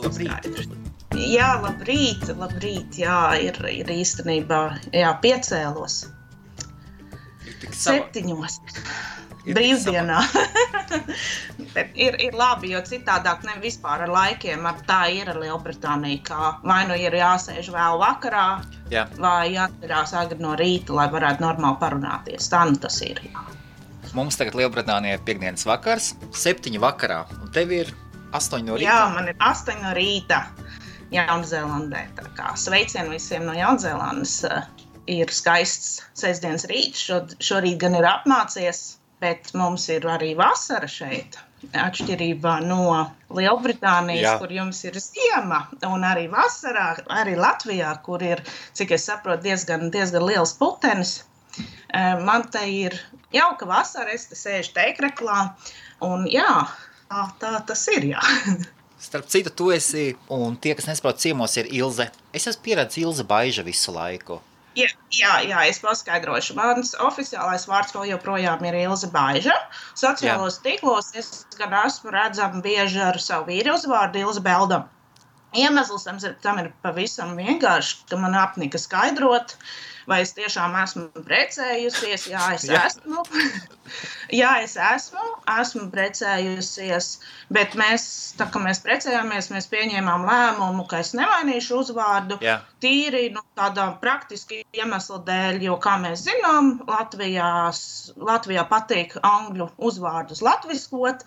Labrīt. Jā, labrīt, jā, ir īstenībā, jā, piecēlos. 7. Brīvdienā. Bet ir labi, jo citādāk ne vispār ar laikiem, tā ir ar Lielbritāniju, kā vai nu ir jāsēž vēl vakarā, vai jāatcerās agri no rīta, lai varētu normāli parunāties. Tā nu tas ir, jā. Mums tagad Lielbritānijā ir piekdienas vakars, 7 vakarā, un tev ir 8 no rīta? Jā, man ir 8 no rīta Jaunzēlandē. Tā kā sveicien visiem no Jaunzēlandes. Ir skaists sestdienas rīts, šorīt gan ir apmācies, bet mums ir arī vasara šeit. Atšķirībā no Lielbritānijas, kur jums ir ziema, un arī vasarā, arī Latvijā, kur ir, cik es saprotu, diezgan liels putenis. Man te ir jauka vasara, es te sēžu teikreklā, un jā, tā tas ir, jā. Starp citu, tu esi, un tie, kas nesaprot, ciemos ir Ilze. Es esmu pieredzis Ilze Baiža visu laiku. Jā, es paskaidrošu. Mans oficiālais vārds vēl joprojām ir Ilze Baiža. Sociālos tīklos es gan esmu redzama bieži ar savu vīru uzvārdu Ilze Beldam. Iemesls tam ir pavisam vienkārši, ka man apnika skaidrot, vai es tiešām esmu precējusies. Jā, es esmu precējusies, bet tā kā mēs precējāmies, mēs pieņēmām lēmumu, ka es nemainīšu uzvārdu. Tīri tādā praktiski iemesla dēļ, jo, kā mēs zinām, Latvijā patīk angļu uzvārdus latviskot,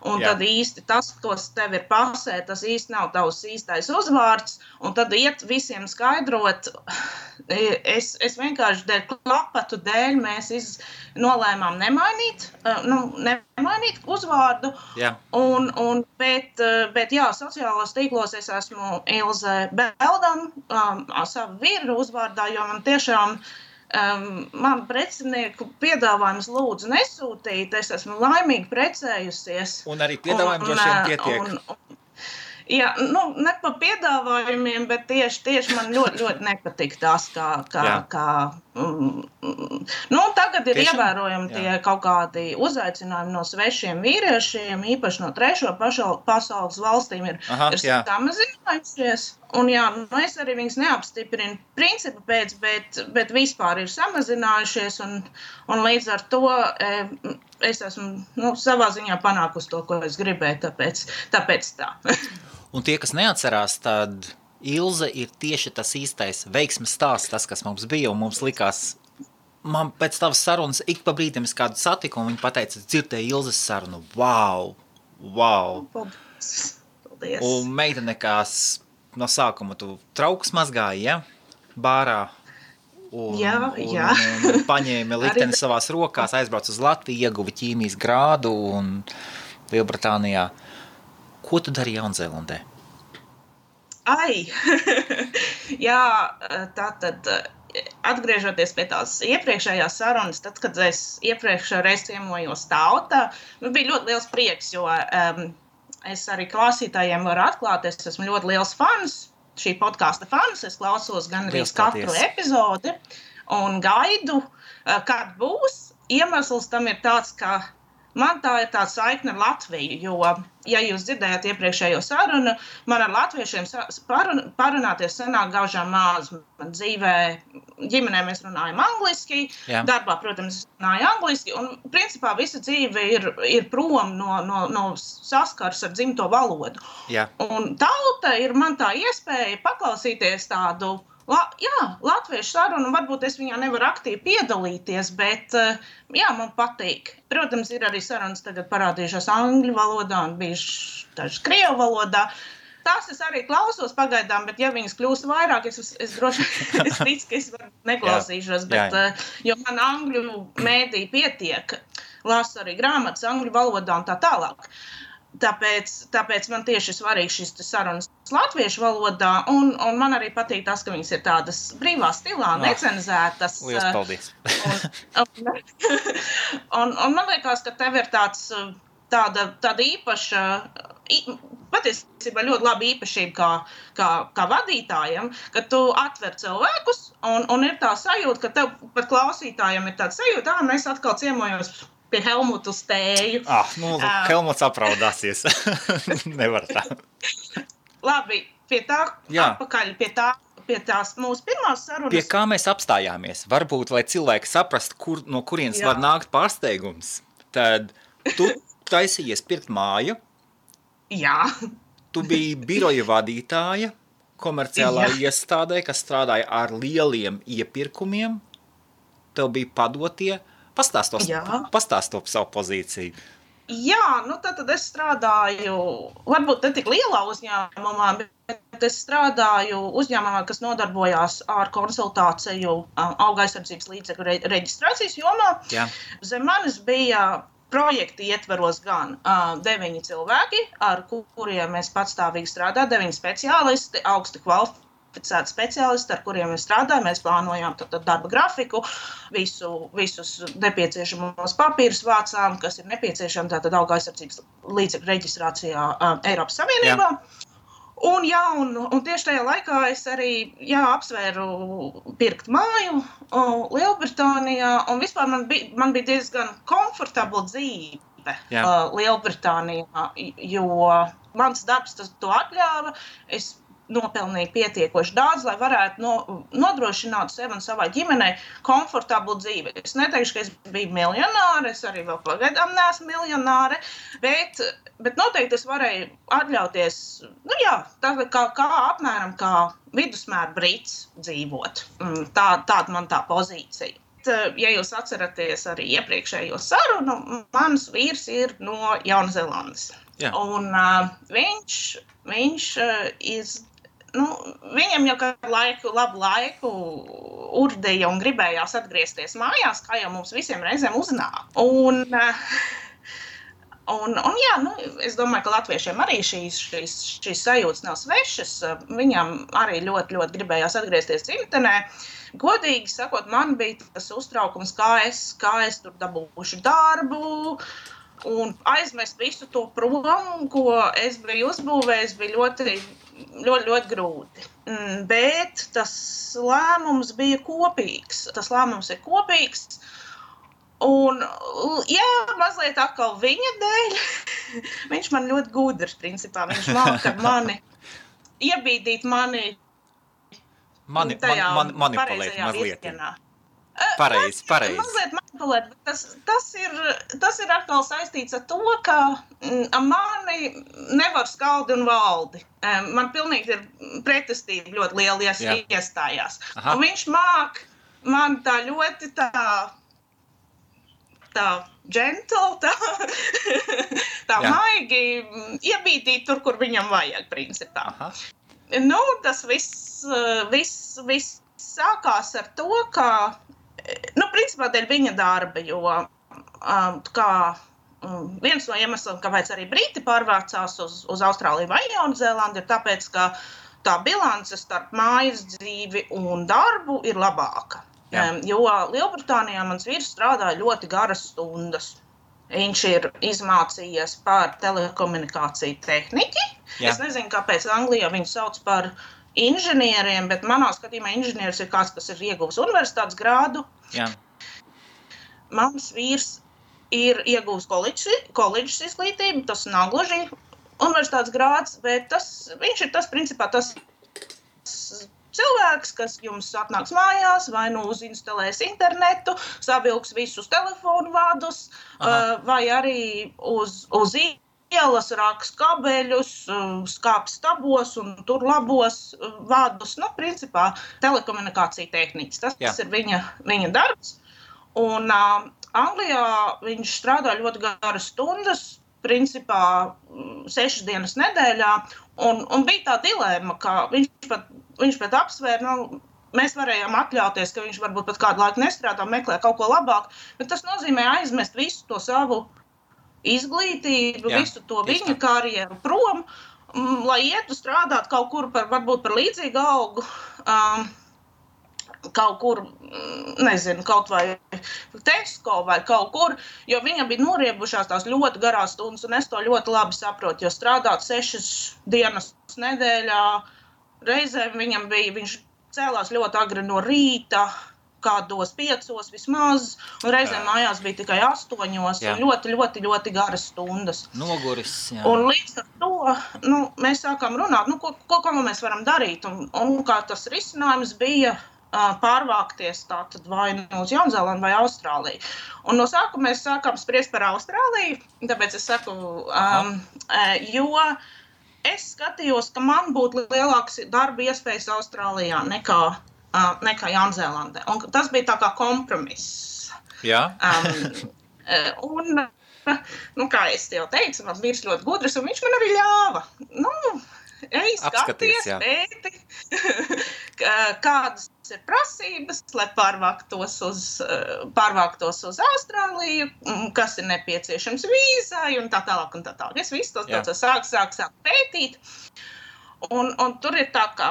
un tad īsti tas, kas tev ir pasē, tas īsti nav tavs īstais uzvārds, un tad iet visiem skaidrot. Es vienkārši dēļ klapatu dēļ mēs nolēmām nemainīt uzvārdu, bet jā, sociālos tīklos es esmu Ilze Beldam, savu vīru uzvārdā, jo man tiešām man precinieku piedāvājums lūdzu nesūtīt, es esmu laimīgi precējusies. Un arī piedāvājumi droši vien pietiek. Jā, ne pa piedāvājumiem, bet tieši man ļoti nepatīk tas, tagad ir ievērojami tie kaut kādi uzaicinājumi no svešiem vīriešiem, īpaši no trešo pasaules valstīm ir samazinājušies. Un jā, es arī viņus neapstiprinu principu pēc, bet vispār ir samazinājušies, un līdz ar to es esmu savā ziņā panākusi to, ko es gribēju, tāpēc tā. Un tie, kas neatcerās, tad Ilze ir tieši tas īstais veiksmes stāsts, tas, kas mums bija, un mums likās, man pēc tavas sarunas ik pa brīdim es kādu satiku, un viņi pateica, dzirdēju Ilzes sarunu, wow. Paldies. Un meitene, kas no sākuma tu trauks mazgāji, bārā, un paņēma likteni savās rokās, aizbrauc uz Latviju, ieguva ķīmijas grādu un Lielbritānijā. Ko tu dari Jaunzēlandē? Jā, tātad atgriežoties pie tās iepriekšējās sarunas, tad, kad es iepriekšējā reiz ciemojos tautā, bija ļoti liels prieks, jo es arī klausītājiem varu atklāt, es esmu ļoti liels fans, šī podkasta fans, es klausos gan arī katru epizodi un gaidu, kad būs. Iemesls tam ir tāds, ka man tā ir tāda saikne ar Latviju, jo, ja jūs dzirdējāt iepriekšējo sarunu, man ar latviešiem parunāties sanāk gaužām maz. Man dzīvē, ģimenē mēs runājam angliski, darbā, protams, runāju angliski, un principā visa dzīve ir prom no saskars ar dzimto valodu. Un tauta ir man tā iespēja paklausīties tādu latviešu sarunu, varbūt es viņā nevaru aktīvi piedalīties, bet man patīk. Protams, ir arī sarunas tagad parādījušās angļu valodā un bijušas dažas krievu valodā. Tās es arī klausos pagaidām, bet ja viņas kļūst vairāk, es droši es ticu, ka es neklausīšos, bet jo man angļu mēdī pietiek, lasu arī grāmatas angļu valodā un tā tālāk. Tāpēc man tieši svarīgi šis sarunas latviešu valodā, un man arī patīk tas, ka viņas ir tādas brīvā stilā, necenzētas. Lielas paldies. Un man liekas, ka tev ir tāda īpaša, patiesībā ļoti laba īpašība kā vadītājam, ka tu atver cilvēkus, un ir tā sajūta, ka tev pat klausītājiem ir tāda sajūta, mēs atkal ciemojos pie Helmutu Stēju. Helmuts apraudāsies. Nevar tā. Labi, pie tā, atpakaļ pie tās mūsu pirmās sarunas. Pie kā mēs apstājāmies? Varbūt, lai cilvēki saprast, no kurienes var nākt pārsteigums, tad tu taisījies pirkt māju. Jā. Tu biji biroja vadītāja komerciālā iestādē, kas strādāja ar lieliem iepirkumiem. Tev bija padotie. Pastāst par savu pozīciju. Jā, tad es strādāju, varbūt ne tik lielā uzņēmumā, bet es strādāju uzņēmumā, kas nodarbojās ar konsultāciju auga aizsardzības līdzekļu reģistrācijas jomā. Jā. Zem manis bija projekti ietveros gan 9 cilvēki, ar kuriem mēs patstāvīgi strādājam, 9 speciālisti, augsti kvalificēti speciālisti, ar kuriem mēs strādājam. Mēs plānojām darba grafiku, visus nepieciešamos papīrus vācām, kas ir nepieciešami tātad auga aizsardzības līdzekļu reģistrācijā Eiropas Savienībā. Un tieši tajā laikā es arī apsvēru pirkt māju Lielbritānijā, un vispār man bija diezgan komfortabla dzīve Lielbritānijā, jo mans darbs to atļāva. Es nopelnīju pietiekoši daudz, lai varētu nodrošināt sev un savai ģimenei komfortablu dzīvi. Es neteikšu, ka es biju miljonāre, es arī vēl pagaidām neesmu miljonāre, bet noteikti es varēju atļauties, apmēram kā vidusmēra brits dzīvot. Tāda man tā pozīcija. Ja jūs atceraties arī iepriekšējo sarunu, mans vīrs ir no Jaunzēlandes. Un viņš viņam jau kādu labu laiku urdīja un gribējās atgriezties mājās, kā jau mums visiem reizēm uznāk. Es domāju, ka latviešiem arī šīs sajūtas nav svešas. Viņam arī ļoti, ļoti gribējās atgriezties dzimtenē. Godīgi sakot, man bija tas uztraukums, kā es tur dabūšu darbu, un aizmest visu to prom, ko es biju uzbūvējis, bija ļoti, ļoti, ļoti grūti. Bet tas lēmums bija kopīgs. Un, mazliet atkal viņa dēļ. Viņš man ļoti gudrs, principā. Viņš māca iebīdīt mani manipulēt mazliet. Pareizi. Mazliet manipulēt, bet tas ir atkal saistīts ar to, ka mani nevar skaldi un valdi. Man pilnīgi ir pretestība ļoti liela iestājās. Un viņš māk man tā ļoti tā gentle, tā maigi iebītīt tur, kur viņam vajag, principā. Aha. Tas viss sākās ar to, ka principā dēļ viņa darba, jo viens no iemesliem, kāpēc arī briti pārvācās uz Austrāliju vai Jaunzēlandi, ir tāpēc, ka tā bilance starp mājas dzīvi un darbu ir labāka. Jo Lielbritānijā mans vīrs strādāja ļoti garas stundas. Viņš ir izmācījies par telekomunikāciju tehniķi. Jā. Es nezinu, kāpēc Anglijā viņu sauc par inženieriem, bet manā skatījumā inženieris ir kāds, kas ir ieguvis universitātes grādu. Jā. Mans vīrs ir ieguvis koledžas izglītību, tas nav gluži universitātes grāds, bet viņš ir principā tas cilvēks, kas jums atnāks mājās, vai uzinstalēs internetu, savilks visus telefonu vadus, vai arī uz ielas raks kabeļus, skāps stabos un tur labos vadus. Principā telekomunikācija tehniķis. Tas ir viņa darbs. Un Anglijā viņš strādā ļoti garas stundas, principā 6 dienas nedēļā, un bija tā dilēma, ka viņš pat apsvēra, mēs varējām atļauties, ka viņš varbūt pat kādu laiku nestrādā, meklē kaut ko labāk, bet tas nozīmē aizmest visu to savu izglītību, visu to viņa karjeru prom, lai ietu strādāt kaut kur varbūt par līdzīgu algu, kaut kur, nezinu, kaut vai Tesco vai kaut kur, jo viņam bija noriebušās tās ļoti garās stundas, un es to ļoti labi saprotu, jo strādāt 6 dienas nedēļā, reizēm viņš cēlās ļoti agri no rīta, kādos 5 vismaz, un reizēm mājās bija tikai 8, un ļoti garas stundas. Noguris, jā. Un līdz ar to mēs sākām runāt, ko mēs varam darīt, un kā tas risinājums bija pārvākties tātad vai uz Jaunzēlandu vai Austrāliju. Un no sākuma mēs sākām spriest par Austrāliju, tāpēc es saku, jo es skatījos, ka man būtu lielāks darba iespējas Austrālijā nekā Jaunzēlandē. Un tas bija tā kā kompromiss. Jā. Kā es jau teicu, mans vīrs ļoti gudrs, un viņš man arī ļāva. Ej, skaties, pēti, kādas ir prasības, lai pārvāktos uz Austrāliju, kas ir nepieciešams vīzai un tā tālāk un tā tālāk. Es visu to sāku pētīt. Un tur ir tā, ka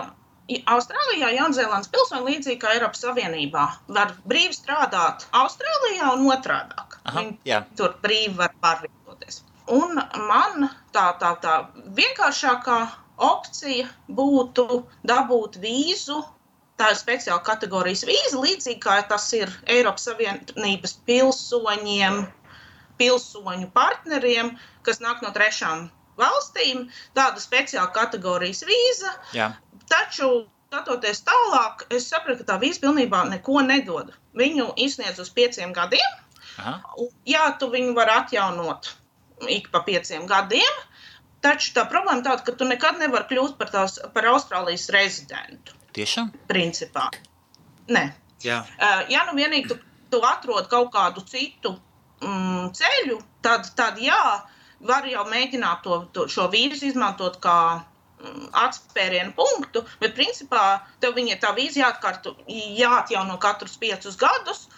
Austrālijā Jaunzēlandes pilsoņi līdzīgi kā Eiropas Savienībā var brīvi strādāt Austrālijā un otrādāk. Viņi tur brīvi var pārvietoties. Un man tā vienkāršākā opcija būtu dabūt vīzu, tā ir speciāla kategorijas vīza, līdzīgi kā tas ir Eiropas Savienības pilsoņu partneriem, kas nāk no 3 valstīm, tāda speciāla kategorijas vīza. Jā. Taču, skatoties tālāk, es sapratu, ka tā vīza pilnībā neko nedod. Viņu izsniedz uz 5 gadiem. Jā, tu viņu var atjaunot ik pa 5 gadiem, taču tā problēma tāda, ka tu nekad nevar kļūt par Austrālijas rezidentu. Tiešām? Principā. Nē. Jā. Ja vienīgi tu atrod kaut kādu citu ceļu, tad jā, var jau mēģināt šo vīzu izmantot kā atspērienu punktu, bet principā tev tā vīza jāatjauno katrus 5 gadus,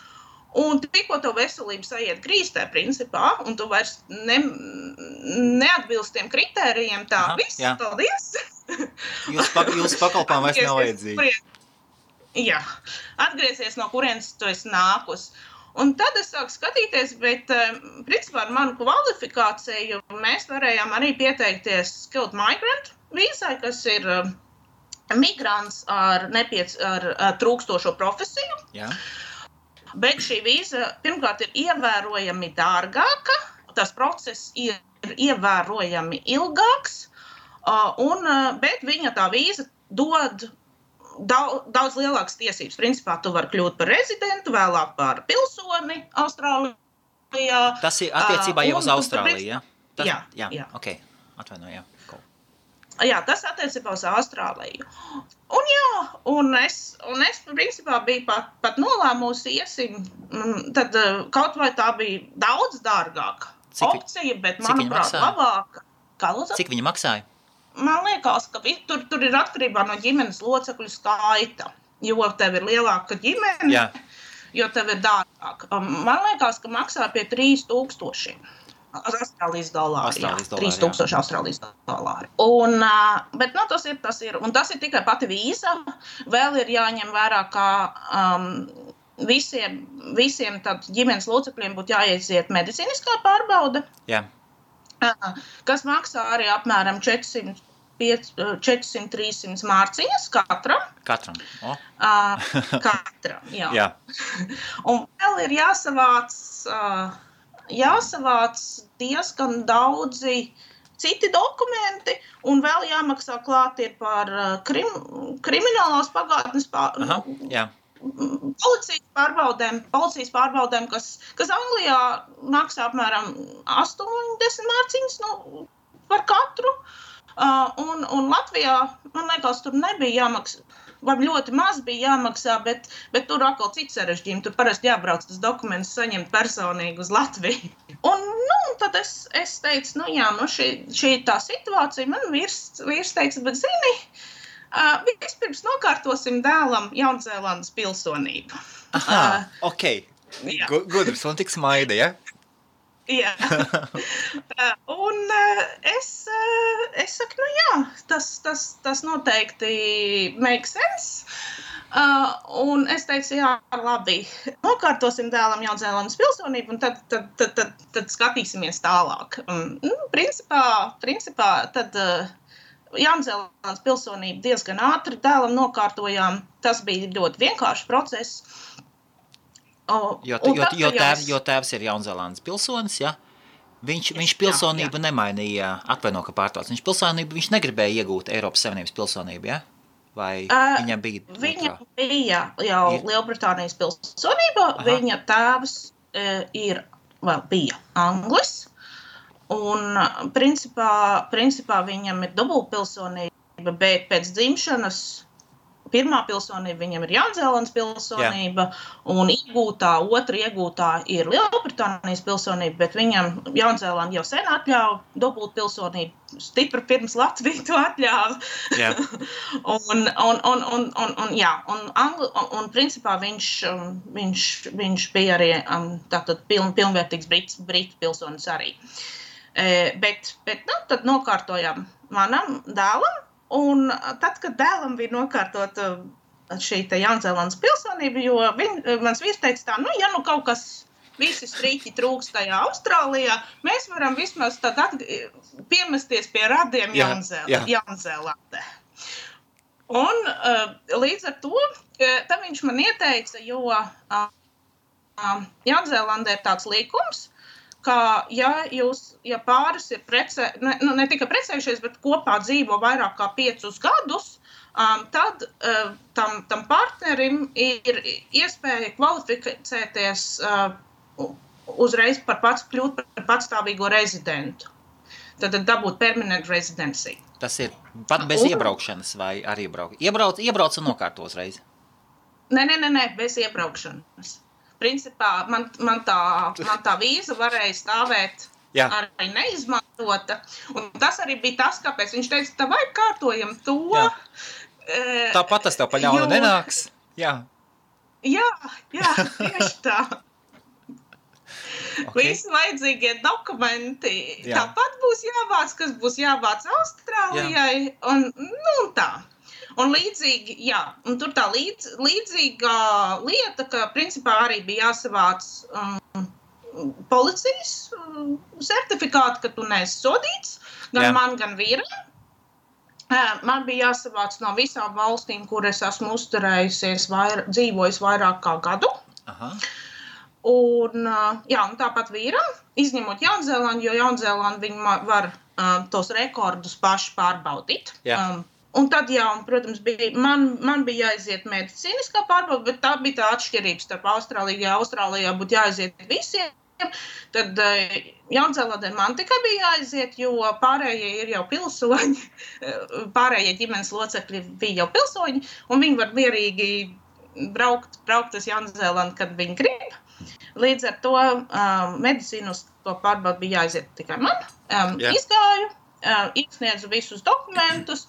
un tikko tev veselība saiet grīstē, principā, un tu vairs neatbilst tiem kritērijiem, viss, paldies. Jūsu pakalpām vairs nav vajadzīgi. Jā, atgriezies no kurienes tu esi nākus. Un tad es sāku skatīties, bet principā ar manu kvalifikāciju mēs varējām arī pieteikties skilled migrant vīzai, kas ir migrants ar trūkstošo profesiju. Jā. Bet šī vīza pirmkārt ir ievērojami dārgāka, tas process ir ievērojami ilgāks, bet viņa tā vīza dod daudz lielākas tiesības. Principā tu vari kļūt par rezidentu, vēlāk par pilsoni Austrālijā. Tas ir attiecībā jau uz Austrāliju, ja? Jā. Ok, atvainoju, jā. Jā, tas attiecībā uz Austrāliju. Un es principā biju pat nolēmusi iesim, tad kaut vai tā bija daudz dārgāka opcija, bet manuprāt labāka. Cik viņa maksāja? Man liekas, ka tur ir atkarībā no ģimenes locekļu skaita, jo tev ir lielāka ģimene, jo tev ir dārgāka. Man liekas, ka maksā pie 3000. Austrālijas dolāri. 3000 Austrālijas dolāri. Bet tas ir. Un tas ir tikai pati vīza. Vēl ir jāņem vērā, ka visiem tad ģimenes locekļiem būtu jāiziet medicīniskā pārbaude. Jā. Kas maksā arī apmēram 400-300 mārciņas katram. Katram. Katram, jā. Jā. Un vēl ir jāsavāc diezgan daudzi citi dokumenti, un vēl jāmaksā klāt ir par kriminālās pagātnes policijas pārbaudēm, kas Anglijā maksā apmēram 80 mārciņas par katru, un Latvijā, man liekas, tur nebija jāmaksā. Vai ļoti maz bija jāmaksā, bet tur atkal cits sarežģījumi. Tur parasti jābrauc tas dokuments saņemt personīgi uz Latviju. Un tad es teicu, šī tā situācija, man vīrs teica, bet zini, vispirms nokārtosim dēlam Jaunzēlandes pilsonību. Aha, ok. Gudrs un tik smaida, ja? Jā. Un es saku, tas noteikti make sense. Un es teicu, jā, labi, nokārtosim dēlam Jaunzēlandes pilsonību, un tad skatīsimies tālāk. Principā tad Jaunzēlandes pilsonību diezgan ātri dēlam nokārtojām. Tas bija ļoti vienkāršs process. Jo tēvs ir Jaunzēlandes pilsonis, ja? Viņš pilsonību nemainīja, atvaino, ka pārtrauc. Viņš negribēja iegūt Eiropas Savienības pilsonību, ja? Vai viņam bija? Viņam bija jau Lielbritānijas pilsonība, viņa tēvs bija Anglis, un principā viņam ir dubultpilsonība, bet pēc dzimšanas pirmā pilsonība viņam ir Jaunzēlandes pilsonība, un otra iegūtā ir Lielbritānijas pilsonība, bet viņam Jaunzēlanda jau sen atļauj dubultpilsonību, stipri pirms Latvija to atļāva. Yeah. un principā viņš bija arī tātad pilnvērtīgs britu pilsonis arī. Bet tad nokārtojām manam dēlam. Un tad, kad dēlam bija nokārtot šī Jaunzēlandes pilsonība, jo mans vīrs teica tā, ja kaut kas visi strīķi trūkst tajā Austrālijā, mēs varam vismaz tad piemesties pie radiem Jaunzēlandē. Un līdz ar to, tad viņš man ieteica, jo Jaunzēlandē ir tāds likums, ka, ja pāris ir ne tikai precējušies, bet kopā dzīvo vairāk kā 5 gadus, tad tam partnerim ir iespēja kvalificēties uzreiz kļūt par patstāvīgo rezidentu. Tad dabūt permanent residency. Tas ir pat bez iebraukšanas vai arī iebrauc un nokārto uzreiz? Nē, bez iebraukšanas. Principā man tā vīza varēja stāvēt arī neizmantota. Un tas arī bija tas, kāpēc viņš teica, vai kārtojam to. Tāpat tas tev pa ļaunu nenāks. Jā, tieši tā. Okay. Visi vajadzīgie dokumenti tāpat būs jāvāc, kas būs jāvāc Austrālijai. Un tā. Un līdzīgi, un tur tā līdzīga lieta, ka principā arī bija jāsavāc policijas certifikāti, ka tu neesi sodīts, gan man, gan vīram. Man bija jāsavāc no visām valstīm, kur es esmu uzturējusies, dzīvojis vairāk kā gadu. Aha. Un tāpat vīram, izņemot Jaunzēlandu, jo Jaunzēlandu viņi var tos rekordus paši pārbaudīt. Un tad, protams, man bija jāiziet medicīniskā pārbauda, bet tā bija tā atšķirība starp Austrāliju. Ja Austrālijā būtu jāiziet visiem, tad Jaunzēlandē man tikai bija jāiziet, jo pārējie ir jau pilsoņi, pārējie ģimenes locekļi bija jau pilsoņi, un viņi var mierīgi braukt uz Jaunzēlandu, kad viņi grib. Līdz ar to medicīnisko pārbaudu bija jāiziet tikai man. Izgāju, iesniedzu visus dokumentus.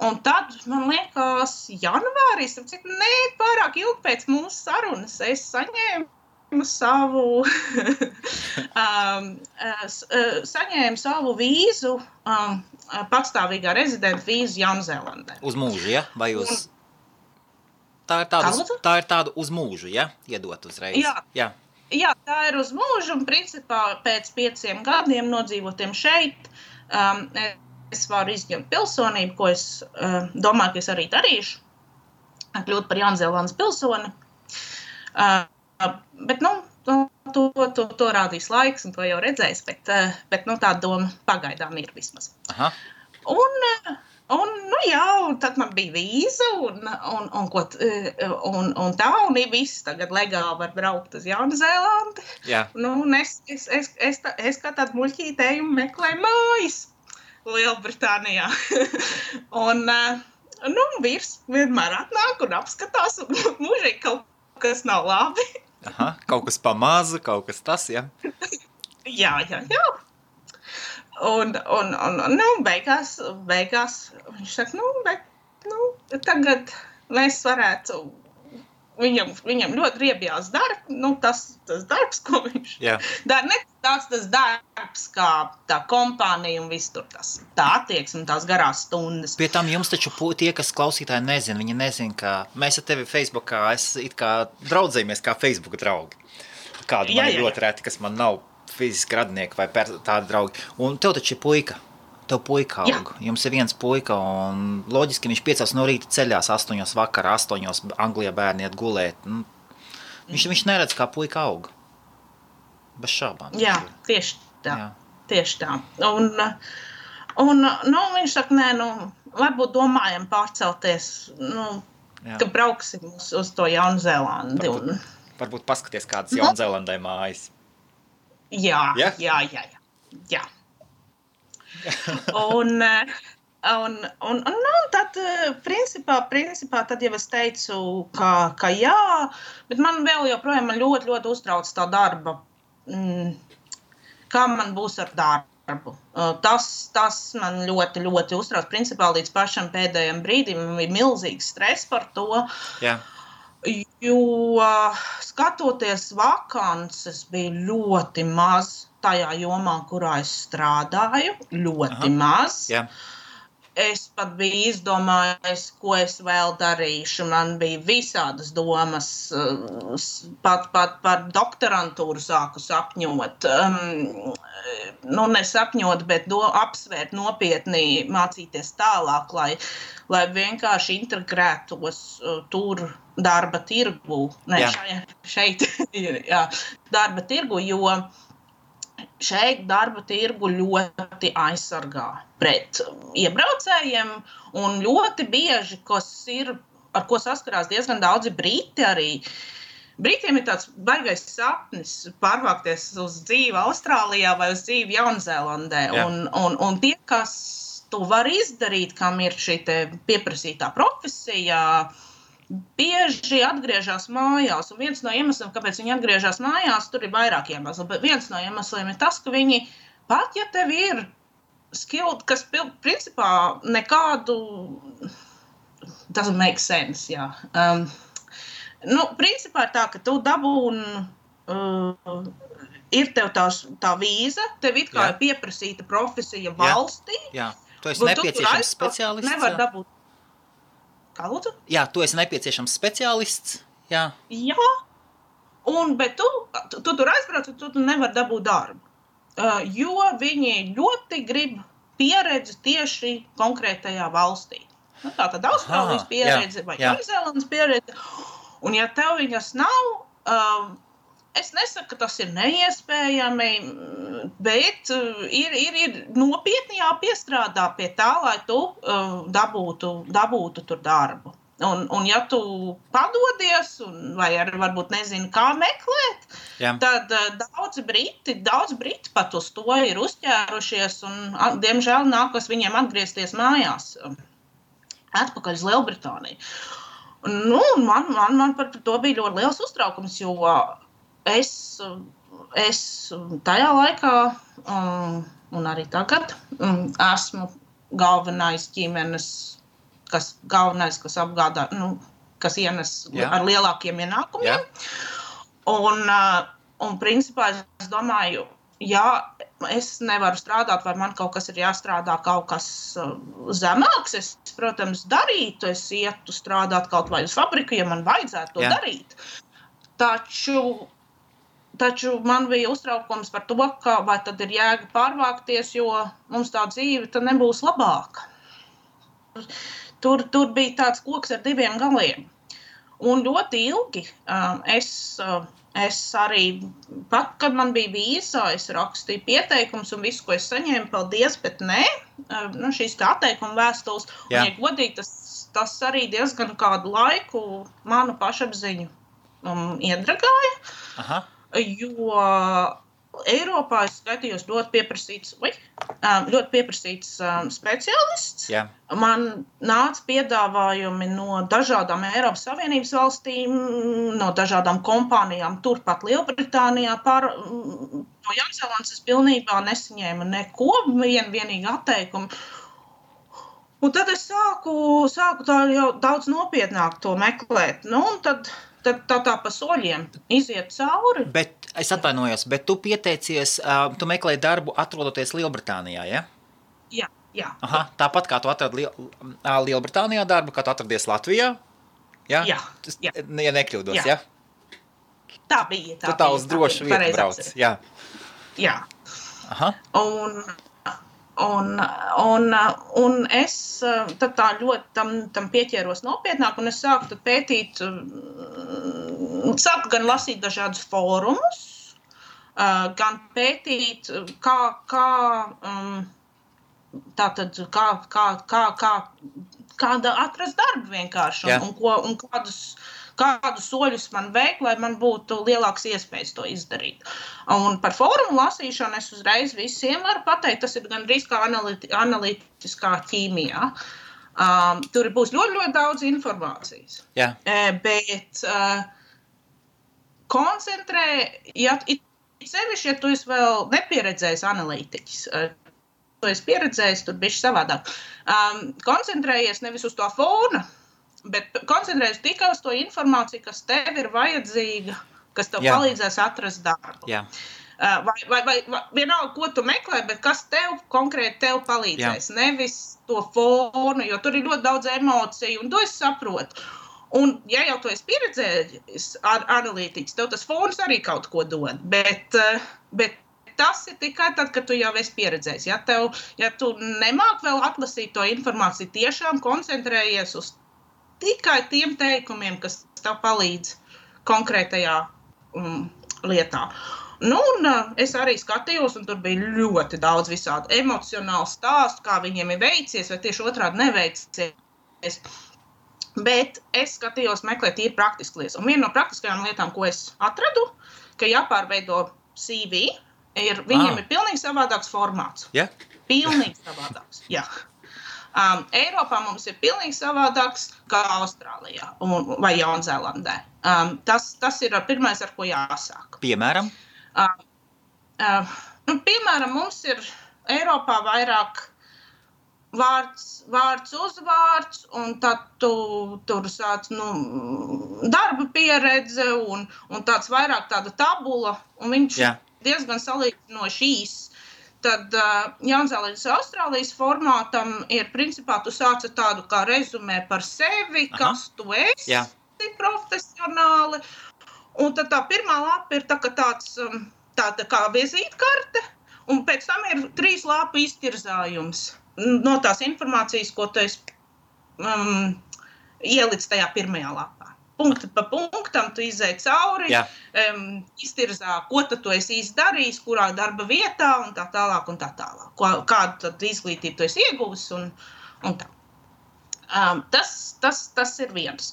Un tad, man liekas, janvārīs, pārāk ilgi pēc mūsu sarunas, es saņēmu savu vīzu, patstāvīgā rezidenta vīzu Jaunzēlandē. Uz mūžu, ja? Vai uz... Tā ir tāda uz mūžu, ja? Iedot uzreiz. Jā, tā ir uz mūžu, un principā pēc 5 gadiem nodzīvotiem šeit, es varu izņemt pilsonību, ko es domāju, ka es arī darīšu, kļūt par Jaunzēlandes pilsoni. Bet, to rādīs laiks, un to jau redzēs, bet tā doma pagaidām ir vismaz. Aha. Un tad man bija vīza, un tā, un viss tagad legāli var braukt uz Jaunzēlandi. Jā. Un es kā tādu muļķītēju meklēju mājas Lielbritānijā. Un vīrs vienmēr atnāk un apskatās, un mūžīgi kaut kas nav labi. Aha, kaut kas pamaza, kaut kas tas, ja? Jā. Un beigās viņš saka, tagad mēs varētu, viņam ļoti riebjās darbs, tas darbs, ko viņš dara, ne tas darbs, kā tā kompānija un viss tur tā attieksme un tās garās stundas. Pie tam jums taču tie, kas klausītāji nezina, viņi nezina, ka mēs ar tevi Facebookā, it kā draudzējamies kā Facebooka draugi. Kādu man ir ļoti reti, kas man nav fiziski radnieki vai tādi draugi. Un tev taču ir puika. Tev puika aug. Jums ir viens puika, un loģiski viņš 5 no rīta ceļās 8 vakarā, 8 Anglijā bērni iet gulēt. Viņš neredz, kā puika aug. Bez šaubām. Jā, tieši tā. Jā. Tieši tā. Un viņš saka, nē, varbūt domājam pārcelties, ka brauksim uz to Jaunzēlandi. Varbūt paskaties, kādas Jaunzēlandē mājas. Jā. Un tad, principā, tad jau es teicu, ka jā, bet man vēl joprojām ļoti, ļoti uztrauc tā darba, kā man būs ar darbu. Tas man ļoti, ļoti uztrauc. Principā līdz pašam pēdējiem brīdim man bija milzīgs stress par to. Jā. Jo skatoties vakances bija ļoti maz tajā jomā, kurā es strādāju. Ļoti maz. Jā. Es pat biju izdomājis, ko es vēl darīšu. Man bija visādas domas, pat par doktorantūru sāku sapņot. Nesapņot, bet apsvērt nopietni, mācīties tālāk, lai vienkārši integrētos tur darba tirgu. Šeit darba tirgu, jo šeit darba tirgu ļoti aizsargā pret iebraucējiem un ļoti bieži, ar ko saskarās diezgan daudzi briti arī. Britiem ir tāds baigais sapnis pārvākties uz dzīvi Austrālijā vai uz dzīvi Jaunzēlandē. Un tie, kas to var izdarīt, kam ir šī te pieprasītā profesija, bieži atgriežas mājās, un viens no iemesliem, kāpēc viņi atgriežas mājās, tur ir vairāk iemesli, bet viens no iemesliem ir tas, ka viņi, pat ja tev ir skilled, kas principā nekādu, doesn't make sense, jā. Principā ir tā, ka tu dabūni, ir tev tā vīza, tev it kā ir pieprasīta profesija valstī. Jā, tu esi nepieciešams speciālists. Nevar dabūt. Kā lūdzu? Jā, tu esi nepieciešams speciālists. Jā. Bet tu tur aizbrauc, un tu nevar dabūt darbu. Jo viņi ļoti grib pieredzi tieši konkrētajā valstī. Tātad Austrālijas pieredze vai Jaunzēlandes pieredze. Un ja tev viņas nav, es nesaku, ka tas ir neiespējami, bet ir nopietni jāpiestrādā pie tā, lai tu dabūtu tur darbu. Un ja tu padodies, vai arī varbūt nezini, kā meklēt, tad daudz briti pat uz to ir uzķērušies, un diemžēl nākas viņiem atgriezties mājās atpakaļ uz Lielbritāniju. Man par to bija ļoti liels uztraukums, jo es tajā laikā un arī tagad esmu galvenais ģimenes, kas apgādā, kas ienes ar lielākiem ienākumiem. Un principā es domāju, es nevaru strādāt, vai man kaut kas ir jāstrādā, kaut kas zemāks. Es, protams, darītu, es ietu strādāt kaut vai uz fabriku, ja man vajadzētu to darīt. Taču man bija uztraukums par to, ka vai tad ir jēga pārvākties, jo mums tā dzīve tad nebūs labāka. Tur bija tāds koks ar diviem galiem. Un ļoti ilgi es arī, pat kad man bija vīza, es rakstīju pieteikums un visu, ko es saņēmu, paldies, bet nē, šīs tā atteikuma vēstules. Un, ja godīgi, tas arī diezgan kādu laiku manu pašapziņu iedragāja, jo Eiropā es skatījos ļoti pieprasīts speciālists. Man nāca piedāvājumi no dažādām Eiropas Savienības valstīm, no dažādām kompānijām, turpat Lielbritānijā. No Jaunzēlandes es pilnībā nesaņēmu neko, vienīgi atteikumu. Un tad es sāku tā jau daudz nopietnāk to meklēt. Un tad tā pa soļiem iziet cauri. Bet es atvainojos, bet tu pieteicies, tu meklēji darbu atrodoties Lielbritānijā, ja? Jā. Aha, tāpat kā tu atradi Lielbritānijā darbu, kā tu atradies Latvijā? Ja? Jā. Ja nekļūdos, ja? Tā bija. Tu tā uz drošu vietu brauc, jā. Jā. Aha. Un es tad tā ļoti tam pieķēros nopietnāk, un es sāku tad pētīt, sāku gan lasīt dažādus fórumus, gan pētīt, kāda atrast darbu vienkārši, un kādus soļus man veikt, lai man būtu lielāks iespējas to izdarīt. Un par fórumu lasīšanu es uzreiz visiem varu pateikt, tas ir gandrīz kā analītiskā ķīmijā. Tur būs ļoti, ļoti daudz informācijas. Jā. Bet koncentrē, sevišķi, ja tu esi vēl nepieredzējis analītiķis, tu esi pieredzējis, tur bišķi savādāk. Koncentrējies nevis uz to fona, bet koncentrējies tikai uz to informāciju, kas tev ir vajadzīga, kas tev palīdzēs atrast darbu. Jā. Vai vienalga, ko tu meklē, bet kas konkrēti tev palīdzēs, nevis to fonu, jo tur ir ļoti daudz emociju, un to es saprotu. Un, ja jau tu esi pieredzējis analītiķis, tev tas fons arī kaut ko dod, bet tas ir tikai tad, kad tu jau esi pieredzējis. Ja tu nemāk vēl atlasīt to informāciju, tiešām koncentrējies uz tikai tiem teikumiem, kas tev palīdz konkrētajā lietā. Un es arī skatījos, un tur bija ļoti daudz visādu emocionālu stāstu, kā viņiem ir veicies, vai tieši otrādi neveicies. Bet es skatījos meklēt tīri praktiskas lietas. Un viena no praktiskajām lietām, ko es atradu, ka jāpārveido CV, viņiem ir pilnīgi savādāks formāts. Yeah. Pilnīgi savādāks, jā. Eiropā mums ir pilnīgi savādāks kā Austrālijā vai Jaunzēlandē. Tas ir pirmais, ar ko jāsāk. Piemēram? Piemēram, mums ir Eiropā vairāk vārds uzvārds, un tad tu tur sāc darba pieredze un tāds vairāk tāda tabula, un viņš diezgan salīdzinoši īss. Tad Jaunzēlandes Austrālijas formātam ir, principā, tu sāc ar tādu kā rezumē par sevi, kas tu esi profesionāli. Un tad tā pirmā lapa ir tāda kā vizītkarte, un pēc tam ir 3 lapu iztirzājums no tās informācijas, ko tu esi ielic tajā pirmajā lapā. Punkti pa punktam tu izēj cauri, iztirzā, ko tu esi izdarījis, kurā darba vietā un tā tālāk un tā tālāk. Kādu tad izglītību tu esi ieguvis un tā. Tas ir viens.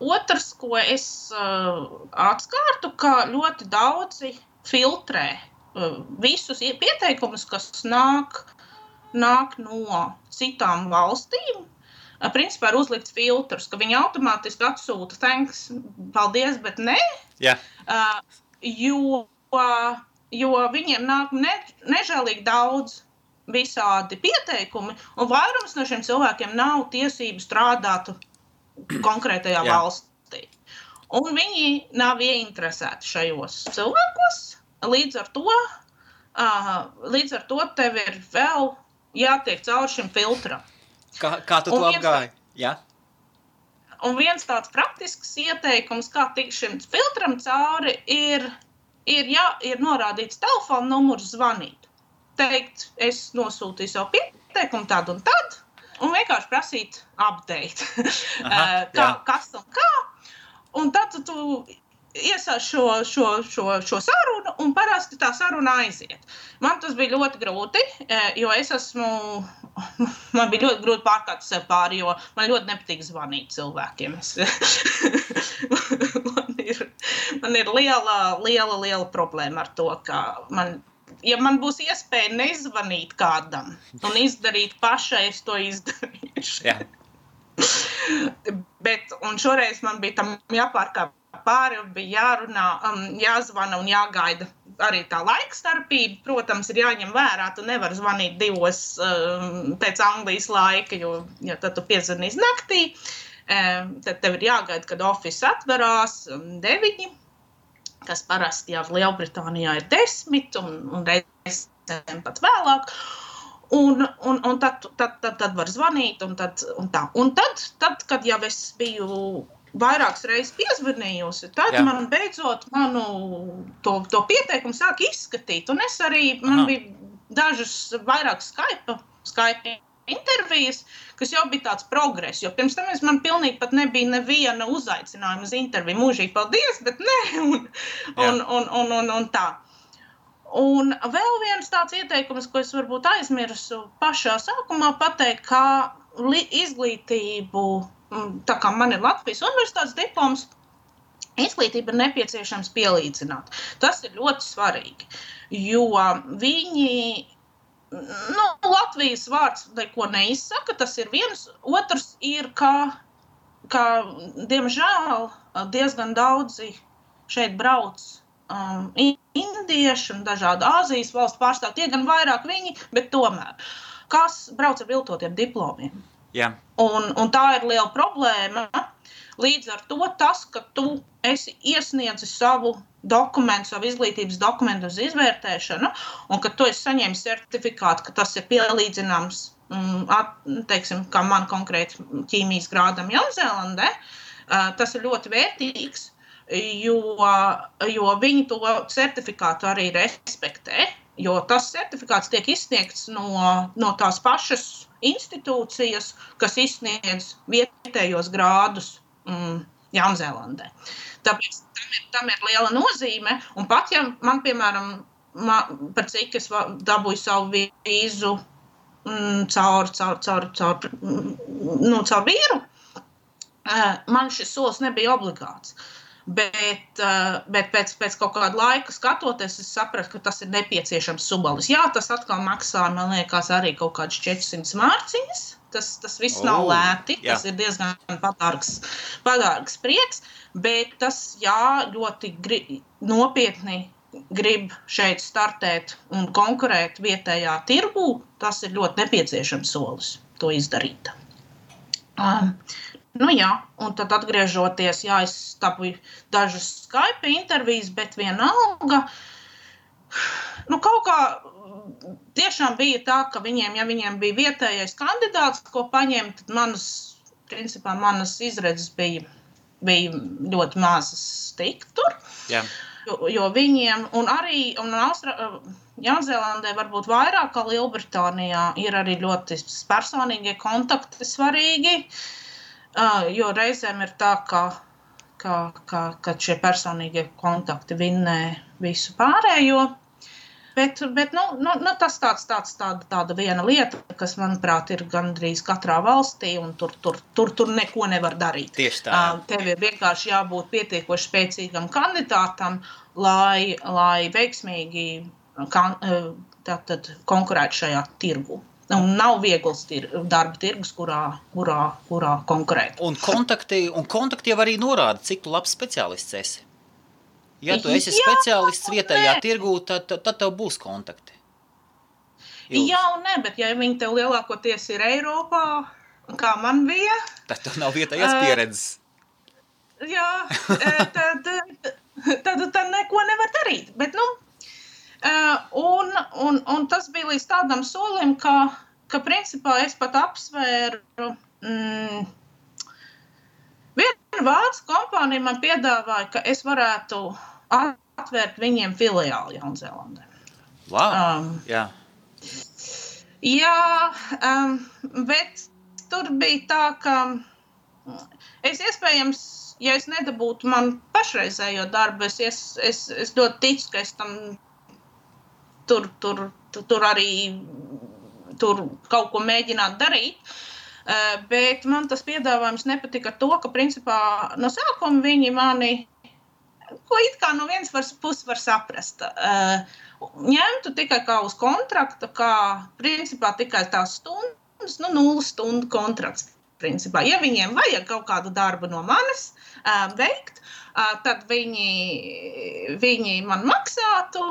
Otrs, ko es atskārtu, ka ļoti daudzi filtrē visus pieteikumus, kas nāk no citām valstīm. Principā ir uzlikts filtrs, ka viņi automātiski atsūta thanks, paldies, bet ne, jo viņiem nāk nežēlīgi daudz visādi pieteikumi, un vairums no šiem cilvēkiem nav tiesību strādāt konkrētajā valstī. Un viņi nav ieinteresēti šajos cilvēkos, līdz ar to tev ir vēl jātiek cauri šim filtram. Kā tu to apgāji? Jā. Un viens tāds praktisks ieteikums, kā tikt šim filtram cauri, ir norādīts telefona numurs zvanīt. Teikt, es nosūtīju savu pieteikumu tad un tad, un vienkārši prasīt update. Kas un kā. Un tad tu iesāc šo sarunu, un parasti tā saruna aiziet. Man tas bija ļoti grūti, jo man bija ļoti grūti pārkārt sev pāri, jo man ļoti nepatīk zvanīt cilvēkiem. Man ir liela problēma ar to, ka ja man būs iespēja nezvanīt kādam un izdarīt pašai, es to izdarīšu. Jā. Un šoreiz man bija tam jāpārkāp pāri, bija jārunā, jāzvana un jāgaida arī tā laikstarpība. Protams, ir jāņem vērā, tu nevari zvanīt 2 pēc Anglijas laika, jo tad tu piezvanīs naktī. Tad tev ir jāgaida, kad office atverās 9, kas parasti jau Lielbritānijā ir 10 un reizēm pat vēlāk. Un tad var zvanīt un tā. Un tad, kad jau es biju vairākas reizes piezvanījusi, tad man beidzot to pieteikumu sāk izskatīt. Un es arī, man bija dažas vairāk Skype intervijas, kas jau bija tāds progress, jo pirms tam man pilnīgi pat nebija neviena uzaicinājuma uz interviju. Mūžīgi paldies, bet ne, un tā. Un vēl viens tāds ieteikums, ko es varbūt aizmirsu pašā sākumā pateikt, kā izglītību, tā kā man ir Latvijas universitātes diploms, izglītība ir nepieciešams pielīdzināt. Tas ir ļoti svarīgi, jo viņi, Latvijas vārds neko neizsaka, tas ir viens, otrs ir, ka diemžēl diezgan daudzi šeit brauc indieši un dažādi Āzijas valstu pārstāvji, tie gan vairāk viņi, bet tomēr, kas brauc ar viltotiem diplomiem. Jā. Un tā ir liela problēma. Līdz ar to tas, ka tu esi iesniedzis savu dokumentu, savu izglītības dokumentu uz izvērtēšanu, un ka tu esi saņēmis certifikātu, ka tas ir pielīdzināms, teiksim, kā man konkrēti ķīmijas grādam Jaunzēlandē, tas ir ļoti vērtīgs, jo viņi to certifikātu arī respektē, jo tas certifikāts tiek izsniegts no tās pašas institūcijas, kas izsniedz vietējos grādus Jaunzēlandē. Tāpēc tam ir liela nozīme, un pat ja man, piemēram, par cik es dabūju savu vīzu caur vīru, man šis solis nebija obligāts. Bet pēc kaut kāda laika skatoties, es sapratu, ka tas ir nepieciešams subalis. Jā, tas atkal maksā, man liekas, arī kaut kādas 400 mārciņas. Tas viss nav lēti, tas ir diezgan padārgs prieks, bet tas, ļoti nopietni grib šeit startēt un konkurēt vietējā tirgū, tas ir ļoti nepieciešams solis to izdarīt. Un tad atgriežoties, es dabūju dažas Skype intervijas, bet vienalga, kaut kā tiešām bija tā, ka viņiem bija vietējais kandidāts, ko paņemt, tad manas izredzes bija ļoti mazas tikt tur. Jā. Jo viņiem, un arī Jaunzēlandē varbūt vairāk kā Lielbritānijā ir arī ļoti personīgie kontakti svarīgi, jo reizēm ir tā, ka šie personīgie kontakti vinnē visu pārējo. Bet tas tāda viena lieta, kas, manuprāt, ir gandrīz katrā valstī, un tur neko nevar darīt. Tieši tā. Tev ir vienkārši jābūt pietiekoši spēcīgam kandidātam, lai veiksmīgi konkurētu šajā tirgu. Un nav viegls darba tirgus, kurā konkurēt. Un kontakti jau arī norāda, cik tu labs speciālists esi. Ja tu esi speciālists vietējā tirgū, tad tev būs kontakti. Jā un ne, bet ja viņi tev lielākoties ir Eiropā, kā man bija, tad tev nav vietējās pieredzes. Jā, tad neko nevar darīt. Bet, un tas bija līdz tādam solim, ka principā es pat apsvēru, viena vācu kompānija man piedāvāja, ka es varētu atvērt viņiem filiāli Jaunzēlandē. Wow, jā. Bet tur bija tā, ka es iespējams, ja es nedabūtu man pašreizējo darbu, es ļoti ticu, ka es tam tur arī kaut ko mēģināt darīt, bet man tas piedāvājums nepatika ar to, ka principā no sākuma viņi mani, ko it kā no vienas puses var saprast, ņemtu tikai kā uz kontraktu, kā principā tikai tās stundas, 0 stundu kontrakts. Principā. Ja viņiem vajag kaut kādu darbu no manis veikt, tad viņi man maksātu,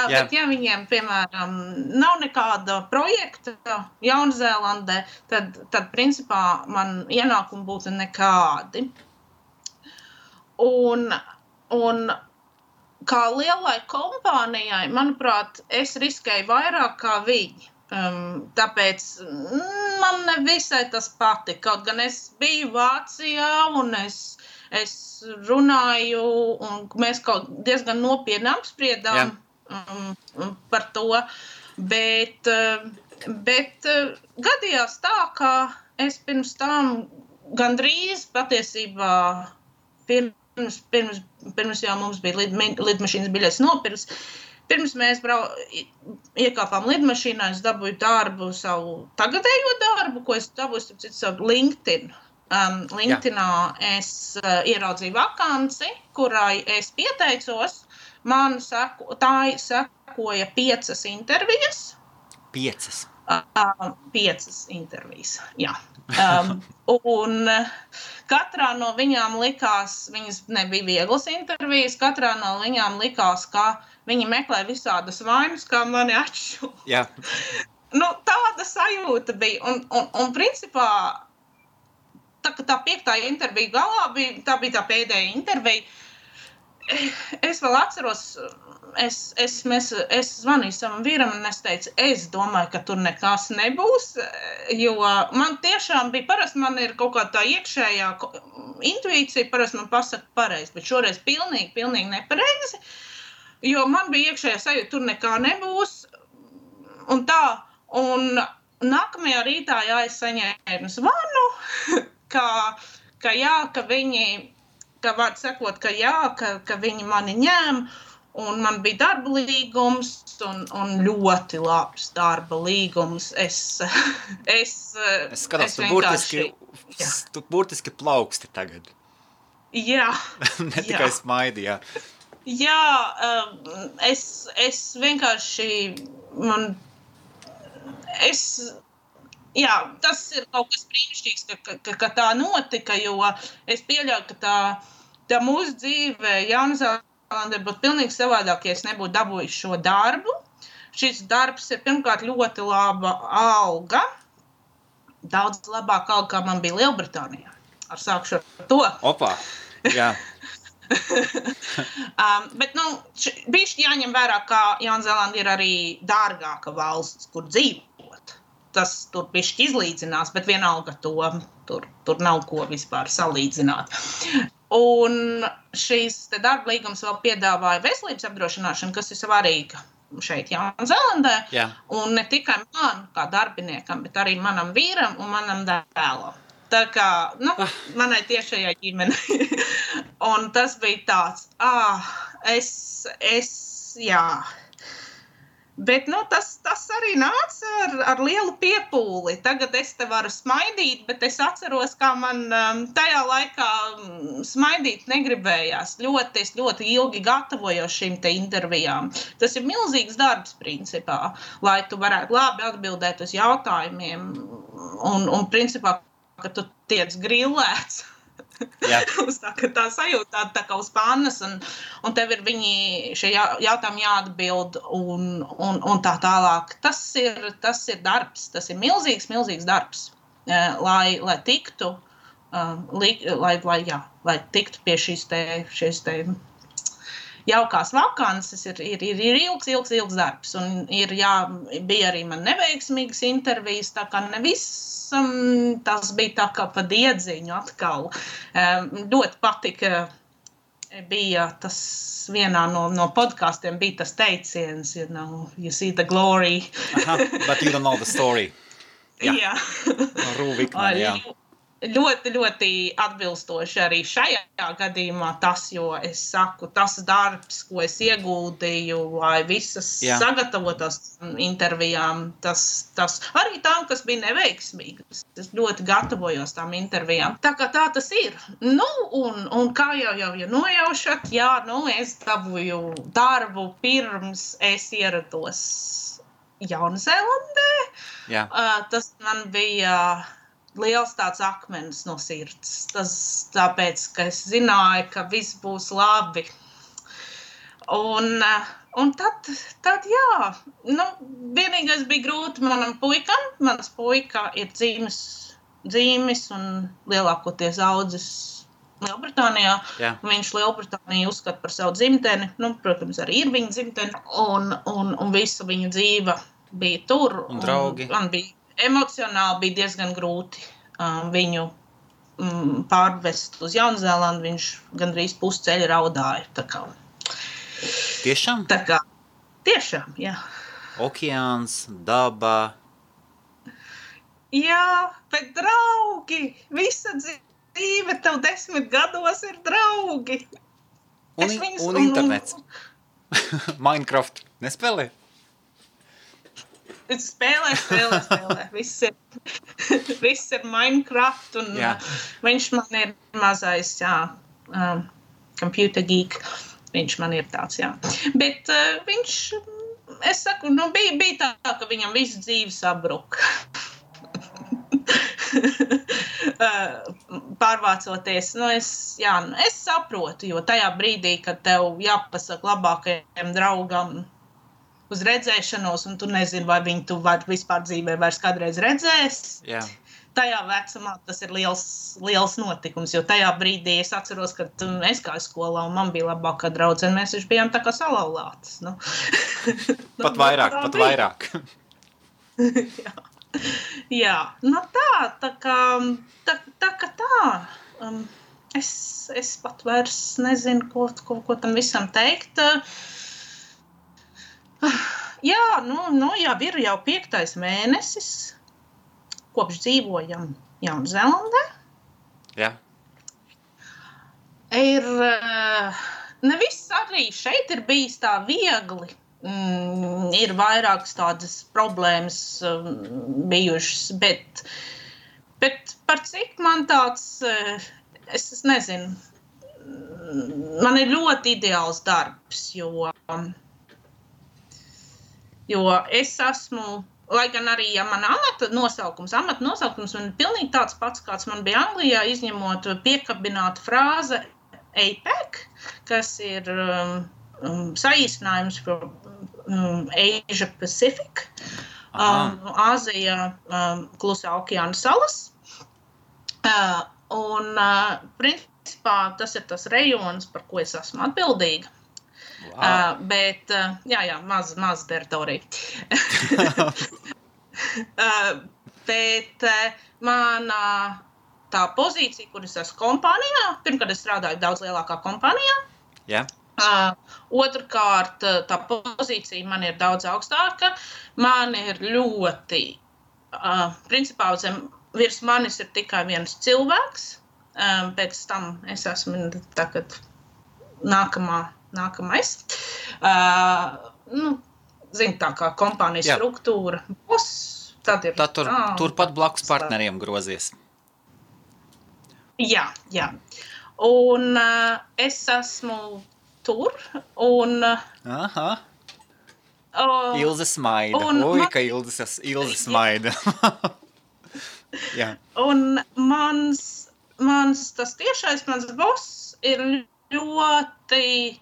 bet ja viņiem, piemēram, nav nekāda projekta Jaunzēlandē, tad principā man ienākumi būtu nekādi. Un kā lielai kompānijai, manuprāt, es riskēju vairāk kā viņi. Tāpēc man nevisai tas patika, kaut gan es biju Vācijā un es runāju un mēs kaut diezgan nopietni apspriedām par to, Bet gadījās tā, ka es pirms tam gandrīz patiesībā pirms jau mums bija lidmašīnas biļetes nopirks. Pirms mēs iekāpām lidmašīnā, es dabūju darbu, savu tagadējo darbu, ko es dabūju savu LinkedIn. LinkedInā es ieraudzīju vakanci, kurai es pieteicos. Man sekoja 5 intervijas. 5? 5 intervijas, jā. Un katrā no viņām likās, viņas nebija vieglas intervijas, katrā no viņām likās, ka viņi meklē visādas vainas, kā mani atšu. Jā. Nu, tāda sajūta bija. Un principā, tā 5. intervija galā tā bija tā pēdējā intervija. Es vēl atceros, es zvanīju savam vīram un es teicu, es domāju, ka tur nekas nebūs, jo man tiešām bija, parasti man ir kaut kā tā iekšējā intuīcija, parasti man pasaka pareizi, bet šoreiz pilnīgi nepareizi, jo man bija iekšējā sajūta, tur nekā nebūs, un tā, un nākamajā rītā, jā, es saņēmu zvanu, ka viņi, ka var sakot, ka jā, ka viņi mani ņem, un man bija darba līgums, un ļoti labs darba līgums. Es skatos, tu burtiski plauksti tagad. Jā. Ne tikai smaidi, jā. Jā, es vienkārši, jā, tas ir kaut kas brīnišķīgs, ka tā notika, jo es pieļauju, ka tā mūsu dzīve Jaunzēlandē būtu pilnīgi savādāk, ja es nebūtu dabūjuši šo darbu. Šis darbs ir pirmkārt ļoti laba alga, daudz labāka alga, kā man bija Lielbritānijā. Sākšu ar to. Opā, jā. Bet, bišķi jāņem vērā, ka Jaunzēlanda ir arī dārgāka valsts, kur dzīvot. Tas tur bišķi izlīdzinās, bet vienalga tur nav ko vispār salīdzināt. Un šīs darba līgums vēl piedāvāja veselības apdrošināšanu, kas ir svarīga šeit Jaunzēlandē. Jā. Un ne tikai man, kā darbiniekam, bet arī manam vīram un manam dēlam. Tā kā, manai tiešajai ģimenei. Un tas bija tāds, jā. Bet, tas arī nāca ar lielu piepūli. Tagad es te varu smaidīt, bet es atceros, kā man tajā laikā smaidīt negribējās. Es ļoti ilgi gatavojos šīm te intervijām. Tas ir milzīgs darbs, principā, lai tu varētu labi atbildēt uz jautājumiem. Un principā, ka tu tiec grillēts. Jā. Tā sajūtā tā kā uz pannas, un tev ir šie jautājumi jāatbild un tā tālāk. Tas ir darbs, tas ir milzīgs darbs, lai tiktu, lai tiktu pie šīs te jaukās vakances, ir ilgs darbs, un bija arī man neveiksmīgas intervijas, tā kā tas bija tā kā pa diedziņu atkal. Ļoti patika, bija tas vienā no podkastiem, bija tas teiciens, you see the glory. But you don't know the story. Jā. Rūvikman, jā. Ļoti atbilstoši arī šajā gadījumā tas, jo es saku, tas darbs, ko es ieguldīju, lai visas sagatavotās intervijām, tas arī tām, kas bija neveiksmīgas. Es ļoti gatavojos tām intervijām. Tā kā tā tas ir. Un kā jau nojaušat, es dabūju darbu pirms es ierados Jaunzēlandē. Jā. Tas man bija liels tāds akmens no sirds. Tas tāpēc, ka es zināju, ka viss būs labi. Un tad jā, vienīgais bija grūti manam puikam. Mans puika ir dzīmis un lielākoties audzis Lielbritānijā. Jā. Viņš Lielbritāniju uzskata par savu dzimteni. Protams, arī ir viņa dzimteni. Un visa viņa dzīve bija tur. Un draugi. Man bija emocionāli bija diezgan grūti viņu pārvest uz Jaunzēlandu. Viņš gandrīz pusceļa raudāja. Tā kā. Tiešām? Tā kā, tiešām, jā. Okeāns, daba. Jā, bet draugi, visa dzīve tev 10 gados ir draugi. Un internets. Minecraft nespēlē? Spēlē. Viss ir Minecraft, un viņš man ir mazais, computer geek. Viņš man ir tāds, Bet viņš, es saku, bija tā, ka viņam visu dzīvi sabruka. Pārvācoties, es saprotu, jo tajā brīdī, kad tev jāpasaka labākajam draugam uz redzēšanos, un tu nezini, vai viņu tu vispār dzīvē vairs kādreiz redzēs. Jā. Tajā vecumā tas ir liels notikums, jo tajā brīdī es atceros, ka es gāju skolā un man bija labākā draudzene, mēs taču bijām tā kā salauztas. Pat vairāk. Jā, tā kā. Es pat vairs nezinu, ko tam visam teikt. Jā, jau ir 5. mēnesis, kopš dzīvojam Jaunzēlandē. Jā. Neviss arī šeit ir bijis tā viegli. Ir vairākas tādas problēmas bijušas, bet par cik man tāds, es nezinu, man ir ļoti ideāls darbs, jo es esmu, lai gan arī, man amata nosaukums man ir pilnīgi tāds pats, kāds man bija Anglijā, izņemot piekabinātu frāze APEC, kas ir saīsinājums par Asia Pacific, Āzija, Klusā okeāna salas. Un principā tas ir tas rejons, par ko es esmu atbildīga. Wow. Bet, maz teritorija. Bet mana tā pozīcija, kur es esmu kompānijā, pirmkārt es strādāju daudz lielākā kompānijā. Yeah. Otrkārt, tā pozīcija man ir daudz augstāka. Man ir ļoti, principā virs manis ir tikai viens cilvēks. Pēc tam es esmu tagad nākamais. Zin, tā kā kompānijas struktūra. Tad turpat blakus partneriem grozies. Jā. Un es esmu tur, un... Aha. Ilze smaida. Ka Ilze smaida. Jā. Un mans tas tiešais, mans boss ir ļoti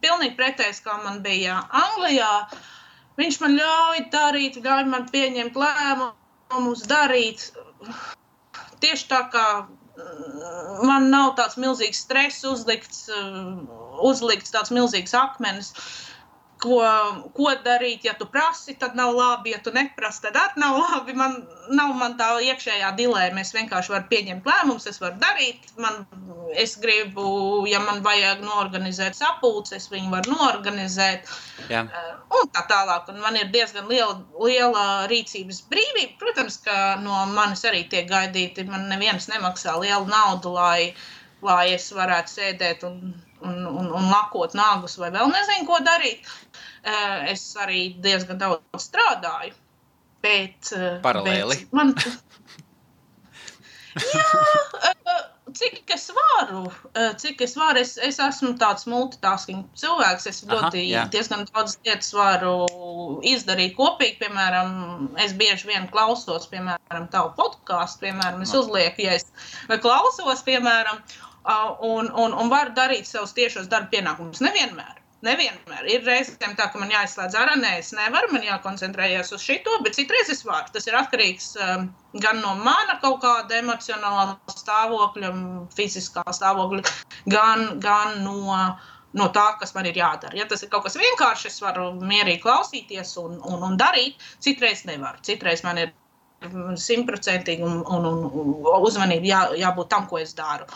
pilnīgi pretējs, kā man bija Anglijā. Viņš man ļauj man pieņemt lēmumus, darīt. Tieši tā kā man nav tāds milzīgs stress uzlikts tāds milzīgs akmenis, ko darīt, ja tu prasi, tad nav labi, ja tu neprasi, tad arī nav labi. Nav man tā iekšējā dilēma, es vienkārši varu pieņemt lēmumus, es varu darīt. Es gribu, ja man vajag noorganizēt sapulces, es viņu varu noorganizēt. Jā. Un tā tālāk. Un man ir diezgan liela rīcības brīvība. Protams, ka no manis arī tiek gaidīti. Man neviens nemaksā lielu naudu, lai es varētu sēdēt un lakot nagus vai vēl nezinu, ko darīt. Es arī diezgan daudz strādāju, bet... Paralēli. Cik es varu, es esmu tāds multitasking cilvēks, es diezgan daudz lietas varu izdarīt kopīgi, piemēram, es bieži vien klausos, piemēram, tavu podcastu, piemēram, es uzlieku, ja es klausos, piemēram, un varu darīt savus tiešos darba pienākumus. Nevienmēr. Ir reizēm tā, ka man jāizslēdz ārā, es nevaru, man jākoncentrējas uz šito, bet citreiz es varu. Tas ir atkarīgs gan no mana kaut kāda emocionālā stāvokļa, fiziskā stāvokļa, gan no tā, kas man ir jādara. Ja tas ir kaut kas vienkārši, es varu mierīgi klausīties un darīt, citreiz nevaru. Citreiz man ir 100% un uzmanība jābūt tam, ko es daru.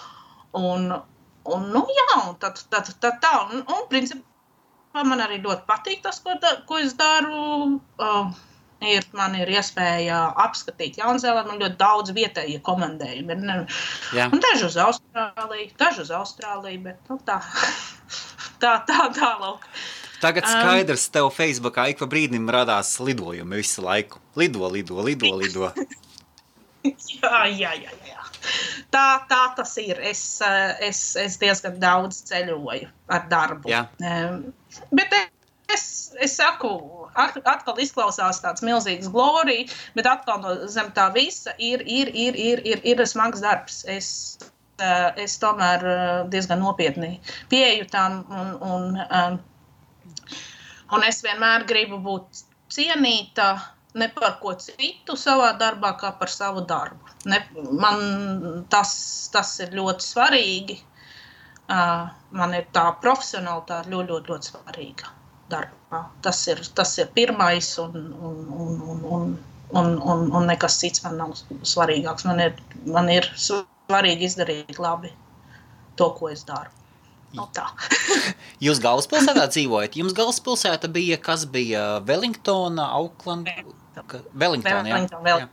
Un tad tā, un principā man arī ļoti patīk tas, ko es daru. Man ir iespēja apskatīt Jaunzēlandu, man ļoti daudz vietējie komandējumi. Un daži uz Austrāliju, bet tā lūk. Tagad skaidrs, tev Facebookā ik pa brīdim radās lidojumi visu laiku. Lido. Jā. Tā tas ir. Es diezgan daudz ceļoju ar darbu. Jā. Bet es saku, atkal izklausās tāds milzīgs glorija, bet atkal zem tā visa ir smags darbs. Es tomēr diezgan nopietni pieeju tam un es vienmēr gribu būt cienīta ne par ko citu savā darbā, kā par savu darbu. Man tas ir ļoti svarīgi. Man ir tā profesionalitāte ļoti svarīga darbā. Tas ir pirmais un nekas cits man nav svarīgāks. Man ir svarīgi izdarīt labi to, ko es daru. Tā. Jūs galvaspilsētā dzīvojat? Jums galvaspilsēta bija, kas bija Wellingtona, Auckland? Wellingtona, jā.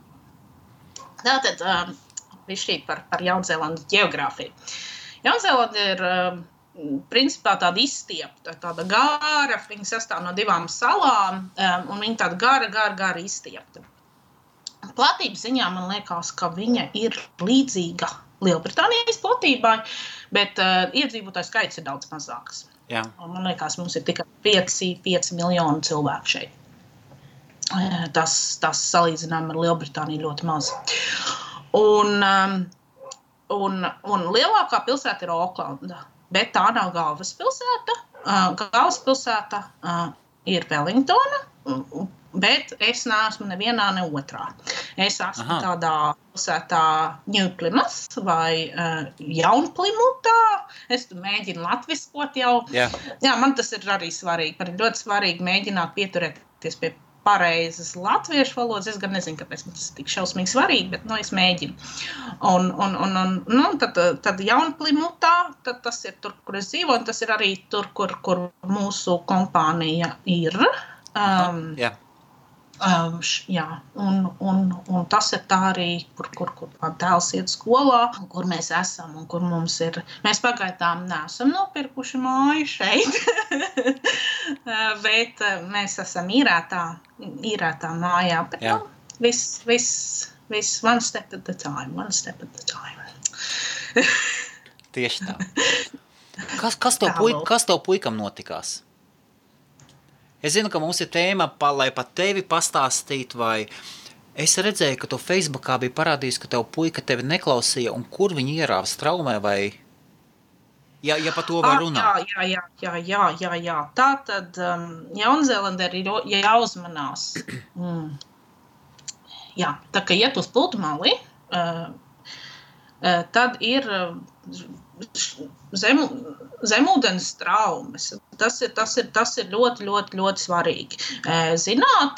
Tātad, višķīt par Jaunzēlandes ģeogrāfiju. Jaunzēlanda ir principā tāda izstiepta, tāda gara, viņa sastāv no 2 salām, un viņa tāda gara izstiepta. Platības ziņā man liekas, ka viņa ir līdzīga Lielbritānijas platībai, bet iedzīvotāju skaits ir daudz mazāks. Jā. Man liekas, mums ir tikai 5 miljoni cilvēku šeit. Tas salīdzinām ar Lielbritāniju ļoti maz. Un lielākā pilsēta ir Aucklanda, bet tā nav galvaspilsēta. Galvaspilsēta ir Wellingtona, bet es neesmu nevienā, ne otrā. Es esmu tādā pilsētā New Plymouth vai Jaunplimutā. Es mēģinu latviskot jau. Jā, man tas ir arī svarīgi. Man ir ļoti svarīgi mēģināt pieturēties pie pareizas latviešu valodas. Es gan nezinu, kāpēc man tas tik šausmīgi svarīgi, bet es mēģinu. Tad Jaunplimutā, tad tas ir tur, kur es dzīvoju, un tas ir arī tur, kur mūsu kompānija ir. Un tas ir tā arī, kur man tēls iet skolā, kur mēs esam un kur mums ir. Mēs pagaidām neesam nopirkuši māju šeit, bet mēs esam īrētā mājā. Bet viss one step at a time. Tieši tā. Kas tev puikam notikās? Es zinu, ka mums ir tēma, lai pat tevi pastāstītu, vai es redzēju, ka tu Facebookā bija parādījis, ka tev puika tevi neklausīja, un kur viņi ierāva straumē, vai, ja pa to var runāt? Jā. Tātad Jaunzēlandē ir jāuzmanās. Jā, tā kā iet uz pludmali, tad ir zemūdens traumas. Tas ir ļoti svarīgi. Zināt,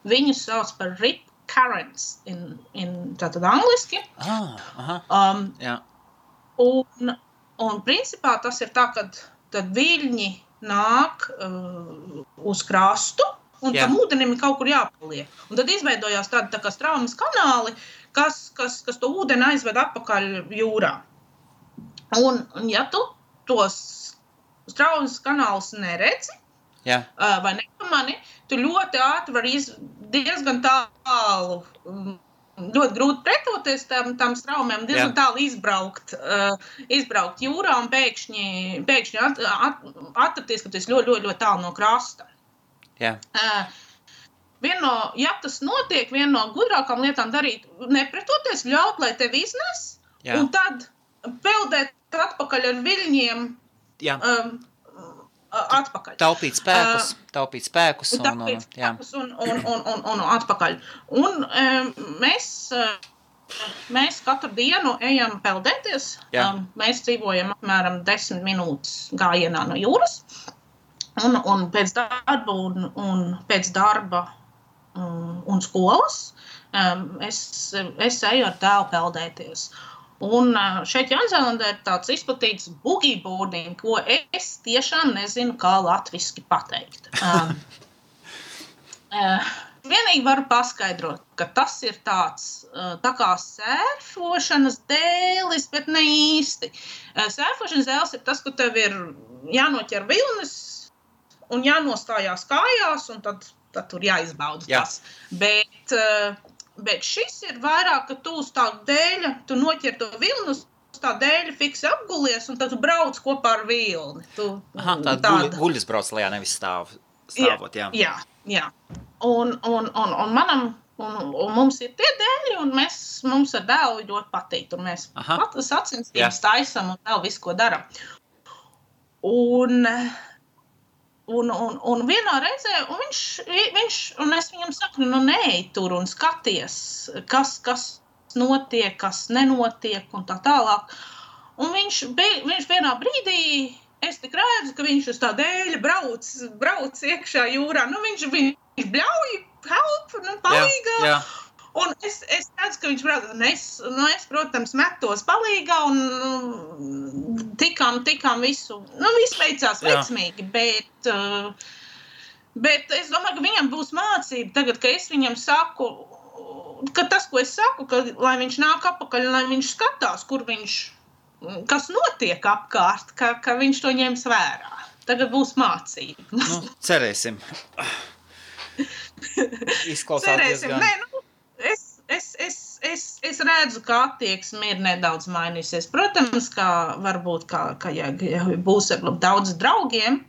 viņus sauc par rip currents tātad angliski. Jā. Un principā tas ir tā, kad viļņi nāk uz krastu, un tam ūdenim ir kaut kur jāpaliek. Un tad izveidojās tādi tā kā straumes kanāli, kas to ūdeni aizved atpakaļ jūrā. Un ja tu tos straumes kanālus neredzi, vai nepamani, tu ļoti ātri vari diezgan tālu, ļoti grūti pretoties tam straumēm, diezgan tālu izbraukt jūrā un pēkšņi atrasties, ka tu esi ļoti tālu no krasta. Jā. Ja tas notiek, viena no gudrākām lietām darīt, nepretoties, ļaut, lai tevi iznes, un tad peldēt atpakaļ ar viļņiem atpakaļ. Taupīt spēkus un atpakaļ. Un mēs katru dienu ejam peldēties. Mēs dzīvojam apmēram 10 minūtes gājienā no jūras. Un pēc darba un skolas es eju ar tēlu peldēties. Un šeit Jaunzēlandē ir tāds izplatīts boogie boarding, ko es tiešām nezinu, kā latviski pateikt. Vienīgi varu paskaidrot, ka tas ir tāds tā kā sērfošanas dēlis, bet ne īsti. Sērfošanas dēlis ir tas, ka tev ir jānoķer vilnis un jānostājās kājās, un tad tur jāizbauda tas. Bet šis ir vairāk, ka tu uz tā dēļa, tu noķer to vilni, uz tā dēļa fiksi apgulies, un tad tu brauc kopā ar vilni. Tāda guļas brauc lejā, nevis stāvot, jā. Jā. Un mums ir tie dēļi, un mums ar dēlu ļoti patīk, un mēs sacensības taisam un vēl visu, ko daram. Un vienā reizē, un es viņam saku, neej tur un skaties, kas notiek, kas nenotiek un tā tālāk. Un viņš vienā brīdī, es tik redzu, ka viņš uz tā dēļa brauc iekšā jūrā. Viņš bļauj, help, palīgā. Jā. Un es redzu, ka viņš brauc. Es, protams, metos palīgā un tikām visu. Viss veicās veiksmīgi, bet es domāju, ka viņam būs mācība tagad, ka es viņam saku, ka tas, ko es saku, ka lai viņš nāk apakaļ, lai viņš skatās, kas notiek apkārt, ka viņš to ņems vērā. Tagad būs mācība. Cerēsim. Izklausās diezgan. Es redzu, ka attieksme ir nedaudz mainīsies. Protams, ka varbūt, ja būs ar daudz draugiem,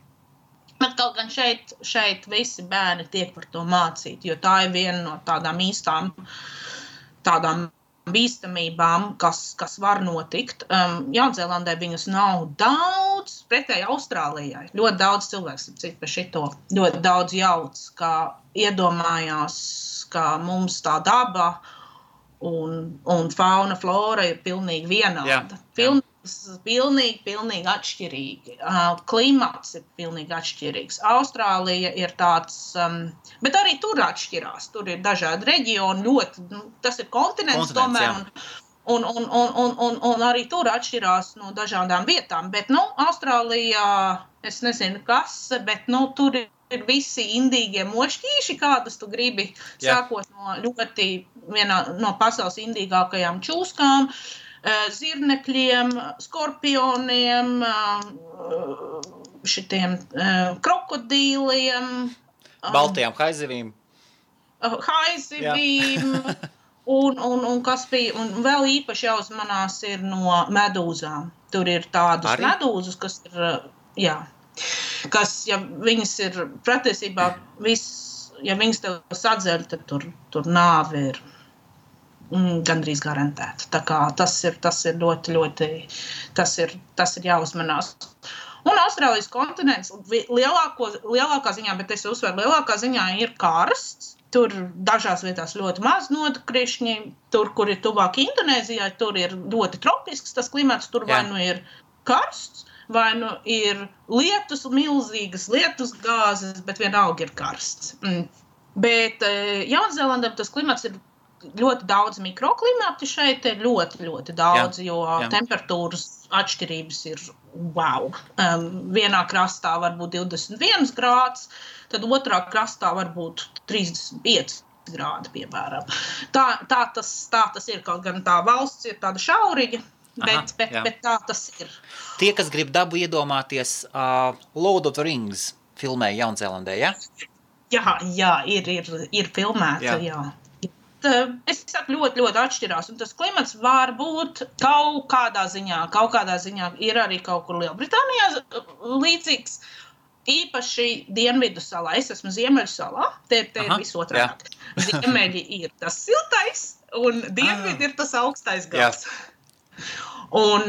bet kaut gan šeit visi bērni tiek par to mācīt, jo tā ir viena no tādām īstām bīstamībām, kas var notikt. Jaunzēlandē viņas nav daudz, pretēji Austrālijai. Ļoti daudz cilvēks cik par šito. Ļoti daudz jauc, kā iedomājās, ka mums tā daba un fauna, flora ir pilnīgi vienāda. Pilnīgi atšķirīgi. Klimats ir pilnīgi atšķirīgs. Austrālija ir tāds, bet arī tur atšķirās. Tur ir dažādi reģioni, ļoti, tas ir kontinents tomēr, un arī tur atšķirās no dažādām vietām. Bet, Austrālijā, es nezinu kas, bet, tur ir visi indīgie mošķīši, kādus tu gribi, sākot no pasaules indīgākajām čūskām, zirnekļiem, skorpioniem, šitiem krokodīliem. Baltajām haizivīm. Un kas bija, un vēl īpaši jāuzmanās ir no medūzām. Tur ir tādas medūzas, kas ir, kas, ja viņas ir patiesībā ja viņas tev sadzeļ, tad tur nāve ir gandrīz garantēta. Tā kā tas ir ļoti, ļoti, tas ir jāuzmanās. Un Austrālijas kontinents lielākā ziņā, bet es uzsveru, lielākā ziņā ir karsts. Tur dažās vietās ļoti maz nokrišņi. Tur, kur ir tuvāk Indonēzijai, tur ir ļoti tropisks tas klimats. Tur vai nu ir karsts, vai nu ir milzīgas lietus gāzes, bet vienalga ir karsts. Bet Jaunzēlandē tas klimats ir ļoti daudz mikroklimati šeit ir ļoti, ļoti daudz, jo temperatūras atšķirības ir wow. Vienā krastā var būt 21 grāds, tad otrā krastā var būt 35 grādi, piemēram. Tā tas ir, kaut gan tā valsts ir tāda šauriņa, bet tā tas ir. Tie, kas grib dabu iedomāties, Lord of the Rings filmē Jaunzēlandē, ja? Jā, ir filmēta, jā. Es saku, ļoti, ļoti atšķirās, un tas klimats var būt kaut kādā ziņā ir arī kaut kur Lielbritānijā līdzīgs, īpaši Dienvidu salā. Es esmu Ziemeļu salā, te ir visotrāk. Ziemeļi ir tas siltais, un Dienvidi ir tas augstais gals. Un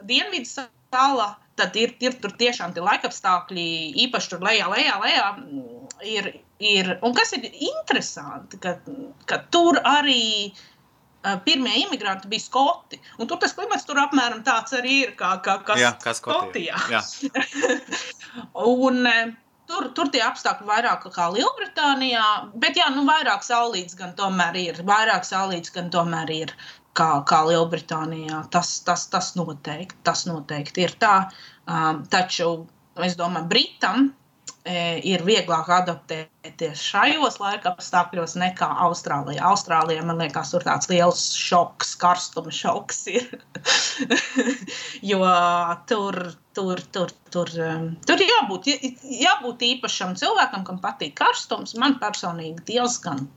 Dienvidu salā, tad ir tur tiešām tie laikapstākļi, īpaši tur lejā ir, un kas ir interesanti, ka tur arī pirmie imigranti bija skoti, un tur tas klimats tur apmēram tāds arī ir, kā Skotijā. Un tur tie apstākļi vairāk kā Lielbritānijā, bet vairāk saulīts gan tomēr ir, kā Lielbritānijā. Tas noteikti ir tā. Taču, es domāju, Britam ir vieglāk adaptēties šajos laika apstākļos nekā Austrālijā. Austrālijā, man liekas, tur tāds liels šoks, karstuma šoks ir. Jo tur jābūt īpašam cilvēkam, kam patīk karstums. Man personīgi diezgan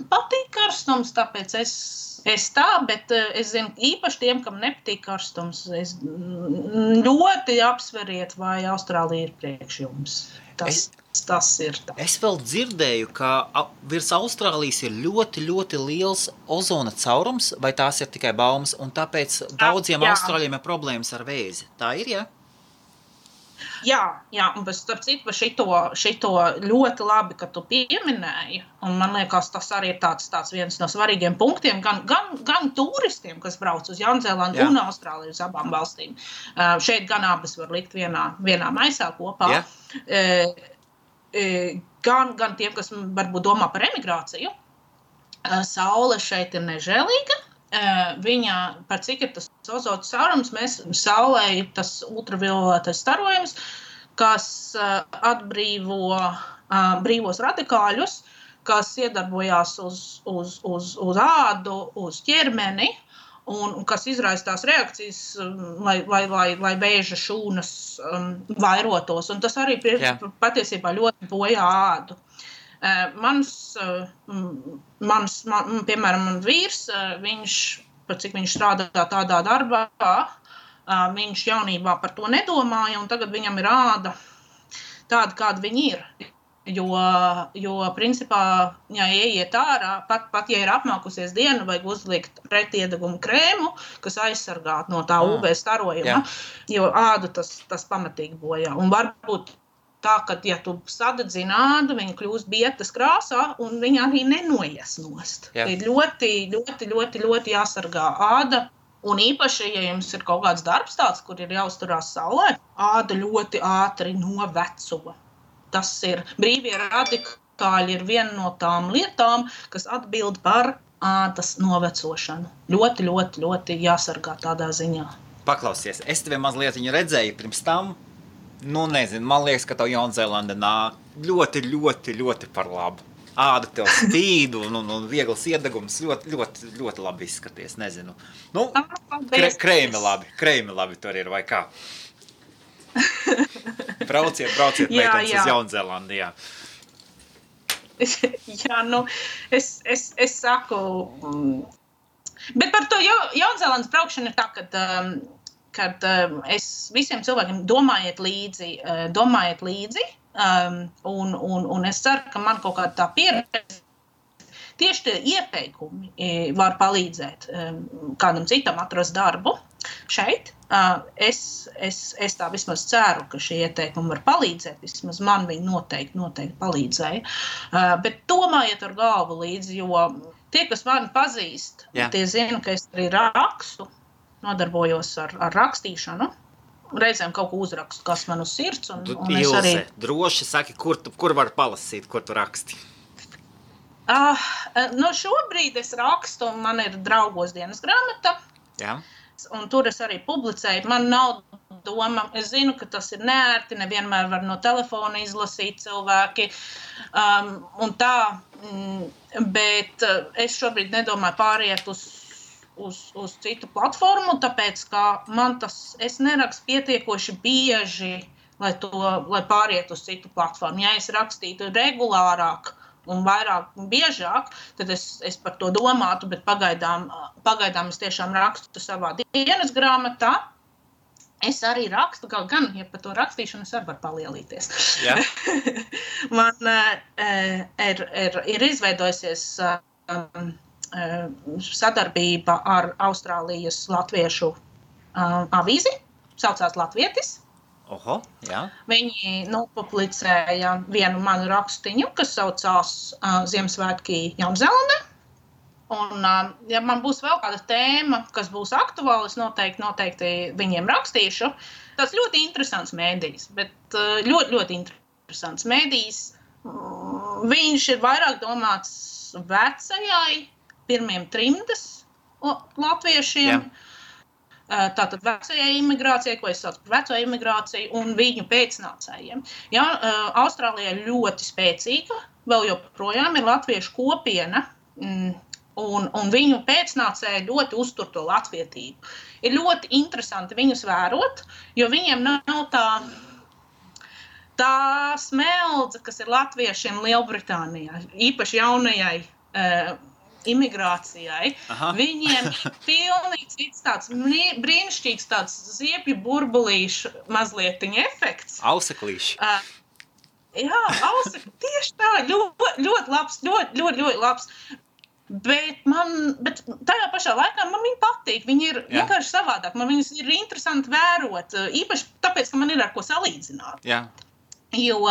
patīk karstums, tāpēc es tā, bet es zinu, īpaši tiem, kam nepatīk karstums, es ļoti apsveriet, vai Austrālija ir priekš jums. Tas ir tā. Es vēl dzirdēju, ka virs Austrālijas ir ļoti, ļoti liels ozona caurums, vai tās ir tikai baumas, un tāpēc daudziem Austrāļiem ir problēmas ar vēzi. Tā ir, ja? Jā, un starp citu par šito ļoti labi, ka tu pieminēji, un man liekas, tas arī ir tāds viens no svarīgiem punktiem, gan turistiem, kas brauc uz Jaunzēlandu un Austrāliju uz abām valstīm. Šeit gan abas var likt vienā maisā kopā. Gan tiem, kas varbūt domā par emigrāciju. Saule šeit ir nežēlīga. Viņa, par cik ir tas ozona caurums, saulē ir tas ultravioletais starojums, kas atbrīvo brīvos radikāļus, kas iedarbojās uz ādu, uz ķermeni, un kas izraisa tās reakcijas, lai vēža šūnas vairotos. Un tas arī patiesībā ļoti bojā ādu. Piemēram, man vīrs, par cik viņš strādā tādā darbā, viņš jaunībā par to nedomāja, un tagad viņam ir āda tāda, kāda viņa ir. Jo principā, ja ieiet ārā, pat ja ir apmākusies diena, vajag uzlikt pretiedegumu krēmu, kas aizsargā no tā UV starojuma, jo ādu tas pamatīgi bojā. Un varbūt tā, ka, ja tu sadedzini ādu, viņa kļūst bietas krāsā, un viņa arī nenoies nost. Ir ļoti jāsargā āda, un īpaši, ja jums ir kaut kāds darbs tāds, kur ir jāuzturās saulē, āda ļoti ātri noveco. Tas ir brīvie radikāļi ir viena no tām lietām, kas atbild par ādas novecošanu. Ļoti jāsargā tādā ziņā. Paklausies, es tevi mazliet viņu redzēju pirms tam. Nezinu, man liekas, ka tev Jaunzēlanda nāk ļoti par labu. Āda tev spīd un viegls iedegums, ļoti labi izskaties, nezinu. Kreimi labi tur ir, vai kā? Brauciet, meitenes uz Jaunzēlandu, jā. Jā, es saku, bet par to Jaunzēlandas braukšanu ir tā, kad es visiem cilvēkiem domājiet līdzi, un es ceru, ka man kaut kāda tā pieredze, tieši tie ieteikumi var palīdzēt kādam citam atrast darbu šeit. Es tā vismaz ceru, ka šie ieteikumi var palīdzēt, vismaz man viņi noteikti palīdzēja, bet domājiet ar galvu līdzi, jo tie, kas mani pazīst, tie zina, ka es arī rakstu, nodarbojos ar rakstīšanu. Reizēm kaut ko uzrakstu, kas man uz sirds. Un es arī... droši saki, kur var palasīt, kur tu raksti? Šobrīd es rakstu, man ir draugos dienas grāmata. Jā. Un tur es arī publicēju. Man nav doma, es zinu, ka tas ir neērti, nevienmēr var no telefona izlasīt cilvēki. Un tā, bet es šobrīd nedomāju pāriet uz citu platformu, tāpēc, ka es nerakstu pietiekoši bieži, lai pāriet uz citu platformu. Ja es rakstītu regulārāk un vairāk biežāk, tad es par to domātu, bet pagaidām es tiešām rakstu savā dienas grāmatā. Es arī rakstu, gan, ja par to rakstīšanu es arī varu palielīties. Jā. Man ir izveidojusies sadarbība ar Austrālijas latviešu avīzi, saucās Latvietis. Oho, jā. Viņi nopublicēja vienu manu rakstiņu, kas saucās Ziemassvētki Jaunzēlandē. Un, ja man būs vēl kāda tēma, kas būs aktuāla, es noteikti viņiem rakstīšu. Tas ļoti interesants mēdījis, bet ļoti interesants mēdījis. Viņš ir vairāk domāts vecajai, pirmiem trimdas latviešiem, tātad vecajai imigrācijai, ko es saucu par veco imigrāciju, un viņu pēcnācējiem. Ja, Austrālijā ļoti spēcīga, vēl joprojām ir latviešu kopiena, un viņu pēcnācēji ļoti uztur to latvietību. Ir ļoti interesanti viņus vērot, jo viņiem nav tā smeldze, kas ir latviešiem Lielbritānijā, īpaši jaunajai imigrācijai. Aha. Viņiem ir pilnīgi cits tāds brīnišķīgs tāds ziepju burbulīšu mazlietiņa efekts. Auseklīši. Jā, tieši tā, ļoti labs, ļoti labs. Bet tajā pašā laikā man viņi patīk, viņi ir vienkārši savādāk, man viņus ir interesanti vērot, īpaši tāpēc, ka man ir ar ko salīdzināt. Jā. Jo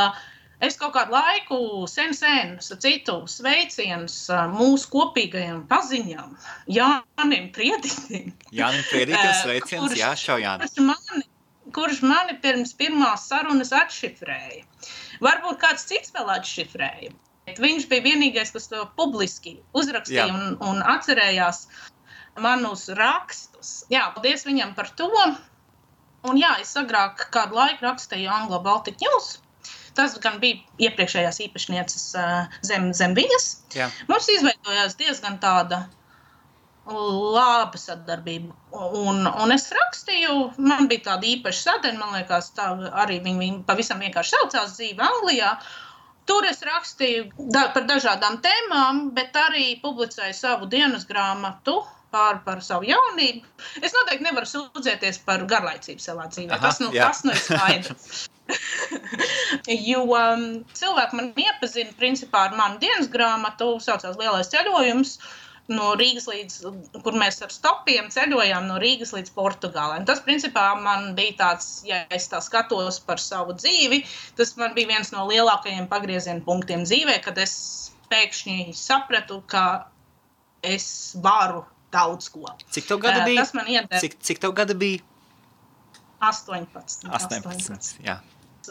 es kaut kādu laiku sen citu sveicienus mūsu kopīgajam paziņam, Jānim Prieditim. Jānim Prieditim sveiciens, kurš mani pirms pirmās sarunas atšifrēja. Varbūt kāds cits vēl atšifrēja, bet viņš bija vienīgais, kas to publiski uzrakstīja un atcerējās manus rakstus. Jā, paldies viņam par to. Un jā, es agrāk kādu laiku rakstīju Anglo Baltic News. Tas gan bija iepriekšējās īpašnieces zem viņas. Jā. Mums izveidojās diezgan tāda laba sadarbība. Un es rakstīju, man bija tāda īpaša sadaļa, man liekas, tā arī viņi pavisam vienkārši saucās dzīve Anglijā. Tur es rakstīju par dažādām tēmām, bet arī publicēju savu dienas grāmatu par savu jaunību. Es noteikti nevaru sūdzēties par garlaicību savā dzīvē. Aha, tas ir skaidrs. Jo cilvēki man iepazina principā ar manu dienas grāmatu, saucās Lielais ceļojums, no Rīgas līdz, kur mēs ar stopiem ceļojām no Rīgas līdz Portugālē. Tas principā man bija tāds, ja es tā skatos par savu dzīvi, tas man bija viens no lielākajiem pagrieziena punktiem dzīvē, kad es pēkšņi sapratu, ka es varu daudz ko. Cik tev gada bija? Tas man iedeva. Cik tev gada bija? 18. Jā.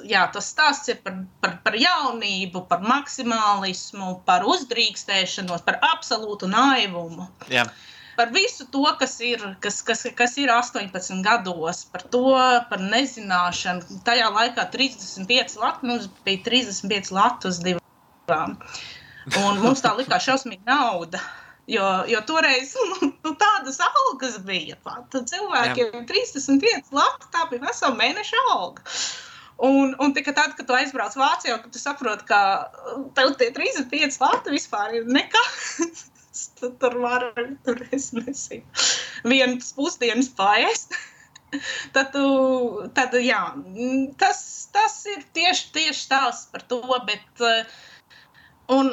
Jā, tas stāsts ir par jaunību, par maksimālismu, par uzdrīkstēšanos, par absolūtu naivumu. Jā. Par visu to, kas ir 18 gados, par to, par nezināšanu. Tajā laikā 35 lati, mums bija 35 lati uz divām. Un mums tā likās šausmīga nauda. Jo toreiz tādas algas bija pat. Cilvēkiem 35 lati, tā bija vesela mēneša alga. Un tikai tad, kad tu aizbrauc Vācijā, kad tu saproti, ka tev tie 35 lati vispār ir nekas, tur es nesinu, vienas pusdienas paēst. Tad jā, tas ir tieši stāsts par to, bet un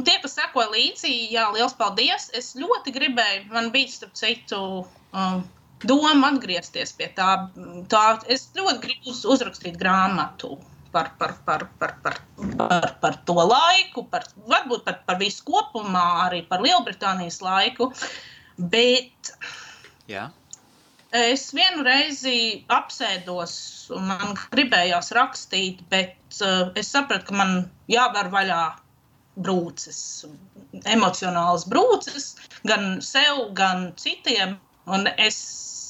tie, kas sekoja līdzi, jā, liels paldies. Es ļoti gribēju, man bija starp citu doma atgriezties pie tā. Es ļoti gribu uzrakstīt grāmatu par to laiku, varbūt par visu kopumā, arī par Lielbritānijas laiku, bet es vienu reizi apsēdos un man gribējās rakstīt, bet es sapratu, ka man jāvar vaļā brūces, emocionālas brūces, gan sev, gan citiem, un es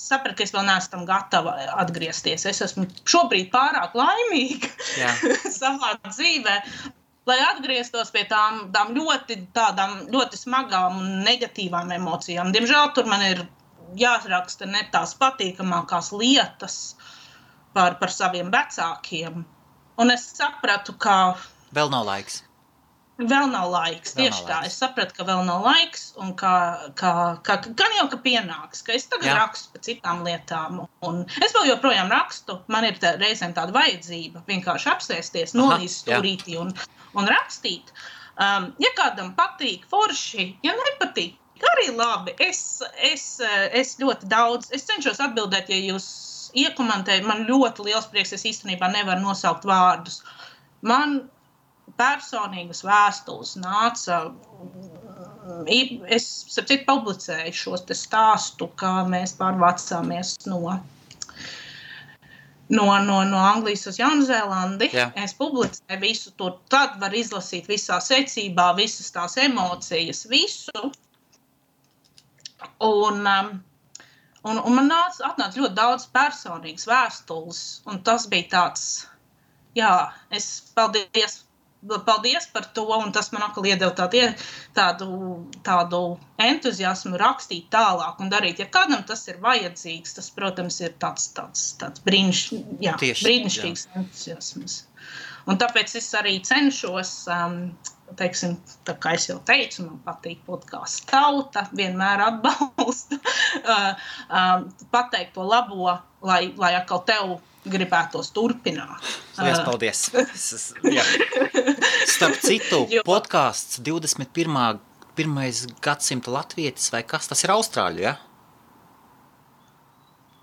sapratu, ka es vēl neesmu tam gatava atgriezties. Es esmu šobrīd pārāk laimīga savā dzīvē, lai atgrieztos pie tām ļoti smagām un negatīvām emocijām. Diemžēl tur man ir jāraksta ne tās patīkamākās lietas par saviem vecākiem. Un es sapratu, ka vēl nav laiks. Vēl nav laiks, tieši tā. Es sapratu, ka vēl nav laiks un gan jau, ka pienāks, ka es tagad rakstu par citām lietām. Un es vēl joprojām rakstu, man ir reizēm tāda vajadzība vienkārši apsēsties, nolīst stūrītī un rakstīt. Ja kādam patīk forši, ja nepatīk, arī labi. Es ļoti daudz, es cenšos atbildēt, ja jūs iekomentējat, man ļoti liels prieks, es īstenībā nevaru nosaukt vārdus. Man personīgas vēstules nāca, es sapcīt publicēju šos te stāstu, kā mēs pārvācāmies no Anglijas uz Jaunzēlandi. Es publicēju visu to, tad var izlasīt visā secībā, visas tās emocijas, visu. Un man atnāca ļoti daudz personīgas vēstules, un tas bija tāds, jā, es paldies par to, un tas man atkal iedeva tādu entuziasmu rakstīt tālāk un darīt. Ja kādam tas ir vajadzīgs, tas, protams, ir tāds brīnišķīgs entuziasms. Un tāpēc es arī cenšos, teiksim, tā kā es jau teicu, man patīk podcasts Tauta, vienmēr atbalstu, pateikt to labo, lai atkal tev gribētos turpināt. Liels paldies. Starp citu, podcasts 21. gadsimta latvietis vai kas, tas ir Austrāļu, ja?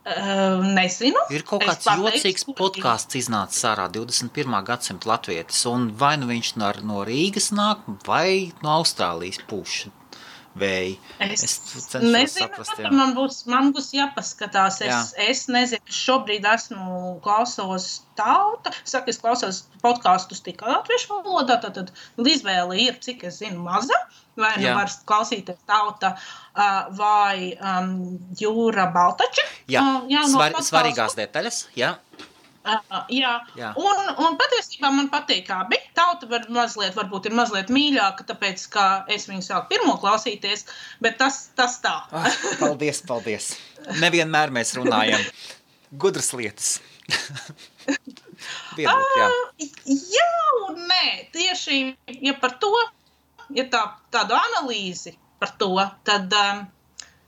Nezinu. Ir kaut kāds jocīgs podcasts iznācis ārā 21. gadsimta latvietis, un vai nu viņš no Rīgas nāk, vai no Austrālijas pūš vēji. Es cenšos saprast, jā. Man būs jāpaskatās. Es nezinu, šobrīd klausos Tauta. Saku, es klausos podkastus tikai latviešu valodā, tad izvēle ir, cik es zinu, maza. Vai nu var klausīties Tauta vai Jūra Baltača. Svarīgās detaļas, jā. Un patiesībā man patīk abi. Tauta varbūt ir mazliet mīļāka, tāpēc, ka es viņu sāku pirmo klausīties, bet tas tā. Paldies. Nevienmēr mēs runājam gudras lietas. Jā un nē. Tieši, ja par to, ja tādu analīzi par to, tad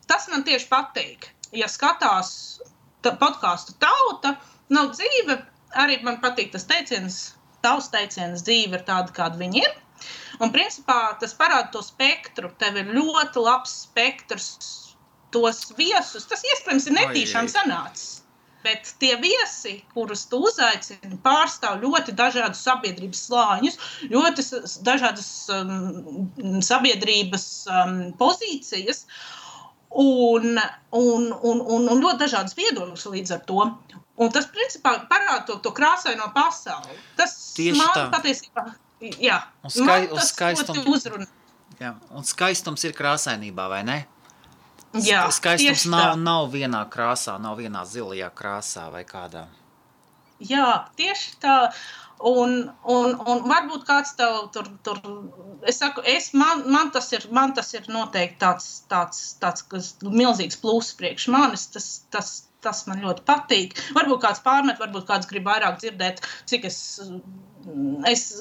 tas man tieši patīk. Ja skatās podcastu Tauta, nav dzīve, arī man patīk tas teiciens, tavs teiciens, dzīve ir tāda, kāda viņa ir. Un principā tas parāda to spektru. Tev ir ļoti labs spektrs, tos viesus. Tas iespējams ir netīšām sanācis. Bet tie viesi, kurus tu uzaicini, pārstāv ļoti dažādus sabiedrības slāņus, ļoti dažādas sabiedrības pozīcijas. Un ļoti dažādas viedokļas līdz ar to. Un tas, principā, parāda to krāsaino pasauli. Tas tieši man tā. Patiesībā, jā. Un skaistums ir krāsainībā, vai ne? Jā, skaistums nav vienā krāsā, nav vienā zilajā krāsā vai kādā. Jā, tieši tā. Un varbūt kāds tev tur es saku, man tas ir noteikti tāds milzīgs pluss priekš manis, tas man ļoti patīk. Varbūt kāds pārmet, varbūt kāds grib vairāk dzirdēt, cik es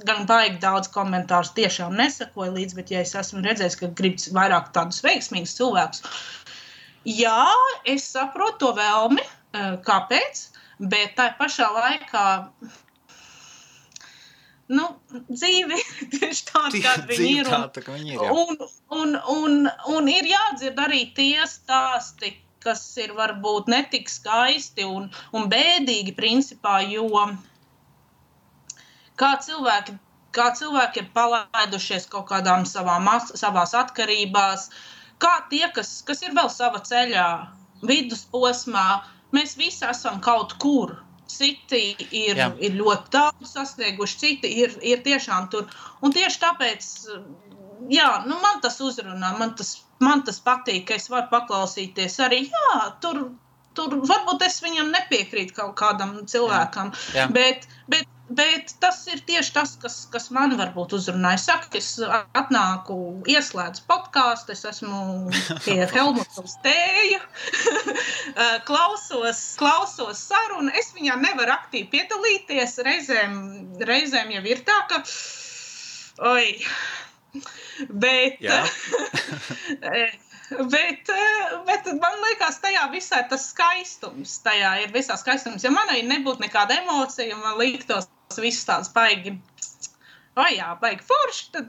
gan baigi daudz komentārus tiešām nesakoju līdz, bet ja es esmu redzējis, ka grib vairāk tādus veiksmīgus cilvēkus, jā, es saprotu to vēlmi, kāpēc, bet tā pašā laikā dzīve tieši tāda, kāda viņi ir. Un ir jādzird arī tie stāsti, kas ir varbūt netik skaisti un bēdīgi principā, jo kā cilvēki ir palaidušies kaut kādām savās atkarībās, kā tie, kas ir vēl sava ceļā, vidusposmā, mēs visi esam kaut kur. Citi ir ļoti daudz sasnieguši, citi ir tiešām tur. Un tieši tāpēc, man tas uzrunā, man tas patīk, ka es varu paklausīties arī, tur varbūt es viņam nepiekrītu kaut kādam cilvēkam, bet tas ir tieši tas, kas man varbūt uzrunā. Es saku, es atnāku, ieslēdzu podcastu, es esmu pie Helmuta uz tēju, klausos sarunu, es viņā nevaru aktīvi piedalīties, reizēm jau ir tā, ka, bet man liekas, tajā visā tas skaistums, ja manai nebūtu nekāda emocija, man liktos viss tāds baigi forši, tad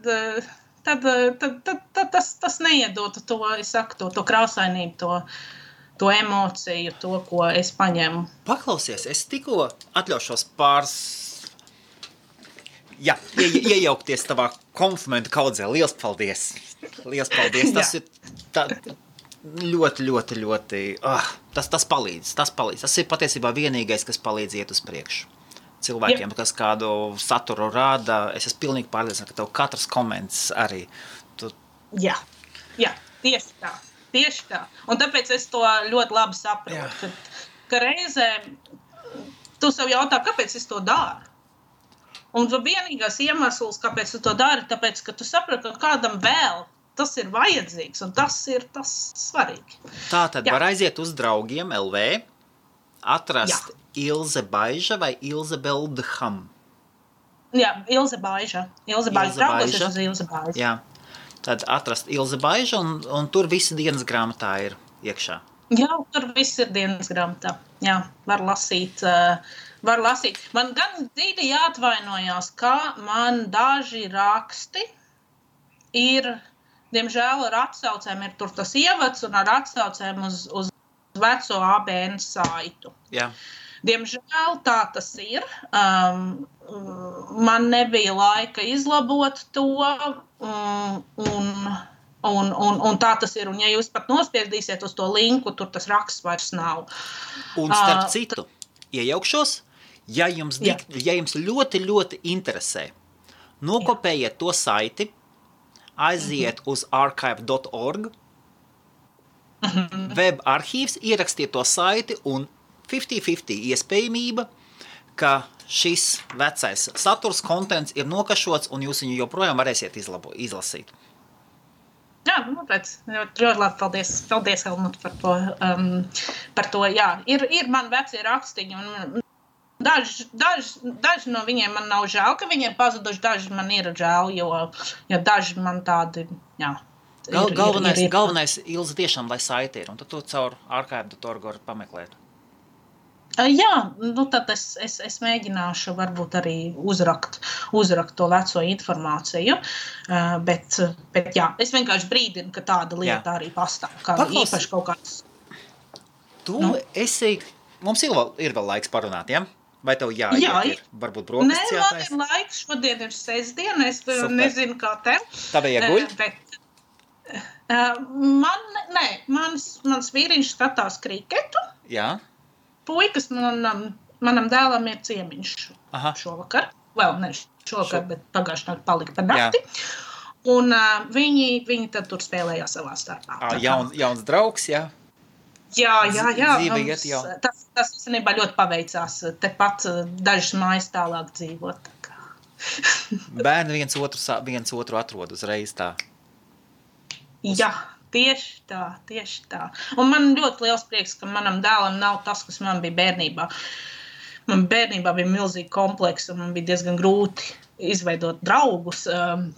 tas neiedotu to, es saku, to krāsainību, to emociju, to, ko es paņemu. Paklausies, es tikko atļaušos iejaukties tavā komplimentu kaudzē. Liels paldies! Tas ir ļoti, tas palīdz. Tas ir patiesībā vienīgais, kas palīdz iet uz priekšu. Cilvēkiem, kas kādu saturu rāda, es esmu pilnīgi pārliecināts, ka tev katrs koments arī. Jā, tieši tā. tieši tā. Un tāpēc es to ļoti labi saprotu, ka reizē tu sev jautā, kāpēc es to daru. Un vienīgais iemesls, kāpēc tu to dari, tāpēc, ka tu saproti, ka kādam vēl tas ir vajadzīgs, un tas ir tas svarīgi. Tātad var aiziet uz draugiem LV, atrast Ilze Baiža vai Ilze Beldham? Jā, Ilze Baiža. Ilze Baiža. Draugos es uz Ilze Baiža. Jā, tad atrast Ilze Baiža, un tur visi dienas grāmatā ir iekšā. Jā, tur viss ir dienas grāmatā. Jā, var lasīt. Man gan dzīvi jāatvainojās, ka man daži raksti ir, diemžēl, ar atsaucēm ir tur tas ievads un ar atsaucēm uz veco ABN saitu. Jā. Diemžēl tā tas ir. Man nebija laika izlabot to, un tā tas ir. Un ja jūs pat nospiedīsiet uz to linku, tur tas raksts vairs nav. Un starp citu, iejaukšos, ja jums ļoti, ļoti interesē, nokopējiet to saiti, aiziet uz archive.org, web arhīvs, ierakstiet to saiti un 50-50 iespējamība, ka šis vecais saturs, kontents ir nokašots un jūs viņu joprojām varēsiet izlasīt. Jā, ļoti labi, paldies Helmut par to, jā. Ir man vecie rakstiņi, un daži no viņiem man nav žēl, ka viņiem pazuduši, daži man ir žēl, jo daži man tādi, jā. Galvenais Ilze tiešām, lai saiti ir, un tad to caur archive.org var pameklēt. Jā, tad es mēģināšu varbūt arī uzrakt to veco informāciju, bet jā, es vienkārši brīdinu, ka tāda lieta arī pastāv, kā īpaši kaut kāds. Mums ir vēl laiks parunāt, ja? Vai tev jāiet ir? Varbūt brokastis jātais? Nē, man ir laiks, šodien ir sestdiena, es nezinu, kā tev. Tādēļ jāguļ? Mans vīriņš skatās kriketu. Jā. Puikas manam dēlam ir ciemiņš šovakar. Vēl ne šovakar, bet pagājušajā naktī palika par nakti. Un viņi tad tur spēlējās savā starpā. Jauns draugs, jā? Jā. Dzīve iet jau. Tas īstenībā ļoti paveicās. Tepat dažas mājas tālāk dzīvot. Bērni viens otru atrod uzreiz tā. Jā. Tieši tā. Un man ļoti liels prieks, ka manam dēlam nav tas, kas man bija bērnībā. Man bērnībā bija milzīgi kompleks, un man bija diezgan grūti izveidot draugus.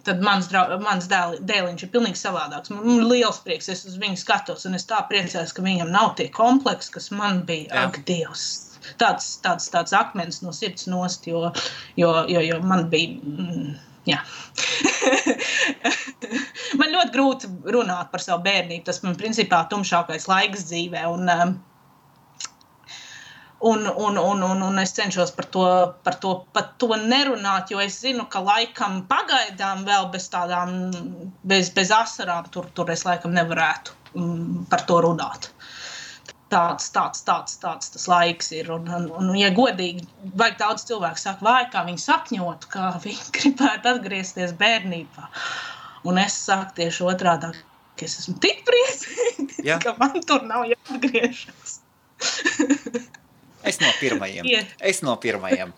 Tad mans dēliņš ir pilnīgi savādāks. Man ir liels prieks, es uz viņu skatos, un es tā priecājos, ka viņam nav tie kompleksi, kas man bija. Ak, Dievs! Tāds akmens no sirds nost, jo man bija... Jā. Man ļoti grūti runāt par savu bērnību. Tas man principā tumšākais laiks dzīvē. Un es cenšos par to nerunāt, jo es zinu, ka laikam pagaidām vēl bez asarām tur es laikam nevarētu par to runāt. Tāds tas laiks ir. Un ja godīgi, vajag daudz cilvēku saka, vai kā viņi sapņot, kā viņi gribētu atgriezties bērnībā. Un es saku tieši otrādāk, ka es esmu tik priecīga, ka man tur nav jāatgriežas. Es no pirmajiem.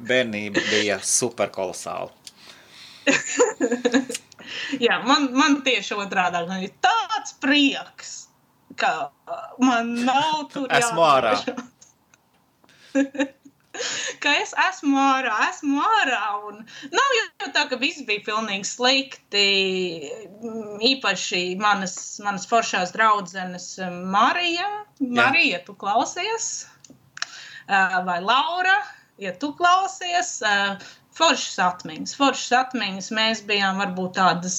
Bērnība bija super kolosāla. Jā, man tieši otrādāk, man ir tāds prieks, ka man nav tur jāatgriežas. Esmu ārā. Ka es esmu ārā, un nav jau tā, ka viss bija pilnīgi slikti, īpaši manas foršās draudzenes Marija, tu klausies, vai Laura, ja tu klausies, foršas atmiņas, mēs bijām varbūt tādas,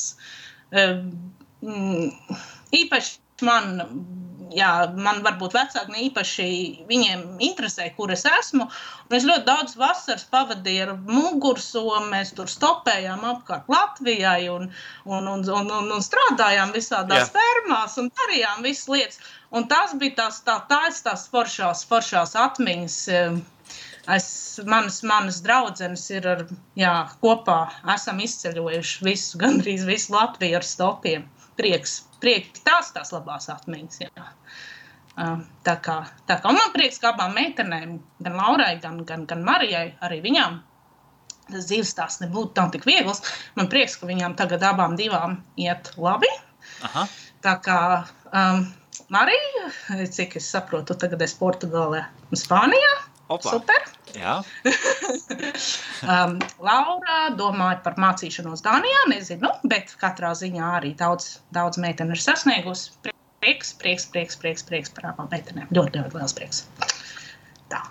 īpaši man varbūt vecāki ne īpaši viņiem interesē, kur es esmu. Un es ļoti daudz vasaras pavadīju ar mugursomu, mēs tur stopējām apkārt Latvijai un strādājām visādās fermās un darījām visas lietas. Un tas bija tās foršās atmiņas. Manas draudzenes ir kopā esam izceļojuši gandrīz visu Latviju ar stopiem. prieks tās labās atmiņas, jā. Tā kā, un man prieks, ka abām meitenēm, gan Laurai, gan Marijai, arī viņām, tas dzīves stāsts nebūtu nav tik viegls. Man prieks, ka viņām tagad abām divām iet labi. Aha. Tā kā Marija, cik es saprotu, tagad es Portugālē un Spānijā. Opa. Super. Jā. Laura domāja par mācīšanos Dānijā, nezinu, bet katrā ziņā arī daudz meiteni ir sasniegusi. Prieks par abām meitenēm. Ļoti liels prieks. Tā.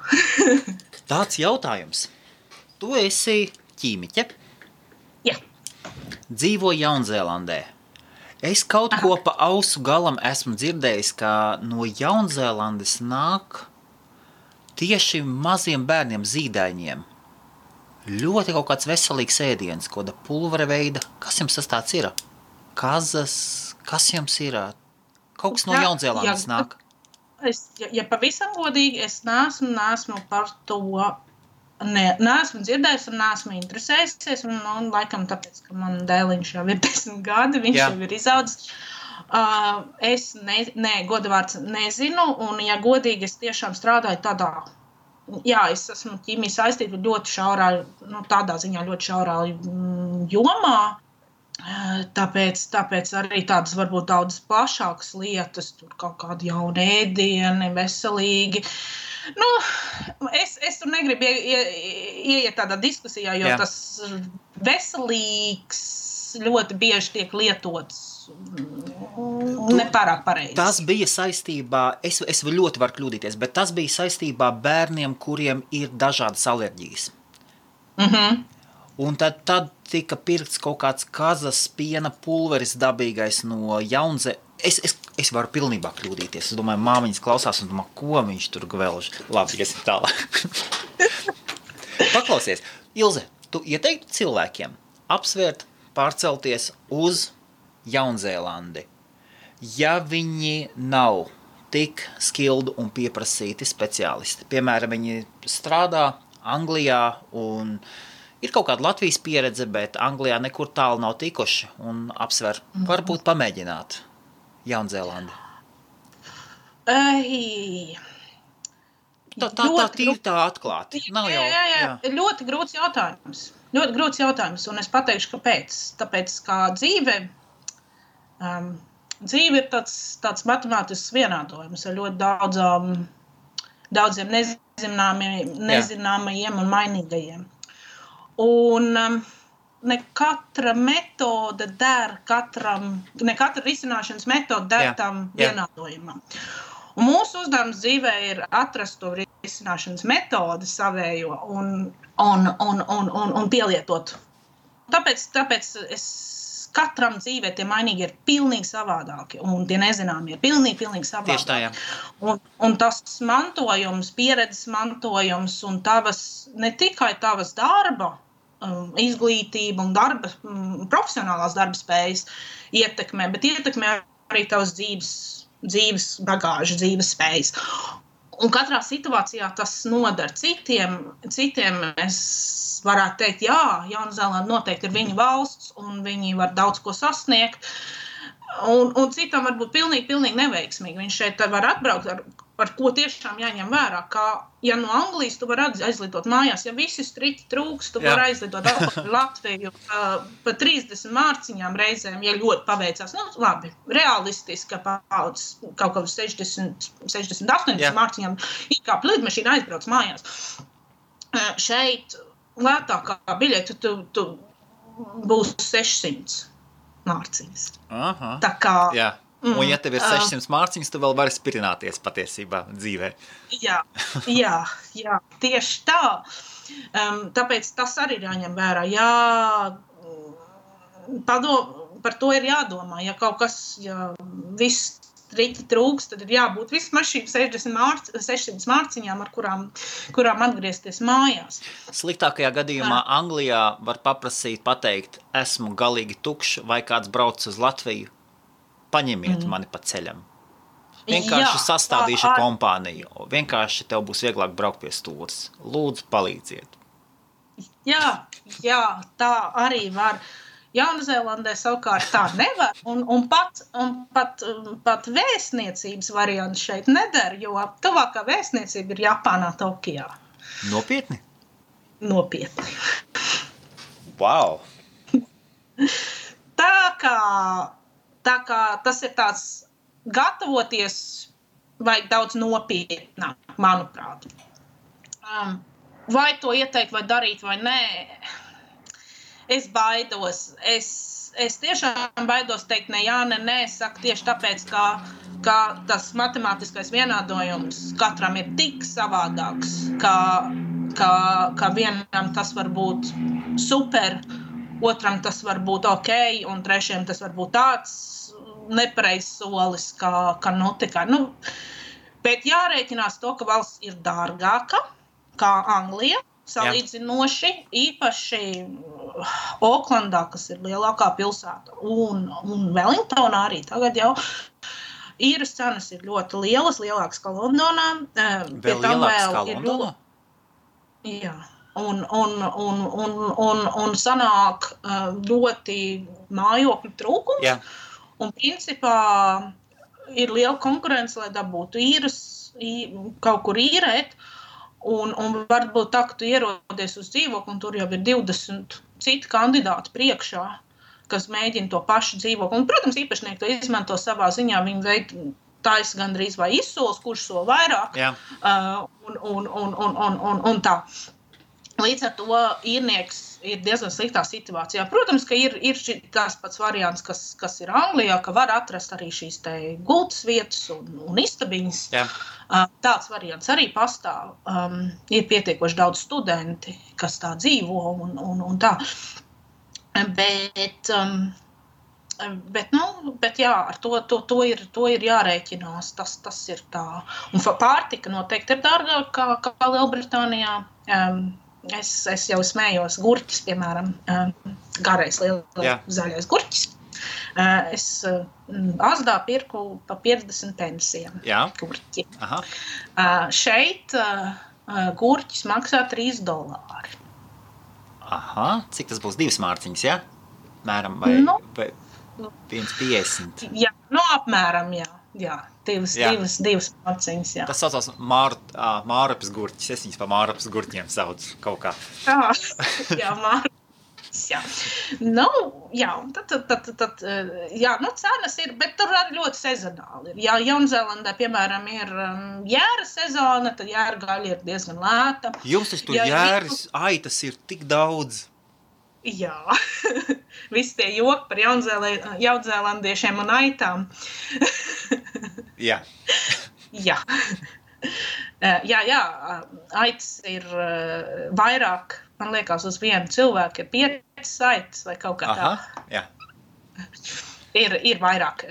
Tāds jautājums. Tu esi ķīmiķe? Jā. Dzīvo Jaunzēlandē. Es kaut ko pa ausu galam esmu dzirdējis, ka no Jaunzēlandes nāk tieši maziem bērniem zīdaiņiem. Ļoti kaut kāds veselīgs ēdiens, kāda pulvera veida. Kas jums tas tāds ir? Kazas, kas jums ir? Kaut kas no Jaunzēlandes nāk. Ja pavisam godīgi, es neesmu par to, neesmu dzirdējis un neesmu interesējusies, un laikam tāpēc, ka man dēliņš jau ir 10 gadi, viņš jau ir izaudzis. Es godavārds nezinu, un ja godīgi, es tiešām strādāju tādā, es esmu ķīmija saistīta ļoti šaurā, tādā ziņā ļoti šaurā jomā, tāpēc arī tādas varbūt daudz plašākas lietas, tur kaut kādi jauni ēdieni, veselīgi. Es tur negribu ieiet tādā diskusijā, jo tas veselīgs ļoti bieži tiek lietots nepārāk pareizi. Tas bija saistībā, es ļoti varu kļūdīties, bet tas bija saistībā bērniem, kuriem ir dažādas alerģijas. Un tad tika pirkts kaut kāds kazas piena pulveris dabīgais no Jaunzē. Es varu pilnībā kļūdīties. Es domāju, māmiņas klausās un domā, ko viņš tur gvelž. Labi, iesim tālāk. Paklausies. Ilze, tu ieteiktu cilvēkiem apsvērt pārcelties uz Jaunzēlandi, ja viņi nav tik skildu un pieprasīti speciālisti. Piemēram, viņi strādā Anglijā un ir kaut kāda Latvijas pieredze, bet Anglijā nekur tālu nav tikuši un apsver, varbūt pamēģināt Jaunzēlandi. Tā atklāti. Nav jau, jā. Ļoti grūts jautājums, un es pateikšu, kāpēc. Tāpēc, kā dzīve ir tāds matemātisks vienādojums ar ļoti daudziem nezināmajiem un mainīgajiem. Un ne katra metode der ne katra risināšanas metode der tam vienādojumam. Un mūsu uzdevums dzīvē ir atrast to risināšanas metodi savējo un pielietot. Tāpēc katram dzīvē tie mainīgi ir pilnīgi savādāki, un tie nezināmie ir pilnīgi savādāki. Tieši tā, jā. Un tas mantojums, pieredzes mantojums un ne tikai tavas darba, izglītība un profesionālās darba spējas ietekmē, bet ietekmē arī tavas dzīves bagāžu, dzīves spējas. Un katrā situācijā tas nodar citiem es varētu teikt, Jaunzēlanda noteikti ir viņa valsts, un viņi var daudz ko sasniegt, un citam var būt pilnīgi neveiksmīgi. Viņš šeit var atbraukt ar ko tiešām jāņem vērā, ka, ja no Anglijas tu var aizlidot mājās, ja visi striti trūks, tu var aizlidot atpakaļ Latviju pa 30 mārciņām reizēm, ja ļoti paveicās. Labi, realistiski, kaut kā 60-80 mārciņām, kā lidmašīna aizbrauc mājās. Šeit lētākā biļete tu būs 600 mārciņas. Aha. Tā kā... Jā. Un ja tev ir 600 mārciņas, tu vēl vari spirināties patiesībā dzīvē. Jā, tieši tā. Tāpēc tas arī ir jāņem vērā. Par to ir jādomā. Ja kaut kas, viss rīti trūks, tad ir jābūt vismaz šīm 600 mārciņām, ar kurām atgriezties mājās. Sliktākajā gadījumā Anglijā var pateikt, esmu galīgi tukšs, vai kāds brauc uz Latviju. Paņemiet mani pa ceļam. Vienkārši sastādīšu kompāniju. Vienkārši tev būs vieglāk braukt pie stūres. Lūdzu, palīdziet. Jā, tā arī var. Jaunzēlandē savukārt tā nevar, un pat vēstniecības variants šeit neder, jo tuvākā vēstniecība ir Japānā, Tokijā. Nopietni? Nopietni. Wow! Tā kā tas ir tāds gatavoties vajag daudz nopietnāk, manuprāt. Vai to ieteikt, vai darīt, vai nē, es baidos. Es tiešām baidos teikt ne jā, ne nē. Es saku tieši tāpēc, ka tas matemātiskais vienādojums katram ir tik savādāks, ka vienam tas var būt super, otram tas var būt ok, un trešajam tas var būt tāds nepareizs solis, kā notika. Bet jārēķinās to, ka valsts ir dārgāka kā Anglija, salīdzinoši, īpaši Oklandā, kas ir lielākā pilsēta, un Wellingtonā arī tagad jau īres cenas ir ļoti lielas, lielākas kā Londonā. Vēl lielākas kā Londonā? Jā. Un sanāk ļoti mājokļu trūkums. Jā. Un principā ir liela konkurence, lai dabūtu kaut kur īrēt. Un varbūt tā, ka tu ierodies uz dzīvokli, un tur jau ir 20 citi kandidāti priekšā, kas mēģina to pašu dzīvokli. Un, protams, īpašnieki to izmanto savā ziņā, viņi taisa gandrīz vai izsols, kurš sol vairāk. Un tā. Līdz ar to īrnieks ir diezgan sliktā situācijā. Protams, ka ir tās pats variants, kas ir Anglijā, ka var atrast arī šīs te gultas vietas un istabiņas. Jā. Tāds variants arī pastāv. Ir pietiekoši daudz studenti, kas tā dzīvo un tā. Bet jā, ar to ir jārēķinās. Tas ir tā. Un pārtika noteikti ir dārgāka kā Lielbritānijā. Es jau smējos gurķis, piemēram, garais zaļais gurķis. Es Asdā pirku pa 50 pensiem gurķi. Aha. Šeit gurķis maksā $3. Aha, cik tas būs 2 mārciņas, ja? Mēram, vai 1,50? Jā, apmēram, jā. Divas mārciņas, jā. Tas saucās Mārupes gurķis. Es viņus pa Mārupes gurķiem saucu kaut kā. Jā, Mārupes, jā. Cenas ir, bet tur arī ļoti sezonāli ir. Ja Jaunzēlandē, piemēram, ir jēra sezona, tad jēra gaļa ir diezgan lēta. Jums tas tur jēras aitas ir tik daudz. Jā, visi tie joki par jaunzēlandiešiem un aitām. Jā. Jā. Aitas ir vairāk, man liekas, uz vienu cilvēku ir 5 aitas vai kaut kā tā. Jā. Ir vairāk,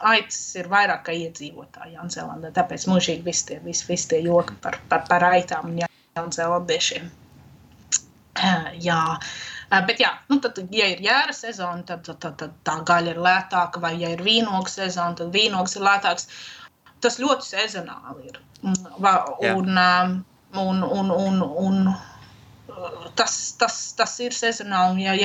aitas ir vairāk kā iedzīvotāji Jaunzēlandē, tāpēc mūžīgi visi tie joki par aitām un jaunzēlandiešiem. Jā. Bet jā, tad, ja ir jēra sezona, tad tā gaļa ir lētāka, vai ja ir vīnogu sezona, tad vīnogs ir lētāks. Tas ļoti sezonāli ir. Un tas ir sezonāli, ja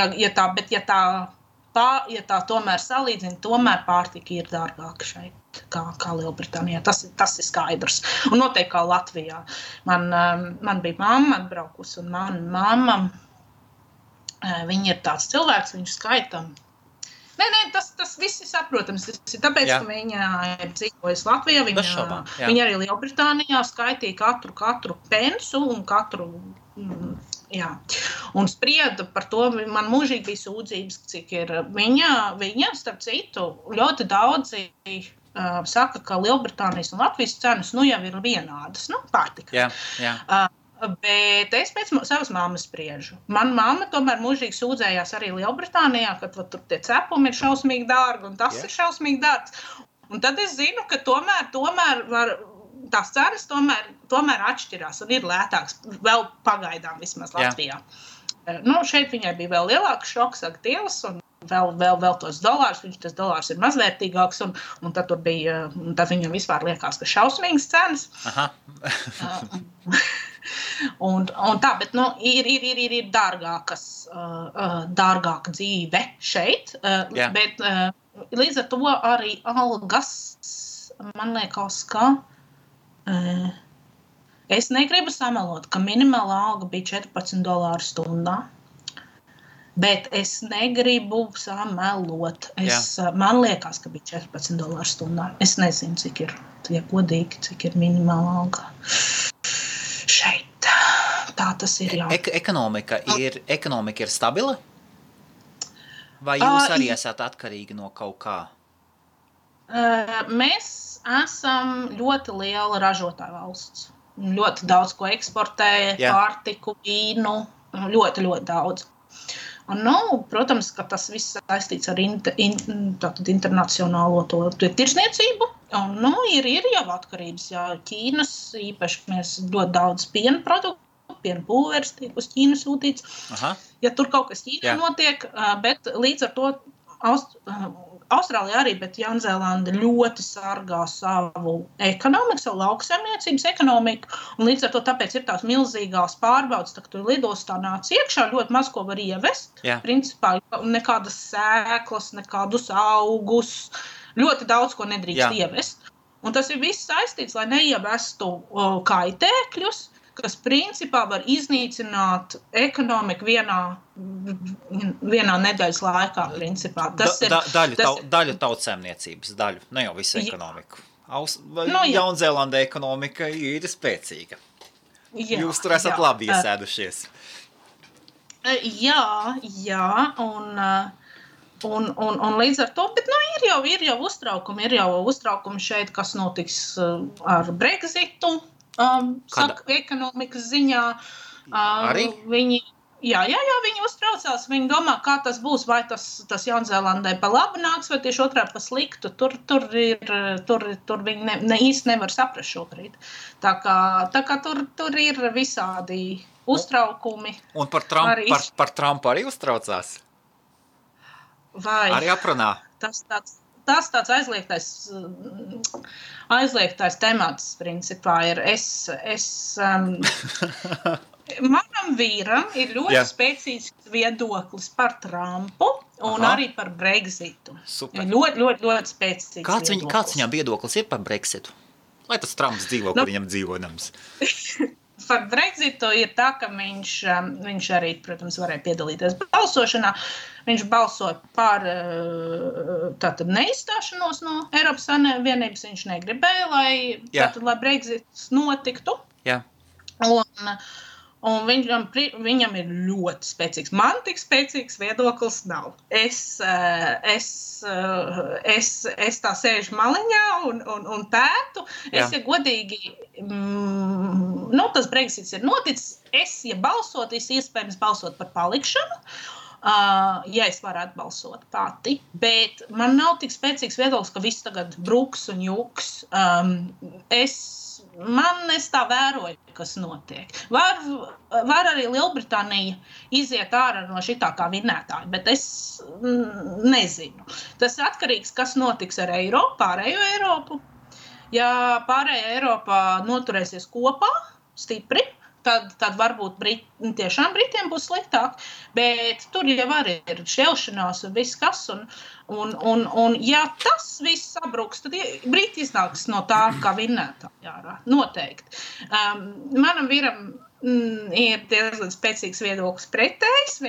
tā tomēr salīdzina, tomēr pārtika ir dārgāka šeit, kā Lielbritānijā. Tas ir skaidrs. Un noteikti kā Latvijā. Man bija mamma atbraukusi, un mana mamma, viņa ir tāds cilvēks, viņš skaita. Nē, tas viss ir saprotams. Tas ir tāpēc, ka viņa ir dzīvojusi Latvijā. Viņa arī Lielbritānijā skaitīja katru pensu un katru. Jā. Un sprieda par to, man mūžīgi bija sūdzības, cik ir viņa starp citu, ļoti daudzi saka, ka Lielbritānijas un Latvijas cenas jau ir vienādas, pārtika. Jā. Bet es pēc savas mammas spriežu. Man mamma tomēr mūžīgi sūdzējās arī Lielbritānijā, ka tur tie cepumi ir šausmīgi dārgi un tas ir šausmīgi dārgs. Un tad es zinu, ka tomēr var, tās cenas tomēr atšķirās un ir lētāks, vēl pagaidām vismaz Latvijā. Šeit viņai bija vēl lielāks šoks, Dievs, un vēl tos dolārus, tas dolārs ir mazvērtīgāks, un tad tur bija, tad viņam vispār liekas, ka šausmīgas cenas. Aha. Un tā, bet ir dārgāka dzīve šeit, bet līdz ar to arī algas, man liekas, ka es negribu samelot, ka minimālā alga bija $14 stundā. Bet es negribu samelot. Man liekas, ka bija $14 stundā. Es nezinu, cik ir, ja godīgi, cik ir minimāla alga. Šeit. Tā tas ir, jā. Ekonomika ir stabila? Vai jūs arī esat atkarīgi no kaut kā? Mēs esam ļoti liela ražotāja valsts. Ļoti daudz ko eksportē, pārtiku, vīnu, ļoti, ļoti daudz. Un, protams, ka tas viss saistīts ar internacionālo tirsniecību. Un, ir jau atkarības, Ķīnas, īpaši mēs ļoti daudz piena produktu, piena pulveris tiek uz Ķīnu sūtīts. Aha. Ja tur kaut kas Ķīnā notiek, bet līdz ar to Austrālija arī, bet Jaunzēlanda ļoti sargā savu ekonomiku, savu lauksaimniecības ekonomiku, un līdz ar to tāpēc ir tās milzīgās pārbaudas, tā, ka tu lidostā nāc iekšā, ļoti maz ko var ievest, principā nekādas sēklas, nekādus augus, ļoti daudz ko nedrīkst ievest. Un tas ir viss saistīts, lai neievestu kaitēkļus, kas principā var iznīcināt ekonomiku vienā nedēļas laikā, principā. Daļu tautsēmniecības, ne jau visu ekonomiku. Jaunzēlanda ekonomika ir spēcīga. Jūs tur esat labi iesēdušies. Jā, un līdz ar to, bet ir jau uztraukumi šeit, kas notiks ar Brexitu. Ekonomikas ziņā viņi uztraucās, viņi domā, kā tas būs, vai tas Jaunzēlandai pa labu nāks, vai tieši otrādi pa sliktu. Tur viņi īsti nevar saprast šobrīd. Tā kā tur ir visādi uztraukumi. Un par Trumpu arī uztraucās? Vai? Arī aprunā? Tas tāds aizliegtais temats, principā, ir. Manam vīram ir ļoti spēcīgs viedoklis par Trumpu un arī par Brexitu. Super. Ļoti, ļoti, ļoti spēcīgs viedoklis. Kāds viņam viedoklis ir par Brexitu? Lai tas Trumps dzīvo, kur viņam dzīvojams. Par Brexitu ir tā, ka viņš arī, protams, varēja piedalīties balsošanā. Viņš balsoja par tātad neizstāšanos no Eiropas Savienības. Viņš negribēja, lai Brexits notiktu. Jā. Un viņam ir ļoti spēcīgs. Man tik spēcīgs viedoklis nav. Es tā sēžu maliņā un pētu. Es, ja godīgi, tas Brexits ir noticis. Ja balsot, iespējams balsot par palikšanu. Ja es varētu balsot pati, bet man nav tik spēcīgs viedoklis, ka viss tagad bruks un juks. Es tā vēroju, kas notiek. Var arī Lielbritānija iziet ārā no šitā kā vinnētāja, bet es nezinu. Tas ir atkarīgs, kas notiks ar pārējo Eiropu. Ja pārējā Eiropā noturēsies kopā, stipri, tad varbūt tiešām Britiem būs sliktāk, bet tur jau arī ir šķelšanās un viss kas, un ja tas viss sabruks, tad Briti iznāks no tā, kā vinnētāji ārā, noteikti. Manam vīram ir diezgan spēcīgs viedoklis pretējs,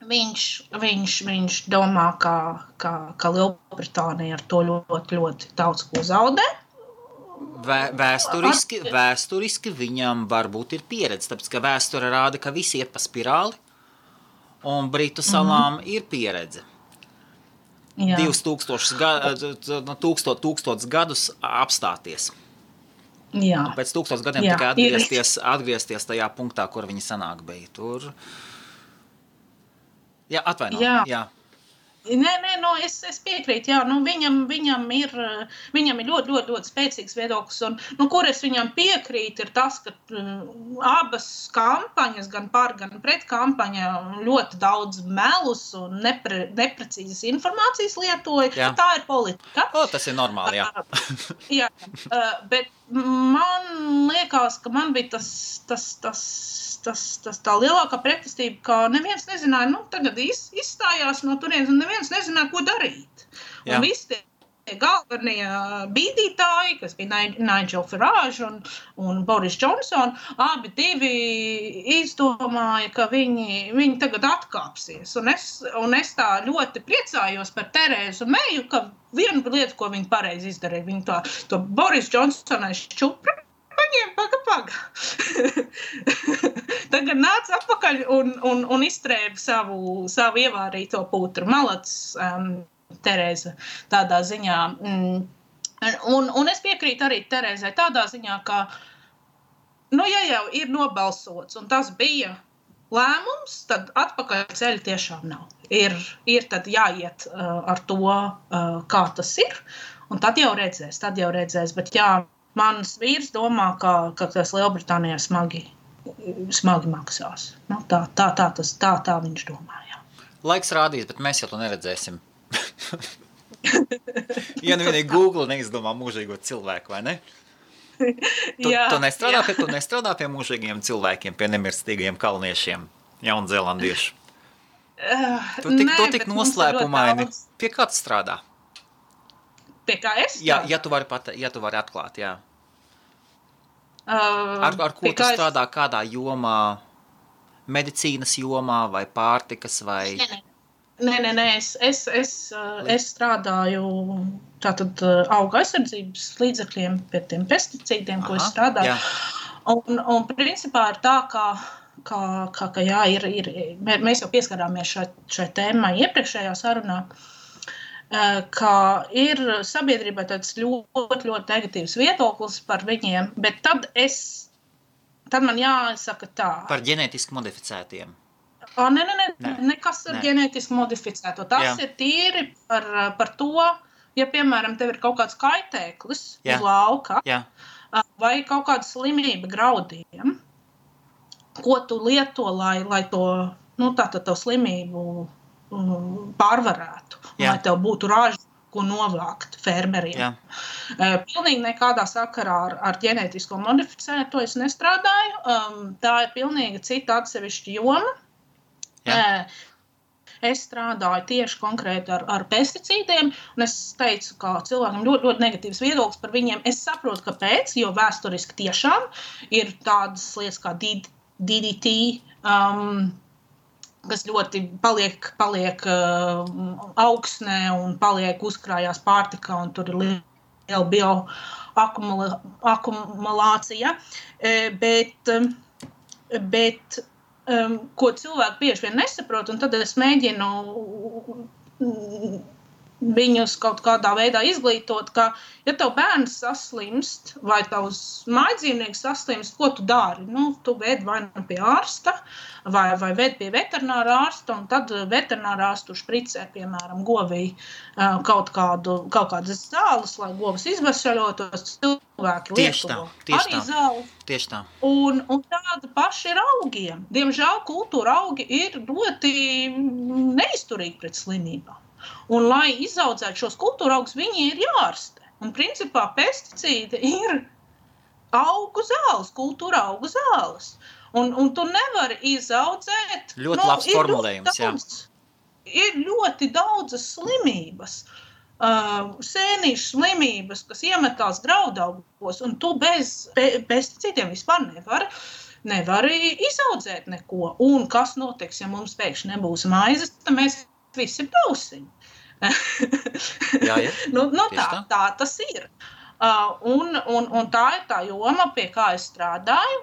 viņš domā, ka Lielbritānija ar to ļoti, ļoti daudz ko zaudē. Vēsturiski viņam varbūt ir pieredze, tāpēc, ka vēsture rāda, ka visi iet pa spirāli, un Britu salām ir pieredze. 2000 gadus apstāties. Jā. Un pēc 1000 gadiem tikai atgriezties tajā punktā, kur viņi sanāk bija. Tur... Jā, atvaino. Jā. Nē, es piekrītu, viņam ir ļoti, ļoti, ļoti spēcīgs viedoklis, un kur es viņam piekrītu, ir tas, ka abas kampaņas, gan par, gan pret kampaņa ļoti daudz melus un neprecīzas informācijas lietoja. Jā. Tā ir politika. Tas ir normāli, jā. Jā, man liekas, ka man bija tā lielākā pretestība, ka neviens nezināja, tagad izstājās no turienes, un neviens nezināja, ko darīt. Jā. Un visi tie galvenie bīdītāji, kas bija Nigel Farage un Boris Johnson, abi divi izdomāja, ka viņi tagad atkāpsies. Un es tā ļoti priecājos par Terēzu Meju, ka viena lieta, ko viņi pareizi izdarīja, viņi to Boris Johnson šķupra paņēma, paga. Tagad nāc atpakaļ un izstrēba savu ievārīto putru. Malats, Terēza tādā ziņā. Un es piekrītu arī Terēzai tādā ziņā, ka, ja jau ir nobalsots, un tas bija lēmums, tad atpakaļ ceļa tiešām nav. Ir tad jāiet ar to, kā tas ir, un tad jau redzēs. Bet jā, mans vīrs domā, ka tas Lielbritānijā smagi maksās. Tā viņš domā, jā. Laiks rādīs, bet mēs jau to neredzēsim. Ja vienīgi Google neizdomā mūžīgo cilvēku, vai ne? Tu nestrādā pie mūžīgiem cilvēkiem, pie nemirstīgajiem kalniešiem, jaunzēlandiešu? Tu tik noslēpumaini. Pie kā tu strādā? Pie kā es? Ja tu vari atklāt, jā. Ar ko tu strādā, kādā jomā? Medicīnas jomā vai pārtikas vai... Nē, es strādāju tātad auga aizsardzības līdzekļiem pie tiem pesticīdiem, ko es strādāju. Un principā ir tā, ka jā, mēs jau pieskarāmies šai tēmai iepriekšējā sarunā, ka ir sabiedrībā tāds ļoti, ļoti negatīvs viedoklis par viņiem, bet tad man jāsaka tā. Par ģenētiski modificētiem. Nē, nekas ar ģenētiski modificēto. Tas ir tīri par to, ja, piemēram, tev ir kaut kāds kaitēklis uz lauka, vai kaut kāda slimība graudiem, ko tu lieto, lai to, to slimību pārvarētu, lai tev būtu raža, ko novākt fermeriem. Pilnīgi nekādā sakarā ar ģenētisko modificēto es nestrādāju. Tā ir pilnīgi cita atsevišķa joma. Es strādāju tieši konkrēti ar pesticīdiem, un es teicu, ka cilvēkam ļoti, ļoti negatīvs viedoklis par viņiem. Es saprotu, kāpēc, jo vēsturiski tiešām ir tādas lietas kā DDT, kas ļoti paliek augsnē un paliek uzkrājās pārtikā, un tur ir liela bioakumulācija. Bet ko cilvēki bieži vien nesaprot, un tad es mēģinu viņus kaut kādā veidā izglītot, ka, ja tev bērns saslimst vai tavs mājdzīvnieks saslimst, ko tu dari? Tu ved vai pie ārsta, vai ved pie veterinārā ārsta, un tad veterinārā ārstu špricē, piemēram, govī kaut kādas zāles, lai govs izvesaļotos, cilvēki lieto arī zāli. Tieši tā. Un tāda paša ir augiem. Diemžēl kultūra augi ir ļoti neizturīgi pret slimībām. Un, lai izaudzētu šos kultūra augus, viņi ir jārastē. Un, principā, pesticīdi ir augu zāles, kultūra augu zāles. Un tu nevari izaudzēt... Ļoti labs formulējums, jā. Ir ļoti daudzas slimības, sēnīšu slimības, kas iemetās graudaugos, un tu bez pesticīdiem vispār nevari izaudzēt neko. Un kas notiks, ja mums pēkšņi nebūs maizes, tad mēs visi brausiņi. Tā tas ir. Un tā ir tā joma, pie kā es strādāju.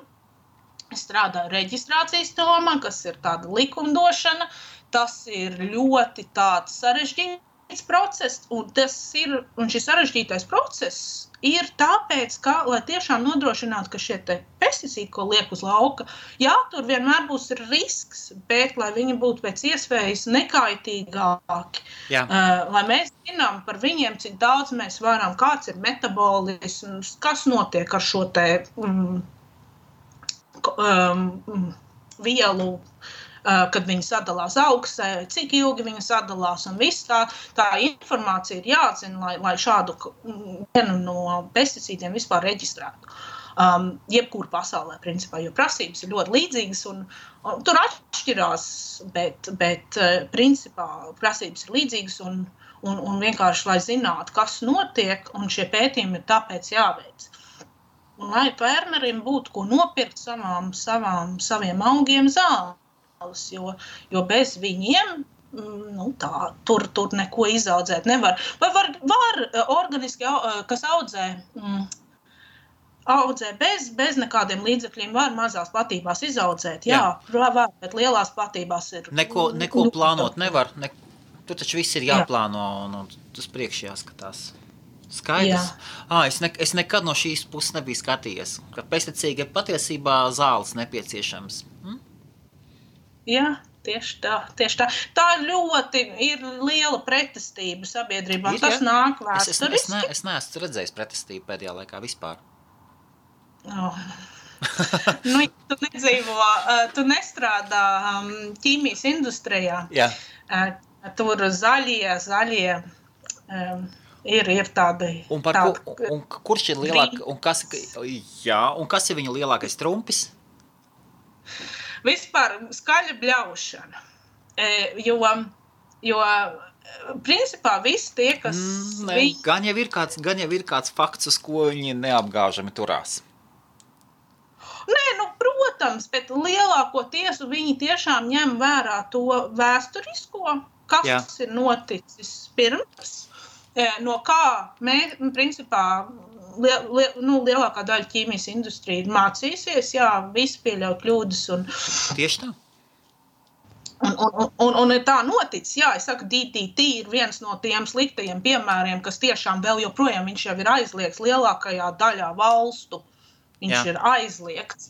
Es strādāju reģistrācijas jomā, kas ir tāda likumdošana. Tas ir ļoti tāds sarežģīts process, un šis sarežģītais process ir tāpēc, ka, lai tiešām nodrošinātu, ka šie pesticīdi, ko liek uz lauka, jā, tur vienmēr būs risks, bet lai viņi būtu pēc iespējas nekaitīgāki. Lai mēs zinām par viņiem, cik daudz mēs varam, kāds ir metabolisms, kas notiek ar šo vielu kad viņi sadalās augsē, cik ilgi viņi sadalās, un viss tā informācija ir jāatzina, lai šādu vienu no pesticīdiem vispār reģistrētu. Jebkur pasaulē, principā, jo prasības ir ļoti līdzīgas, un tur atšķirās, bet principā prasības ir līdzīgas, un vienkārši, lai zinātu, kas notiek, un šie pētījumi ir tāpēc jāveic. Un lai fermerim būtu ko nopirkt saviem augiem zāles, jo bez viņiem tur neko izaudzēt nevar. Vai var organiski, kas audzē bez nekādiem līdzekļiem, var mazās platībās izaudzēt. Jā, var, bet lielās platībās ir... Neko plānot nevar. Tur taču viss ir jāplāno un tas priekš jāskatās. Skaidrs. Jā. Es nekad no šīs puses nebiju skatījies, ka pesticīdi ir patiesībā zāles nepieciešams. Jā, tieši tā. Tā ļoti ir liela pretestība sabiedrībā. Tas nāk vēsturiski. Es neesmu redzējis pretestību pēdējā laikā vispār. Tu nedzīvo, tu nestrādā ķīmijas industrijā. Jā. Tur zaļie ir tādi... Un kurš ir lielāk, un kas ir viņa lielākais trumpis? Vispār skaļa bļaušana. Jo principā visi tie, kas... Gan jau ir kāds fakts, uz ko viņi neapgāžami turās. Nē, protams, bet lielākoties viņi tiešām ņem vērā to vēsturisko, kas ir noticis pirms, no kā principā lielākā daļa ķīmijas industrija ir mācīsies, visi pieļauj kļūdas. Tieši tā. Un tā noticis, es saku, DDT ir viens no tiem sliktajiem piemēriem, kas tiešām vēl joprojām viņš jau ir aizliegts lielākajā daļā valstu. Viņš ir aizliegts,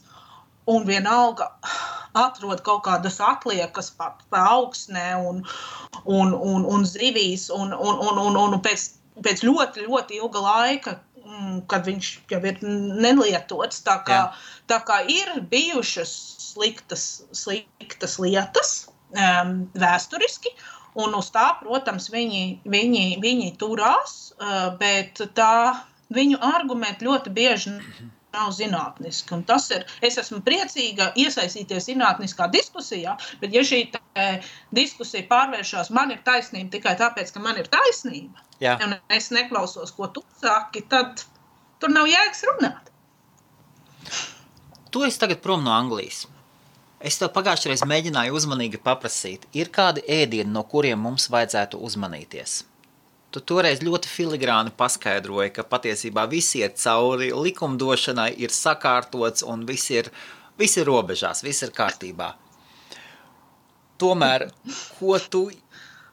un vienalga atrod kaut kādas atliekas pa augsnē un zivīs, un pēc ļoti, ļoti ilga laika, kad viņš jau ir nelietots, tā kā ir bijušas sliktas lietas vēsturiski, un uz tā, protams, viņi turās, bet viņu argumenti ļoti bieži nav zinātniski. Un tas ir, es esmu priecīga iesaistīties zinātniskā diskusijā, bet ja šī diskusija pārvēršās, man ir taisnība tikai tāpēc, ka man ir taisnība, un es neklausos, ko tu saki, tad tur nav jēgas runāt. Tu esi tagad prom no Anglijas. Es tev pagājušreiz mēģināju uzmanīgi paprasīt, ir kādi ēdieni, no kuriem mums vajadzētu uzmanīties? Tu toreiz ļoti filigrāni paskaidroji, ka patiesībā visi iet cauri, likumdošanai ir sakārtots un viss ir robežās, viss ir kārtībā. Tomēr,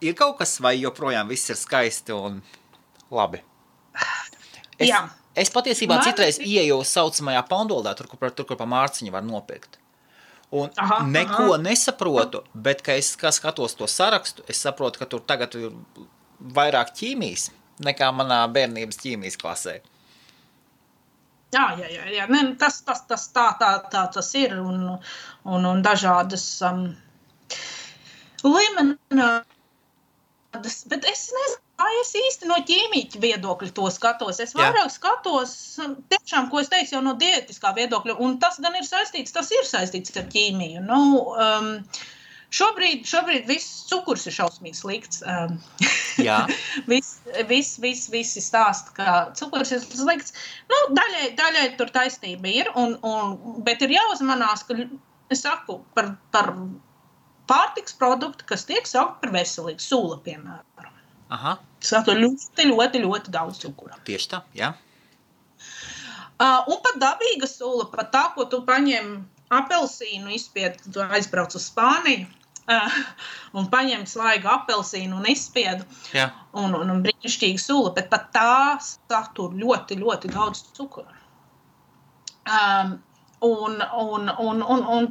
ir kaut kas vai joprojām viss ir skaisti un labi? Es patiesībā citreiz ieeju saucamajā Pandoldā, tur, kur pa mārciņu var nopirkt. Un neko nesaprotu, bet, ka es skatos to sarakstu, es saprotu, ka tur tagad ir vairāk ķīmijas nekā manā bērnības ķīmijas klasē. Jā. Ne, tas ir un dažādas limonādes, bet es nezinu, kā es īsti no ķīmīķa viedokļa to skatos. Es vairāk skatos, tiešām, ko es teicu, jau no diētiskā viedokļa, un tas gan ir saistīts ar ķīmiju. Šobrīd viss cukurs ir šausmīgi slikts. Jā. Visi stāsta, ka cukurs ir slikts. Daļai tur taisnība ir, bet ir jāuzmanās, ka es saku par pārtiks produktu, kas tiek saukt par veselīgu, sula, piemēram. Sato ļoti, ļoti, ļoti daudz cukura. Tieši tā, jā. Un pat dabīga sula, pat tā, ko tu paņem apelsīnu izspied, tu aizbrauc uz Spāniju un paņem svaigu apelsīnu un izspiedu un brīnišķīga sula, bet pat tā satur ļoti, ļoti daudz cukura. Un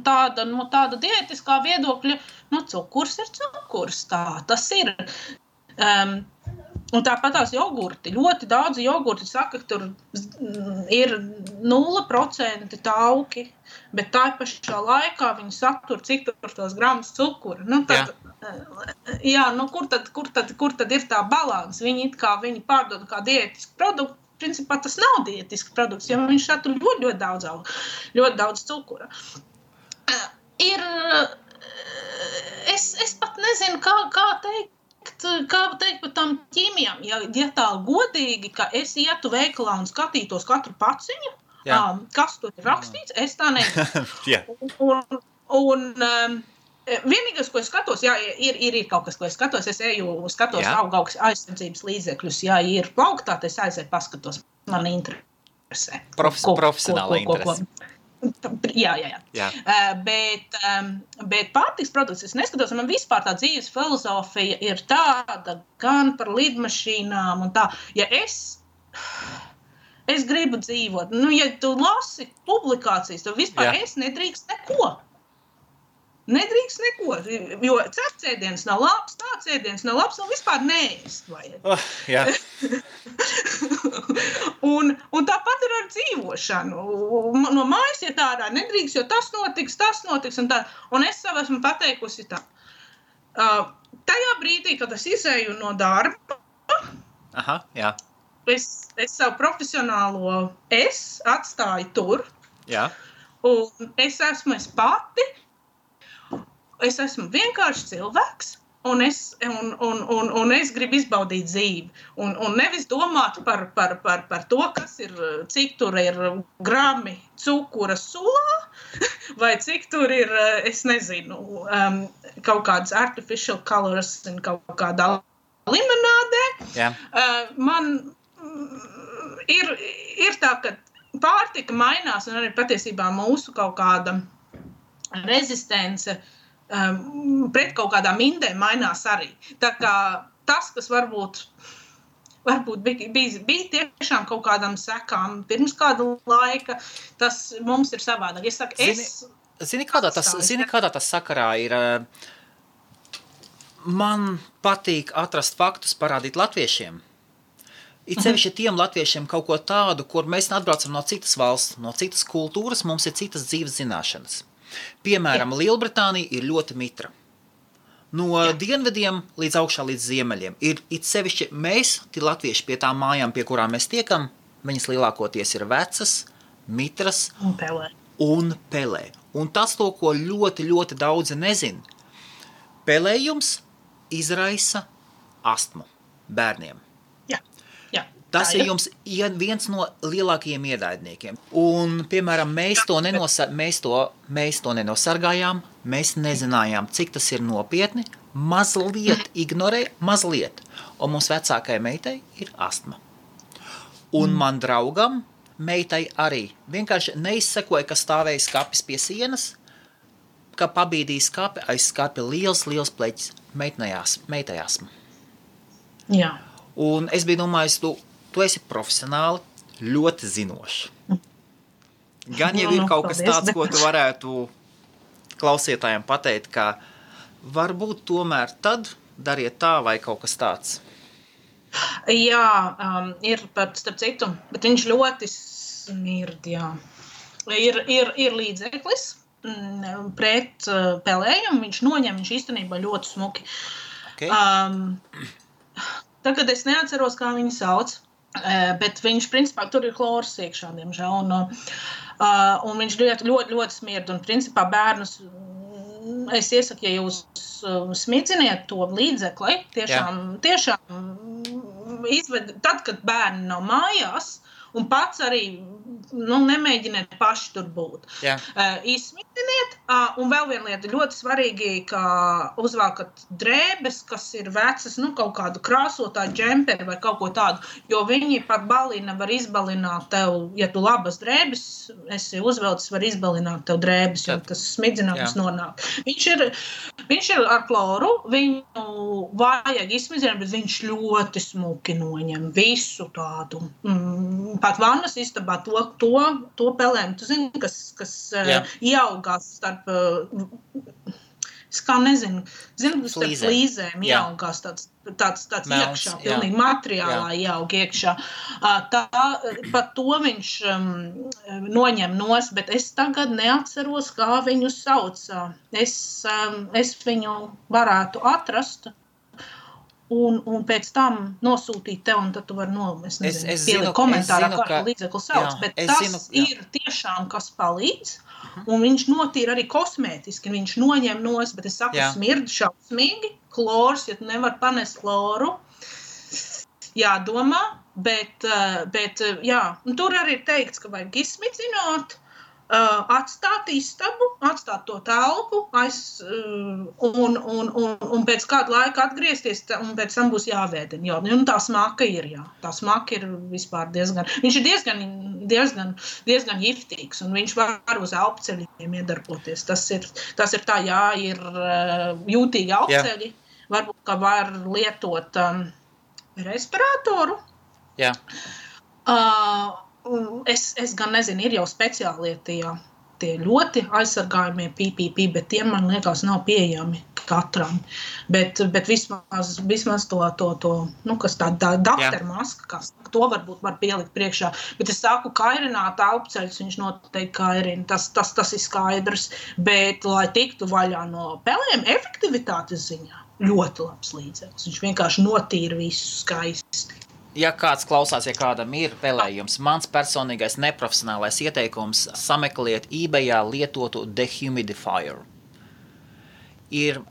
tāda diētiskā viedokļa, cukurs ir cukurs, tas ir. Un tāpat tās jogurti. Ļoti daudz jogurti saka, ka tur ir 0% tauki, bet tā pašā laikā viņi satur cik tur tos gramus cukura. Nu, tad, kur tad ir tā balans? Viņi pārdod kā diētisku produktu. Principā tas nav diētisks produkts, jo viņš satur ļoti daudz cukura. Es pat nezinu, kā teikt par tām ķīmijām. Ja tā godīgi, ka es ietu veikalā un skatītos katru paciņu, kas tur ir rakstīts, es tā nezinu. Vienīgais, ko es skatos, ir kaut kas, ko es skatos. Es skatos augu aizsardzības līdzekļus. Ja ir plauktā, tad es aizēju paskatos. Man interesē. Profesionāla interese. Jā. Bet pārtiks produkts es neskatos. Man vispār tā dzīves filozofija ir tāda gan par lidmašīnām un tā. Ja es gribu dzīvot, ja tu lasi publikācijas, tad vispār es nedrīkst neko. Jo cepts nav labs, tāds ēdiens nav labs, un vispār neēst vajag. Un tāpat ir ar dzīvošanu. No mājas iet ārā nedrīkst, jo tas notiks, un tā. Un es sev esmu pateikusi tā. Tajā brīdī, kad es izēju no darba, es savu profesionālo atstāju tur, un es esmu es pati, es esmu vienkārši cilvēks, un es gribu izbaudīt dzīvi. Un nevis domāt par to, kas ir, cik tur ir grami cukura sulā, vai cik tur ir, es nezinu, kaut kādas artificial colors un kaut kādā limonādē. Man ir tā, ka pārtika mainās, un arī patiesībā mūsu kaut kāda rezistence pret kaut kādām indēm mainās arī. Tā kā tas, kas varbūt bija tiešām kaut kādām sekām pirms kāda laika, tas mums ir savādāk. Es saku, Zini, kādā tas sakarā ir? Man patīk atrast faktus, parādīt latviešiem. It sevišķi tiem latviešiem kaut ko tādu, kur mēs atbraucam no citas valsts, no citas kultūras, mums ir citas dzīves zināšanas. Piemēram, Lielbritānija ir ļoti mitra. No dienvidiem līdz augšā līdz ziemeļiem. Ir it sevišķi mēs, tie latvieši pie tām mājām, pie kurām mēs tiekam, viņas lielākoties ir vecas, mitras un pelē. Un tas to, ko ļoti, ļoti daudzi nezin. Pelējums izraisa astmu bērniem. Tas ir jums viens no lielākajiem ienaidniekiem. Un, piemēram, mēs to nenosargājām, mēs nezinājām, cik tas ir nopietni, mazliet ignorē, mazliet. Un mums vecākajai meitai ir astma. Un man draugam, meitai arī, vienkārši neizsekoja, ka stāvēja skapis pie sienas, ka pabīdīja skapi, aiz skapi liels pleķis, meitai astma. Jā. Un es biju domājis, tu esi profesionāli ļoti zinošs. Gan jau ir kaut kas tāds, ko tu varētu klausītājiem pateikt, ka varbūt tomēr tad dariet tā vai kaut kas tāds. Jā, ir pat starp citu, bet viņš ļoti smird, jā. Ir līdzeklis pret pelējumu, viņš noņem, viņš īstenībā ļoti smuki. Okay. Tagad es neatceros, kā viņu sauc. Bet viņš, principā, tur ir klors iekšā, diemžēl, un viņš ļoti smird, un, principā, bērnus, es iesaku, ja jūs smidziniet to līdzekli, tiešām izved, tad, kad bērni nav mājās, un pats arī, nemēģiniet paši tur būt. Izsmidziniet, un vēl viena lieta, ļoti svarīgi, ka uzvākat drēbes, kas ir vecas, kaut kādu krāsotāju džemperi vai kaut ko tādu, jo viņi par balina var izbalināt tev, ja tu labas drēbes esi uzvelcis, var izbalināt tev drēbes, jo tas smidzinājums nonāk. Viņš ir ar kloru, viņu vajag izsmidzināt, bet viņš ļoti smuki noņem visu tādu. Pat vannas istabā to pelēm, tu zini, kas ieaugās es kā nezinu, tas ar flīzēm Jā. ieaugās tāds Melns, iekšā, pilnīgi materiālā ieaug iekšā. Par to viņš noņem nost, bet es tagad neatceros, kā viņu sauc. Es viņu varētu atrast un pēc tam nosūtīt tev, un tad tu vari pielikt komentārā, kā līdzekli sauc, bet tas ir tiešām, kas palīdz, un viņš notīra arī kosmētiski, viņš noņem nost, bet es saku, smird šausmīgi, klors, ja tu nevar panest kloru, jādomā, bet jā, un tur arī ir teikts, ka vajag izsmidzināt, atstāt istabu, atstāt to telpu, un pēc kāda laika atgriezties, un pēc tam būs jāvēdina. Jo, un tā smaka ir, jā. Tā smaka ir vispār viņš ir diezgan giftīgs, un viņš var uz elpceļiem iedarboties. Tas ir tā, jā, ir jūtīgi elpceļi. Varbūt, ka var lietot respiratoru. Jā. Es gan nezinu, ir jau speciālie tie ļoti aizsargājumie PPP, bet tie, man liekas, nav pieejami katram. Bet vismaz to kas tā daktermaska, to varbūt var pielikt priekšā. Bet es saku, kairināt elpceļus, viņš noteikti kairina, tas ir skaidrs. Bet, lai tiktu vaļā no pelēm, efektivitātes ziņā, ļoti labs līdzeklis. Viņš vienkārši notīra visu skaisti. Ja kāds klausās, ja kādam ir pelējums, mans personīgais neprofesionālais ieteikums sameklēt eBayā lietotu dehumidifier. Ir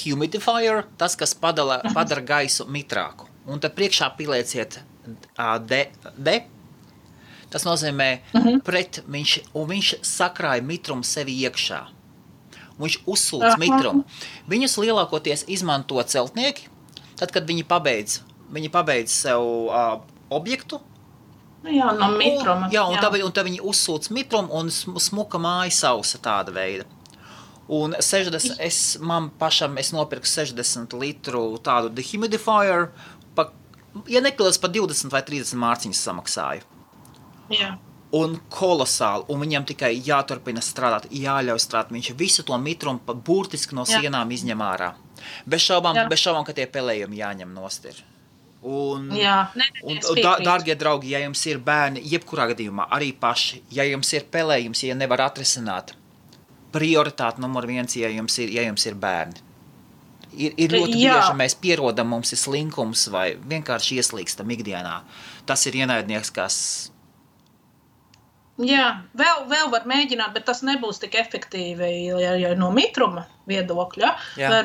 humidifier, tas, kas padara gaisu mitrāku. Un tad priekšā pielieciet tas nozīmē viņš sakrāja mitrumu sevi iekšā. Viņš uzsūc mitrumu. Viņus lielākoties izmanto celtnieki, tad, kad viņi pabeidz sev objektu. Jā, no mitruma. Un tad viņi uzsūc mitrumu un smuka māja sausa tāda veida. Un es nopirku 60 litru tādu dehumidifier, ja nekļūdos pa 20 vai 30 mārciņas samaksāju. Jā. Un kolosāli, un viņam tikai jāturpina strādāt, jāļauj strādāt. Viņš visu to mitrumu burtiski no sienām izņem ārā. Bez šaubām, ka tie pelējumi jāņem nost ir. Dārgie draugi, ja jums ir bērni, jebkurā gadījumā, arī paši, ja jums ir pelējums, ja nevar atrisināt, prioritāte numur 1, ja jums ir bērni. Ir ļoti bieži, mēs pierodam, mums ir slinkums vai vienkārši ieslīgstam ikdienā. Tas ir ienaidnieks, kas... Jā, vēl var mēģināt, bet tas nebūs tik efektīvi, ja no mitruma viedokļa.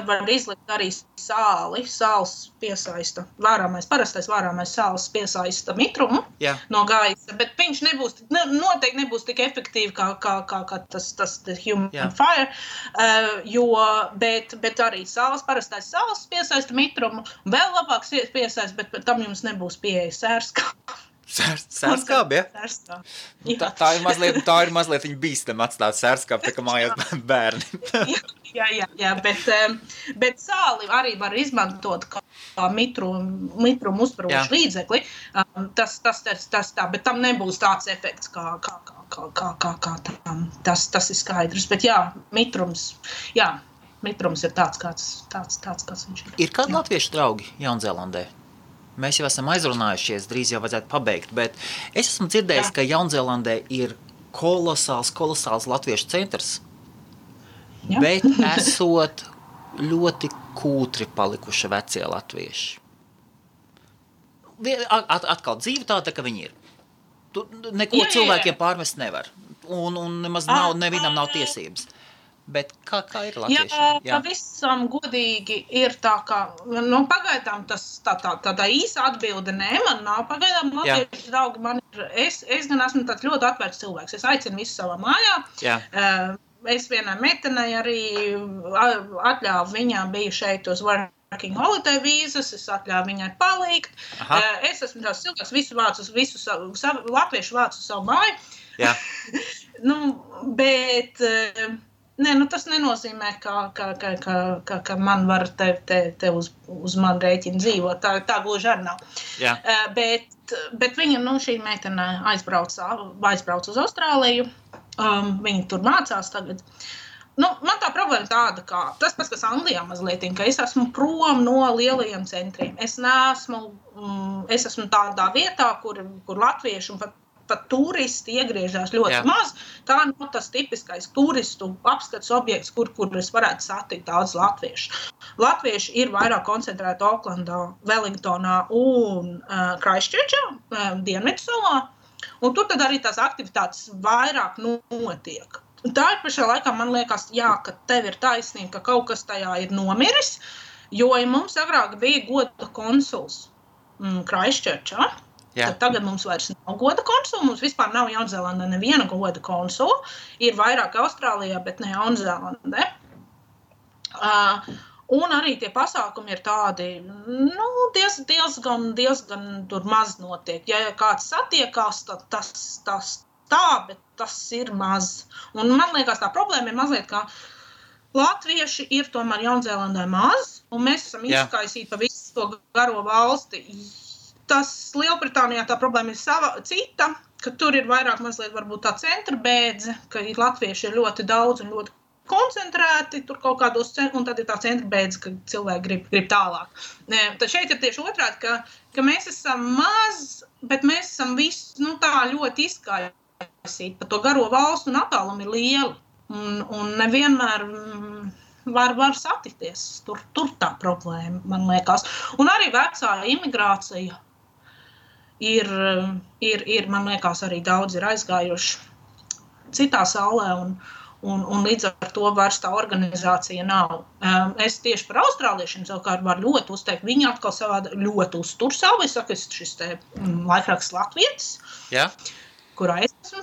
Var izlikt arī sāli, sāls piesaista, parastais vārāmais sāls piesaista mitrumu no gaisa, bet viņš noteikti nebūs tik efektīvi kā tas human fire, bet arī parastais sāls piesaista mitrumu, vēl labāks piesaista, bet tam jums nebūs pieeja sērskābi. Sērskābi, ja? Tā ir mazliet viņa bīstam atstāt sērskābi, tā kā mājās bērni. Jā, bet sāli arī var izmantot kā mitrumu uzparošu līdzekli. Tas tā, bet tam nebūs tāds efekts kā tam. Tas ir skaidrs, bet mitrums ir tāds, kāds viņš ir. Ir kādi latviešu draugi Jaunzēlandē? Mēs jau esam aizrunājušies, drīz jau vajadzētu pabeigt, bet es esmu dzirdējis, ka Jaunzēlandē ir kolosāls latviešu centrs, bet esot ļoti kūtri palikuši vecie latvieši. Atkal dzīve tāda, ka viņi ir. Neko cilvēkiem pārmest nevar, un nemaz nevienam nav tiesības. Bet kā ir latviešiem? Jā, pavisam godīgi ir tā, ka pagaidām tādā īsa atbilde man nav. Pagaidām latviešu draugi es gan esmu tāds ļoti atvērts cilvēks. Es aicinu visu savā mājā. Es vienai meitenei arī atļāvu, viņām bija šeit uz working holiday vīzas, es atļāvu viņai palikt. Es esmu tāds cilvēks, latviešu vācu savu māju. Jā. Bet... tas nenozīmē, ka man var te uz man rēķina dzīvot. Tā gluži arī nav. Bet viņa, šī meitene aizbrauc uz Austrāliju. Viņa tur mācās tagad. man tā problēma tāda, ka tas pats, kas Anglijā mazliet, ka es esmu prom no lielajiem centriem. Es esmu tādā vietā, kur latvieši un pat turisti iegriežās ļoti maz. Tā nav tas tipiskais turistu apskats objekts, kur es varētu satikt daudz latviešu. Latvieši ir vairāk koncentrēti Oklandā, Wellingtonā un Christchurchā, Dienvidsalā. Un tur tad arī tās aktivitātes vairāk notiek. Un tā ir pašā laikā, man liekas, ka tev ir taisnība, ka kaut kas tajā ir nomiris, jo mums agrāk bija goda konsuls Christchurchā. Tad tagad mums vairs nav goda konsula, mums vispār nav Jaunzēlandē neviena goda konsula. Ir vairāk Austrālijā, bet ne Jaunzēlandē. Un arī tie pasākumi ir tādi, diezgan tur maz notiek. Ja kāds satiekās, tad tas tā, bet tas ir maz. Un man liekas, tā problēma ir mazliet, ka latvieši ir tomēr Jaunzēlandē maz, un mēs esam izkaisīti pa visu to garo valsti. Tas Lielbritānijā tā problēma ir cita, ka tur ir vairāk mazliet varbūt tā centra bēdze, ka latvieši ir ļoti daudz un ļoti koncentrēti tur kaut kādos centros, un tad ir tā centra bēdze, ka cilvēki grib tālāk. Tad šeit ir tieši otrādi, ka mēs esam maz, bet mēs esam visi tā ļoti izkaisīti, pa to garo valstu un attālumu ir lieli. Un nevienmēr var satikties. Tur tā problēma, man liekas. Un arī vecā imigrācija ir, man liekas, arī daudz ir aizgājuši citā saulē, un līdz ar to vairs tā organizācija nav. Es tieši par austrāliešiem savukārt varu ļoti uzteikt. Viņi atkal savādi ļoti uztur savu. Es saku, šis te laikraksts Latvietis, kurā es esmu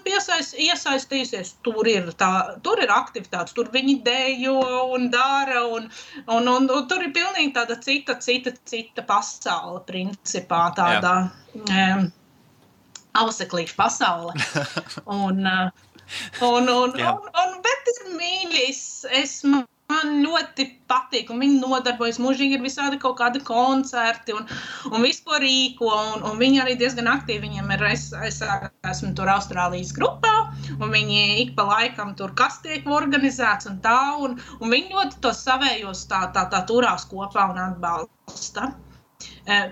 iesaistījusies. Tur ir aktivitātes, tur viņi dejo un dara, un tur ir pilnīgi tāda cita pasaule, principā, tāda auseklīša pasaule. Bet ir mīļi, man ļoti patīk, un viņi nodarbojas mūžīgi, ir visādi kaut kādi koncerti, un visu, ko rīko, un viņi arī diezgan aktīvi, viņiem ir, es esmu tur Austrālijas grupā, un viņi ik pa laikam tur kas tiek organizēts un tā, un viņi ļoti tos savējos tā turās kopā un atbalsta.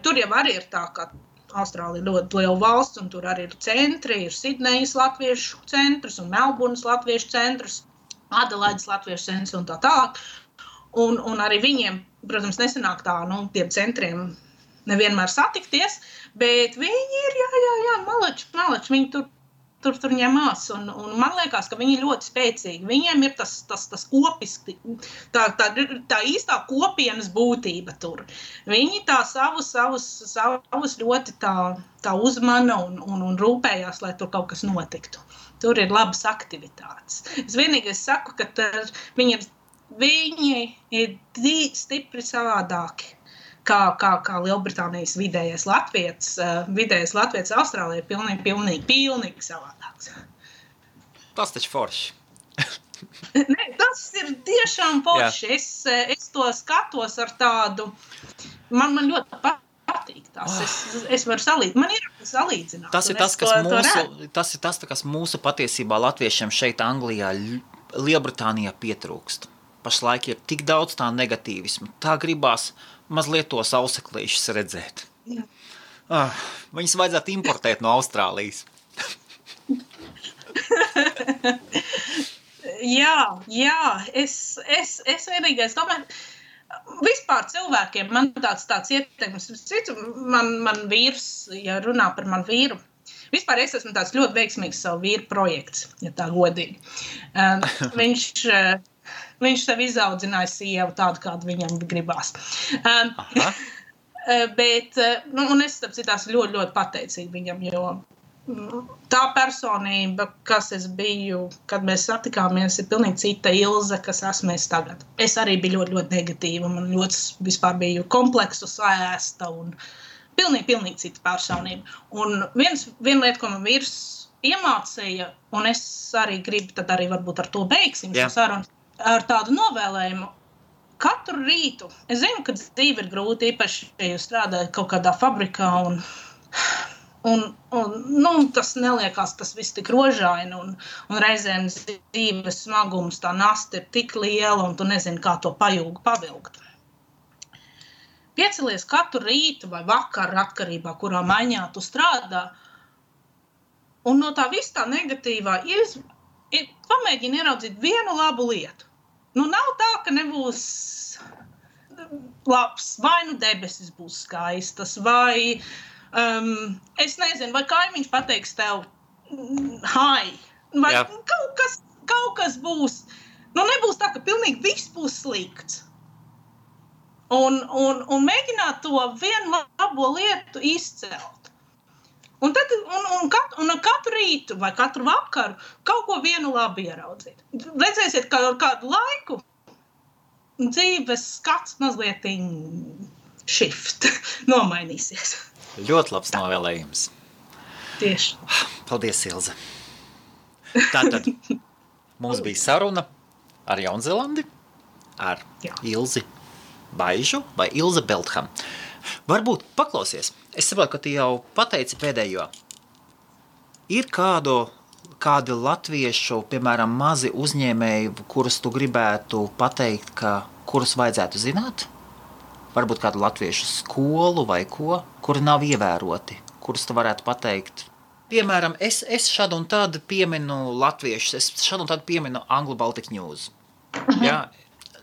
Tur jau arī ir tā, ka Austrālija ļoti liela valsts, un tur arī ir centri, ir Sidnejas latviešu centrs un Melburnas latviešu centrs, Adelaides latviešu centrs un tā tālāk. Un arī viņiem, protams, nesanāk tā, tiem centriem nevienmēr satikties, bet viņi ir, malači, viņi tur ņemās. Un man liekas, ka viņi ir ļoti spēcīgi. Viņiem ir tas kopiski, tā īstā kopienas būtība tur. Viņi tā savus ļoti tā uzmana un rūpējās, lai tur kaut kas notiktu. Tur ir labas aktivitātes. Es vienīgais saku, ka viņi ir stipri savādāki. Kā Lielbritānijas vidējais Latvijas Austrālijā ir pilnīgi savādāks. Tas taču forši. Nē, tas ir tiešām forši. Es to skatos ar tādu, man ļoti patīk tas. Es varu salīdzināt. Man ir salīdzināt. Tas ir tas, kas mūsu patiesībā latviešiem šeit Anglijā, Lielbritānijā pietrūkst. Pašlaik ir tik daudz tā negatīvismu. Tā gribās mazliet tos auseklīšus redzēt. Viņus vajadzētu importēt no Austrālijas. Jā, es vienīgais domāju, vispār cilvēkiem man tāds ieteikums, man vīrs, ja runā par manu vīru, vispār es esmu tāds ļoti veiksmīgs savu vīru projekts, ja tā godīgi. Viņš sev izaudzināja sievu tādu, kādu viņam gribās. Bet, un es tāpēc ļoti, ļoti pateicīgi viņam, jo tā personība, kas es biju, kad mēs satikāmies, ir pilnīgi cita Ilze, kas esmu es tagad. Es arī biju ļoti, ļoti negatīva, man ļoti vispār biju kompleksu sēsta un pilnīgi cita personība. Un viena lieta, ko man vīrs iemācīja, un es arī gribu, tad arī varbūt ar to beigsim šo sarunu, ar tādu novēlējumu. Katru rītu, es zinu, ka dzīve ir grūti, īpaši, ja jūs strādājat kaut kādā fabrikā, un tas neliekās, tas viss tik rožaini, un reizēm dzīves smagums, tā nasta ir tik liela, un tu nezini, kā to pajūgu pavilkt. Piecelies katru rītu vai vakaru atkarībā, kurā maiņā tu strādā, un no tā viss tā negatīvā pamēģini ieraudzīt vienu labu lietu. Nav tā, ka nebūs labs, vai debesis būs skaistas, vai es nezinu, vai kaimiņš pateiks tev hai, vai kaut kas būs. Nebūs tā, ka pilnīgi viss būs slikts. Un mēģināt to vienu labo lietu izcelt. Un katru rītu vai katru vakaru kaut ko vienu labi ieraudzīt. Redzēsiet, ka ar kādu laiku dzīves skats mazliet shift nomainīsies. Ļoti labs novēlējums. Tieši. Paldies, Ilze. Tātad mums bija saruna ar Jaunzēlandi, ar Ilzi Baižu vai Ilze Beltham. Varbūt paklausies. Es saprotu, ka tu jau pateici pēdējo. Ir kādi latviešu, piemēram, mazi uzņēmēji, kurus tu gribētu pateikt, kurus vajadzētu zināt? Varbūt kādu latviešu skolu vai ko, kuri nav ievēroti, kurus tu varētu pateikt. Piemēram, es šādu un tādu pieminu latviešus, es šādu un tādu pieminu Anglo Baltic News. Jā.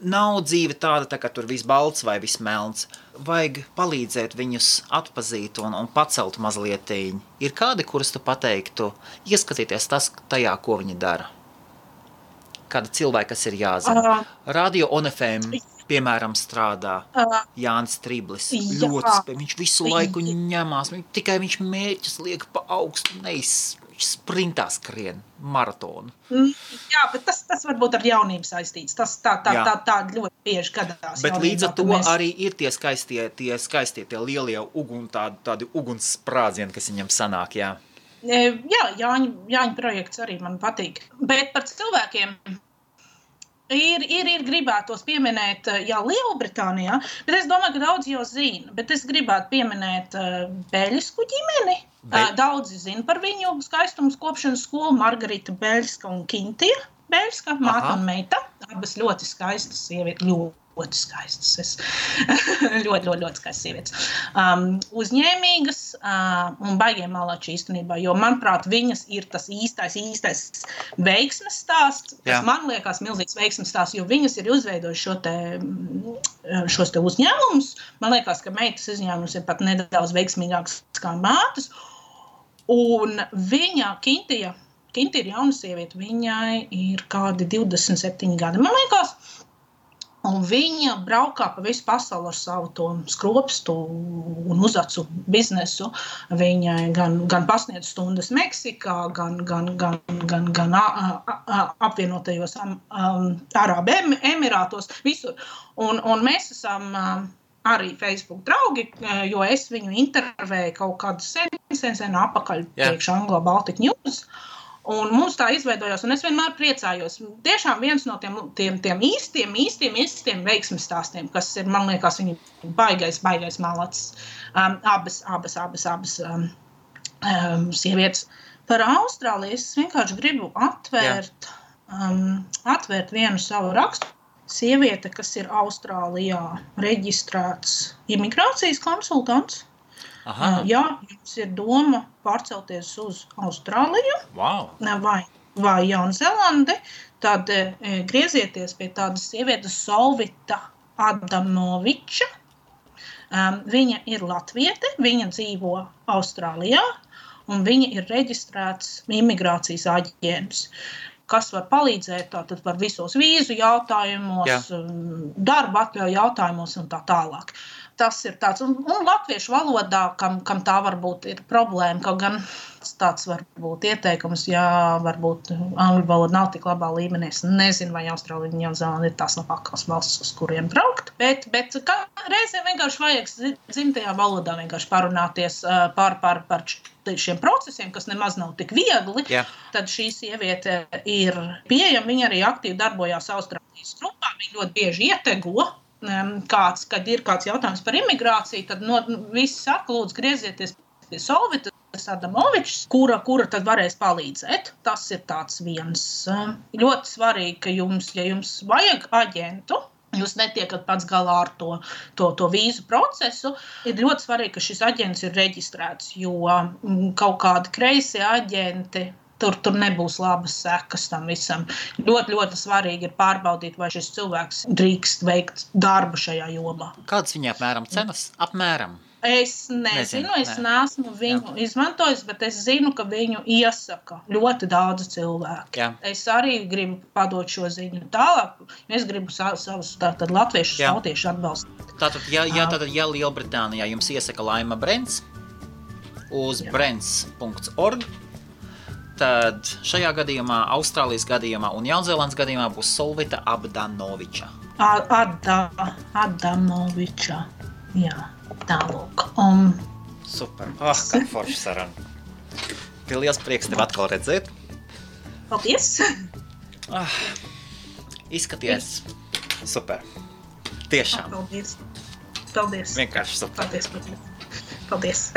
Nav dzīve tāda, ka tur viss balts vai viss melns. Vajag palīdzēt viņus atpazīt un pacelt mazlietiņ. Ir kādi, kurus tu pateiktu, ieskatīties tajā, ko viņi dara? Kāda cilvēka, kas ir jāzina? Radio ONFM, piemēram, strādā. Jānis Triblis. Viņš visu laiku ņemās. Tikai viņš mērķus liek pa augstu, sprintā skrien maratonu. Jā, bet tas varbūt ar jaunību saistīts. Tas tā ļoti bieži gadās. Bet līdz ar to arī ir tie skaistie, tie lielie tādi ugunssprādzieni, kas viņam sanāk, jā. Jā, Jāņa projekts arī man patīk. Bet par cilvēkiem ir gribētos pieminēt, Lielbritānijā, bet es domāju, ka daudz jau zina, bet es gribētu pieminēt Beļsku ģimeni. Daudzi zina par viņu skaistumas kopšanas skolu, Margarita Beļska un Kintija Beļska, māte un meita. Abas ļoti skaistas sievietes, ļoti skaistas. ļoti skaistas sievietes. Uzņēmīgas un baigiem malači īstenībā, jo, manuprāt, viņas ir tas īstais veiksmes stāsts, kas man liekas milzīgs veiksmes stāsts, jo viņas ir uzveidojuši šos te uzņēmumus. Man liekas, ka meitas uzņēmums ir pat nedaudz veiksmīgāks kā mātes. Un viņa, Kintija ir jauna sieviete, viņai ir kādi 27 gadi, man liekas. Un viņa braukā pa visu pasauli ar savu to skropstu un uzacu biznesu. Viņai gan pasniedz stundas Meksikā, gan apvienotajos Arābu Emirātos, visur. Un mēs esam arī Facebook draugi, jo es viņu intervēju kaut kādu sen apakaļ priekš Anglo Baltic News. Un mums tā izveidojās, un es vienmēr priecājos. Tiešām viens no tiem īstiem veiksmes stāstiem, kas ir, man liekas, viņi baigais malacis. Abas sievietes. Par Austrāliju es vienkārši gribu atvērt vienu savu rakstu. Sieviete, kas ir Austrālijā reģistrēts imigrācijas konsultants. Ja jums ir doma pārcelties uz Austrāliju vai Jaunzēlandi, tad griezieties pie tādas sievietes Solvita Adamoviča. Viņa ir latviete, viņa dzīvo Austrālijā un viņa ir reģistrēts imigrācijas aģents, kas var palīdzēt tātad par visos vīzu jautājumos, darba atļauju jautājumos un tā tālāk. Tas ir tāds, un latviešu valodā, kam tā varbūt ir problēma, kaut gan tāds varbūt ieteikums, varbūt angļu valoda nav tik labā līmenī, es nezinu, vai Austrālija un Jaunzēlanda ir tās labākās valstis, uz kuriem braukt, bet reizēm vienkārši vajag dzimtajā valodā vienkārši parunāties par šiem procesiem, kas nemaz nav tik viegli, tad šī sieviete ir pieejama, viņa arī aktīvi darbojās Austrālijas grupā, viņa ļoti bieži ietego, kad ir kāds jautājums par imigrāciju, tad visi saka, lūdzu, griezieties pie Solvita. Adamovičs, kura tad varēs palīdzēt. Tas ir tāds viens ļoti svarīgi, ka ja jums vajag aģentu, jūs netiekat pats galā ar to vīzu procesu, ir ļoti svarīgi, ka šis aģents ir reģistrēts, jo kaut kādi kreisie aģenti, tur nebūs labas sekas tam visam. Ļoti, ļoti svarīgi ir pārbaudīt, vai šis cilvēks drīkst veikt darbu šajā jomā. Kādas viņa apmēram cenas? Apmēram? Es nezinu, es neesmu viņu izmantojis, bet es zinu, ka viņu iesaka ļoti daudz cilvēku. Jā. Es arī gribu padot šo ziņu tālāk. Es gribu savus latviešu tautiešu atbalstīt. Tātad, ja Lielbritānijā jums iesaka Laima Brents uz brents.org, tad šajā gadījumā, Austrālijas gadījumā un Jaunzēlandes gadījumā būs Solvita Adamoviča. Adamoviča, jā, tālūk. Super, kā forši saruna. Liels prieks tev atkal redzēt. Paldies. Izskaties super. Tiešām. Paldies. Vienkārši super. Paldies.